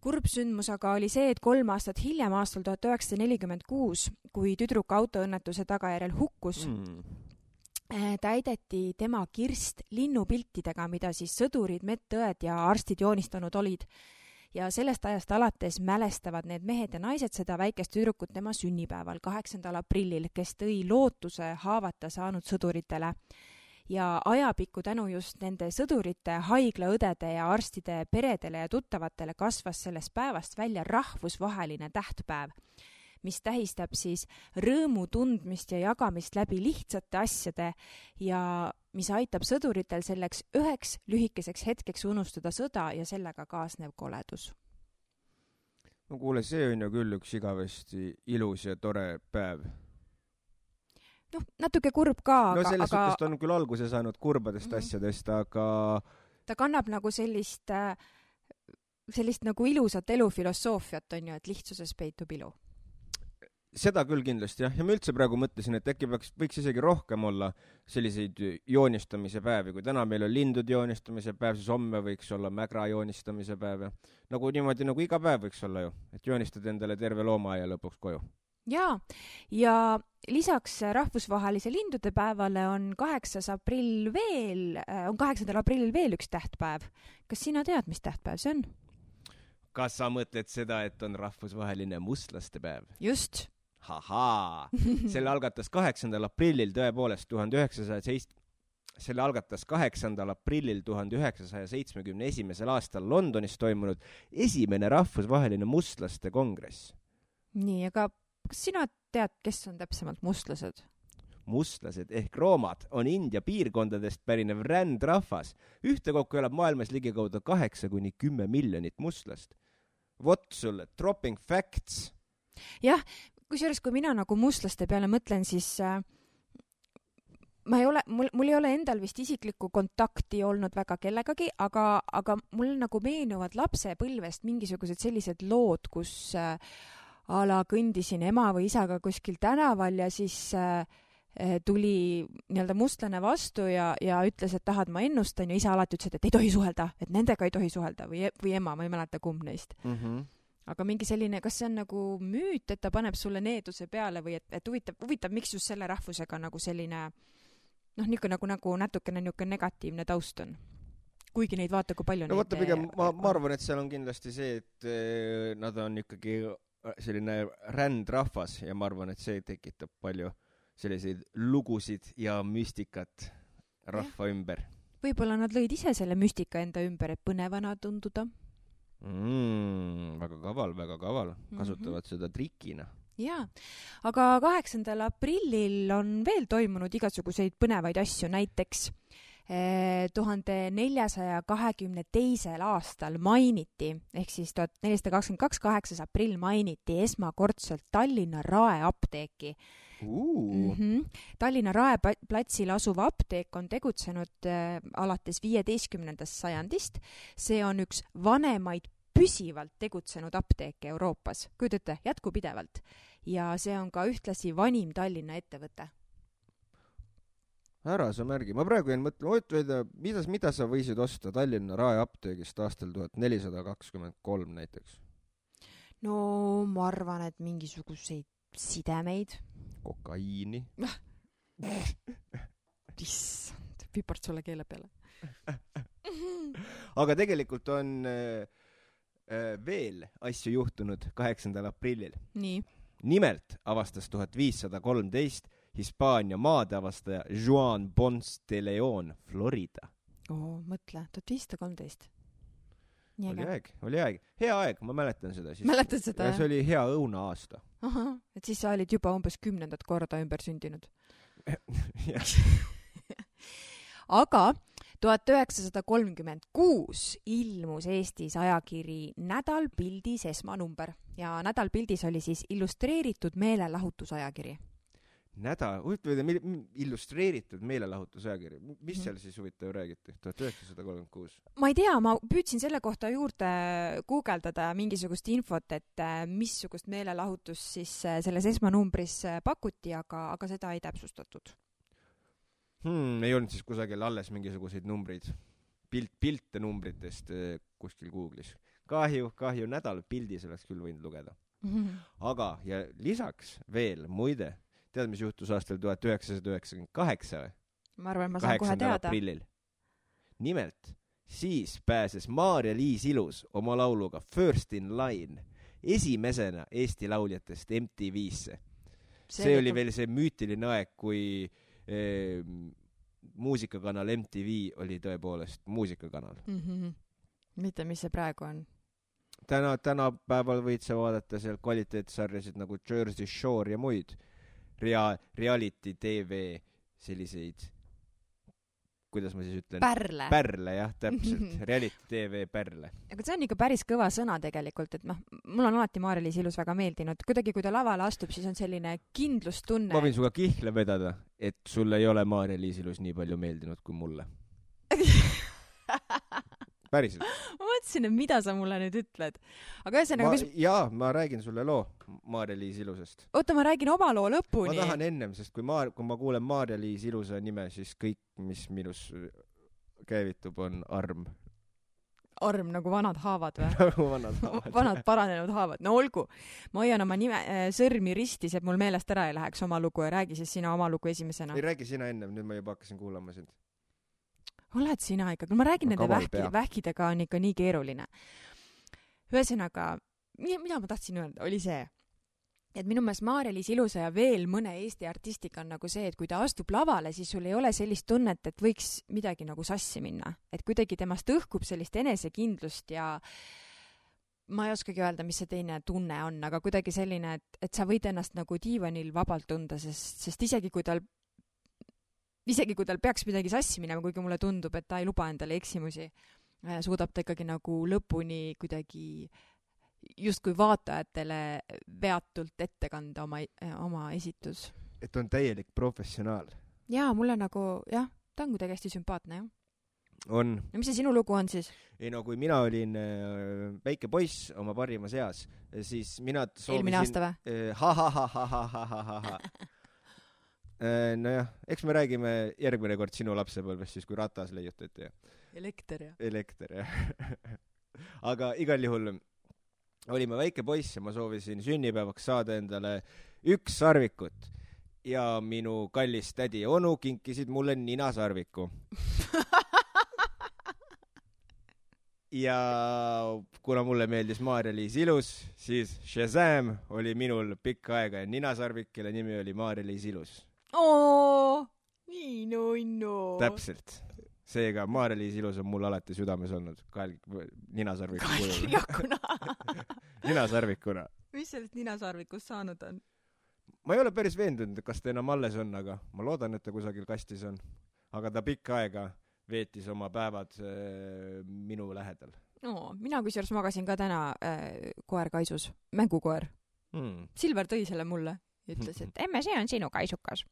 Kurb sündmus aga oli see, et 3 aastat hiljem, aastal 1946, kui tüdruk autoõnnetuse tagajärjel hukkus, täideti tema kirst linnupiltidega, mida siis sõdurid, medõed ja arstid joonistanud olid. Ja sellest ajast alates mälestavad need mehed ja naised seda väikest tüdrukut tema sünnipäeval 8. aprillil, kes tõi lootuse haavata saanud sõduritele. Ja ajapikku tänu just nende sõdurite, haiglaõdede ja arstide peredele ja tuttavatele kasvas sellest päevast välja rahvusvaheline tähtpäev, mis tähistab siis rõõmu tundmist ja jagamist läbi lihtsate asjade ja mis aitab sõduritel selleks üheks lühikeseks hetkeks unustada sõda ja sellega kaasnev koledus. No kuule, see on ju küll üks igavesti ilus ja tore päev. No, natuke kurb ka, no selles suhtes ta on küll alguse saanud kurbadest asjadest, aga ta kannab nagu sellist nagu ilusat elufilosoofiat on ju, et lihtsuses peitub ilu. Seda küll kindlasti, jah. Ja ma üldse praegu mõtlesin, et äkki võiks isegi rohkem olla selliseid joonistamise päevi. Kui täna meil on lindude joonistamise päev, siis homme võiks olla mägra joonistamise päev. Nagu niimoodi, nagu iga päev võiks olla ju, et joonistad endale terve loomaaia lõpuks koju. Jaa, ja lisaks rahvusvahelise lindude päevale on 8. aprillil veel üks tähtpäev. Kas sina tead, mis tähtpäev see on? kas sa mõtled seda, et on rahvusvaheline mustlaste päev? Just. Hahaa! Selle algatas 8. aprillil tõepoolest 1971. aastal Londonis toimunud esimene rahvusvaheline mustlaste kongress. Nii, aga kas sina tead, kes on täpsemalt mustlased? Mustlased ehk roomad on India piirkondadest pärinev rändrahvas. Ühtekokku elab maailmas ligikaudu 8–10 miljonit mustlast. Vot sulle, dropping facts. Jah, kusjuures kui mina nagu mustlaste peale mõtlen, siis mul ei ole endal vist isiklikku kontakti olnud väga kellegagi, aga mul nagu meenuvad lapsepõlvest mingisugused sellised lood, kus ala kõndisin ema või isaga kuskil tänaval ja siis tuli nii-öelda mustlane vastu ja ütles, et tahad ma ennustan ja isa alati ütles, et ei tohi suhelda, et nendega ei tohi suhelda või ema, ma ei mäleta kumb neist. Aga mingi selline, kas see on nagu müüt, et ta paneb sulle needuse peale või et huvitav, miks just selle rahvusega nagu selline nagu natukene negatiivne taust on. Kuigi neid vaata, kui palju no vaata, pigem ma arvan, et seal on kindlasti see, et nad on ikkagi selline rändrahvas ja ma arvan, et see tekitab palju selliseid lugusid ja müstikat rahva ümber. Võib-olla nad lõid ise selle müstika enda ümber, et põnevana tunduda. Väga kaval. Kasutavad seda trikina. Jaa, aga 8. aprillil on veel toimunud igasuguseid põnevaid asju, näiteks 1422. aastal mainiti, ehk siis 1422. 8. aprill mainiti esmakordselt Tallinna Rae apteeki. Tallinna Rae platsil asuv apteek on tegutsenud alates 15. sajandist. See on üks vanemaid püsivalt tegutsenud apteeke Euroopas. Kujutate, jätkupidevalt. Ja see on ka ühtlasi vanim Tallinna ettevõte. Ära sa märgi. Ma praegu jäin mõtlema, mida sa võisid osta Tallinna Rae apteegist aastal 1423 näiteks? No ma arvan, et mingisuguseid sidemeid. Kokaiini. Issand, pipart sulle keele peale. Aga tegelikult on veel asju juhtunud 8. aprillil. Nii. Nimelt avastas 1513 Hispaania maadeavastaja Juan Ponce de Leon Florida. Mõtle, 1513. Oli aeg. Hea aeg, ma mäletan seda. Mäletan seda, jah? See oli hea õuna aasta. Aha, et siis sa olid juba umbes 10. korda ümber sündinud. Aga 1936 ilmus Eestis ajakiri Nädal pildis esmanumber ja Nädal pildis oli siis illustreeritud meelelahutusajakiri. Illustreeritud meelelahutusajakiri. Mis seal siis huvitav räägiti? 1936. Ma ei tea, ma püüdsin selle kohta juurde guugeldada mingisugust infot, et missugust meelelahutus siis selles esmanumbris pakuti, aga seda ei täpsustatud. Ei olnud siis kusagil alles mingisuguseid numbreid. Pilte numbritest kuskil Google'is. Kahju, Nädal pildis oleks küll võinud lugeda. Aga ja lisaks veel, muide, tead, mis juhtus aastal 1998 või? Ma arvan, ma saan kohe teada. Aprillil. Nimelt, siis pääses Maarja-Liis Ilus oma lauluga First in Line esimesena Eesti lauljatest MTV-sse. See oli veel see müütiline aeg, kui muusikakanal MTV oli tõepoolest muusikakanal. Mitte, mis see praegu on? Tänapäeval võid sa vaadata seal kvaliteetsarjasid nagu Jersey Shore ja muid reality TV selliseid, kuidas ma siis ütlen? Pärle, jah, täpselt. Reality TV pärle. Aga see on ikka päris kõva sõna tegelikult, et mul on alati Maarja-Liis Ilus väga meeldinud. Kuidagi, kui ta lavale astub, siis on selline kindlustunne. Ma võin suga kihla vedada, et sulle ei ole Maarja-Liis Ilus nii palju meeldinud kui mulle. Päriselt. Ma mõtlesin, et mida sa mulle nüüd ütled. Aga ühesõnaga, jaa, ma räägin sulle loo Maarja-Liis Ilusest. Oota, ma räägin oma loo lõpuni. Ma tahan ennem, sest kui ma kuulen Maarja-Liis Ilusa nime, siis kõik, mis minus käivitub, on arm. Arm nagu vanad haavad või? Nagu vanad haavad. Vanad paranenud haavad. No olgu. Ma hoian oma sõrmi ristis, et mul meelest ära ei läheks oma lugu ja räägi siis sina oma lugu esimesena. Ei räägi sina ennem, nüüd ma juba hakkasin kuulama sind. Oled sina ikka, kui ma räägin nende vähkidega on ikka nii keeruline. ühesõnaga, mida ma tahtsin öelda, oli see, et minu meelest Maarja-Liis Ilusa ja veel mõne Eesti artistiga on nagu see, et kui ta astub lavale, siis sul ei ole sellist tunnet, et võiks midagi nagu sassi minna. Et kuidagi temast õhkub sellist enesekindlust ja ma ei oskagi öelda, mis see teine tunne on, aga kuidagi selline, et sa võid ennast nagu diivanil vabalt tunda, sest isegi kui tal peaks midagi sassi minema, kuigi mulle tundub, et ta ei luba endale eksimusi, suudab ta ikkagi nagu lõpuni kuidagi justkui vaatajatele veatult ette kanda oma esitus. Et on täielik professionaal. Jaa, mulle nagu, jah, ta on kuidagi hästi sümpaatne, jah. On. Ja mis see sinu lugu on siis? Ei no, kui mina olin väike poiss oma parimas eas, siis mina soovisin... Eelmine aasta või? Nojah, eks me räägime järgmine kord sinu lapsepõlvest, siis kui ratas leiutati. Elekter, jah. Elekter, jah. Aga igal juhul olime väike poiss ja ma soovisin sünnipäevaks saada endale 1 sarvikut. Ja minu kallis tädi ja onu kinkisid mulle ninasarviku. Ja kuna mulle meeldis Maarja-Liis Ilus, siis Shazam oli minul pikka aega ja ninasarvik, kelle nimi oli Maarja-Liis Ilus. Nii nunnu. Täpselt. Seega Maarja-Liis Ilus on mul alati südames olnud. Ninasarviku kujul. Ninasarvikuna. Mis sellest ninasarvikust saanud on? Ma ei ole päris veendunud, kas ta enam alles on, aga ma loodan, et ta kusagil kastis on. Aga ta pikka aega veetis oma päevad minu lähedal. Mina kusjuures magasin ka täna koer kaisus, mängukoer. Silver tõi selle mulle ja ütles, et emme, see on sinu kaisukas.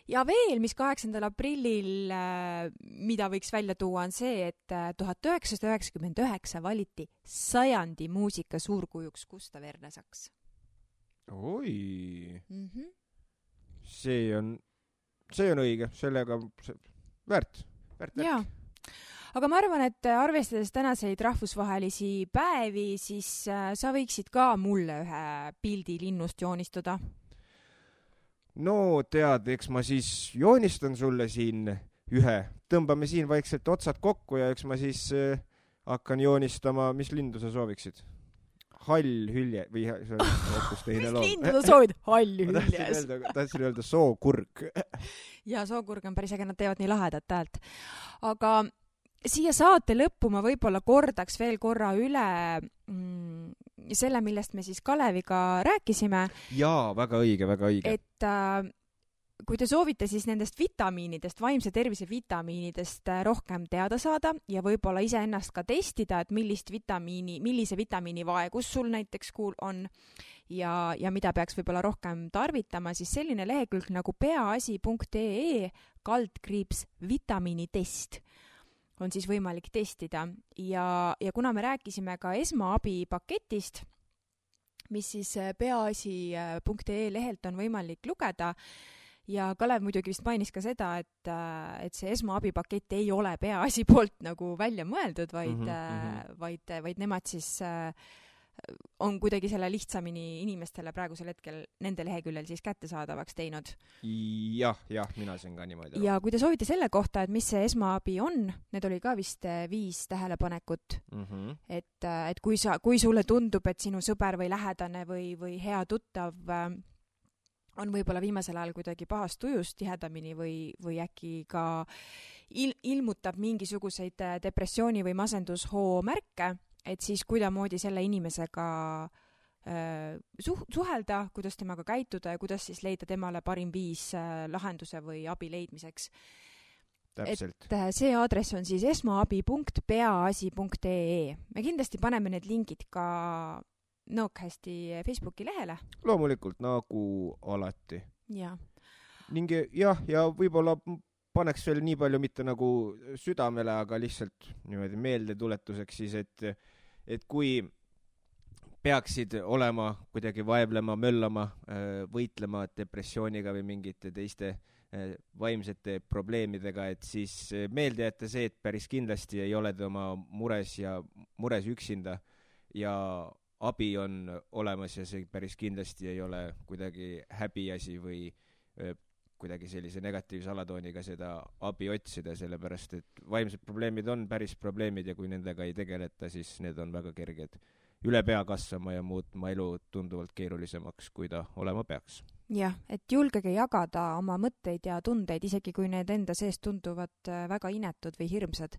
Ja veel, mis 8. aprillil, mida võiks välja tuua, on see, et 1999 valiti 100. muusika suurkujuks Gustav Ernesaks. Oi. See on õige, sellega väärt. Jaa, aga ma arvan, et arvestades tänaseid rahvusvahelisi päevi, siis sa võiksid ka mulle ühe pildi linnust joonistada. No tead, eks ma siis joonistan sulle siin ühe. Tõmbame siin vaikselt otsad kokku ja eks ma siis hakkan joonistama, mis lindu sa sooviksid? Hall hülje või see on hoopis teine loom. Mis lindu sa soovid? Hall hüljes. Tahtsin öelda sookurg. Ja sookurg on päris äge, nad teevad nii lahedat häält. Aga siia saate lõppu ma võib-olla kordaks veel korra üle selle, millest me siis Kaleviga rääkisime. Jaa, väga õige, väga õige. Et kui te soovite siis nendest vitamiinidest, vaimse tervise vitamiinidest rohkem teada saada ja võib-olla ise ennast ka testida, et millise vitamiini vaegus sul näiteks on ja mida peaks võib-olla rohkem tarvitama, siis selline lehekülg nagu peaasi.ee /vitamiinitest on siis võimalik testida. Ja kuna me rääkisime ka esmaabipaketist, mis siis peaasi.ee lehelt on võimalik lugeda, ja Kalev muidugi vist mainis ka seda, et see esmaabipakett ei ole Peaasi poolt nagu välja mõeldud, vaid nemad siis on kuidagi selle lihtsamini inimestele praegusel hetkel nende leheküljel siis kättesaadavaks teinud. Jah, mina siin ka niimoodi. Ja kui te soovite selle kohta, et mis see esmaabi on, need oli ka vist 5 tähelepanekut, et kui sulle tundub, et sinu sõber või lähedane või hea tuttav on võib-olla viimasel ajal kuidagi pahast tujust tihedamini või äkki ka ilmutab mingisuguseid depressiooni või masendushoo märke, et siis kuidamoodi selle inimesega suhelda, kuidas temaga käituda ja kuidas siis leida temale parim viis lahenduse või abi leidmiseks. Täpselt. Et see aadress on siis esmaabi.peaasi.ee. Me kindlasti paneme need lingid ka Nõokhästi Facebooki lehele. Loomulikult, nagu alati. Ja. Ning jah, ja võib-olla paneks veel nii palju mitte nagu südamele, aga lihtsalt niimoodi meeldetuletuseks siis, et kui peaksid olema kuidagi vaevlema, möllama, võitlema depressiooniga või mingite teiste vaimsete probleemidega, et siis meelde jätta see, et päris kindlasti ei ole te oma mures üksinda ja abi on olemas ja see päris kindlasti ei ole kuidagi häbiasi või kuidagi sellise negatiivse alatooniga seda abi otsida, sellepärast et vaimsed probleemid on päris probleemid ja kui nendega ei tegeleta, siis need on väga kerged üle pea kasvama ja muutma elu tunduvalt keerulisemaks, kui ta olema peaks. Jah, et julgege jagada oma mõtteid ja tundeid, isegi kui need enda sees tunduvad väga inetud või hirmsad.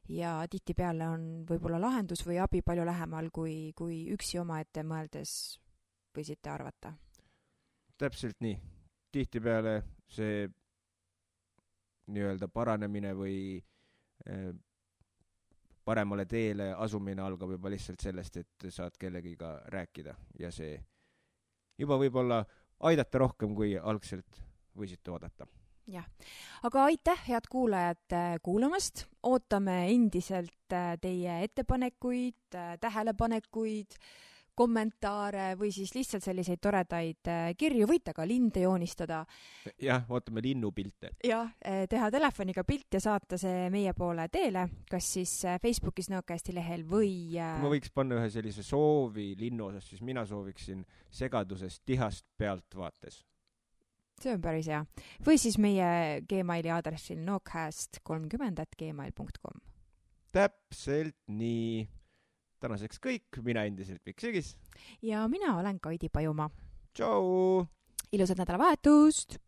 Ja tihtipeale on võib-olla lahendus või abi palju lähemal, kui üksi omaette mõeldes võisite arvata. Täpselt nii. Tihtipeale see nii-öelda paranemine või paremale teele asumine algab juba lihtsalt sellest, et saad kellegiga rääkida ja see juba võib-olla aidata rohkem, kui algselt võisite oodata. Jah, aga aitäh, head kuulajad, kuulamast. Ootame endiselt teie ettepanekuid, tähelepanekuid, kommentaare või siis lihtsalt selliseid toredaid kirju. Võite ka linde joonistada. Jah, ootame linnupilte. Jah, teha telefoniga pilt ja saata see meie poole teele, kas siis Facebookis Nõokasti lehel või... Kui ma võiks panna ühe sellise soovi linnu osas, siis mina sooviksin segadusest tihast pealt vaates. See on päris hea. Või siis meie Gmaili aadressil nookcast30@gmail.com. Täpselt nii. Tänaseks kõik. Mina endiselt Mikk Sügis. Ja mina olen Kaidi Pajumaa. Tšau! Ilusat nädalavahetust!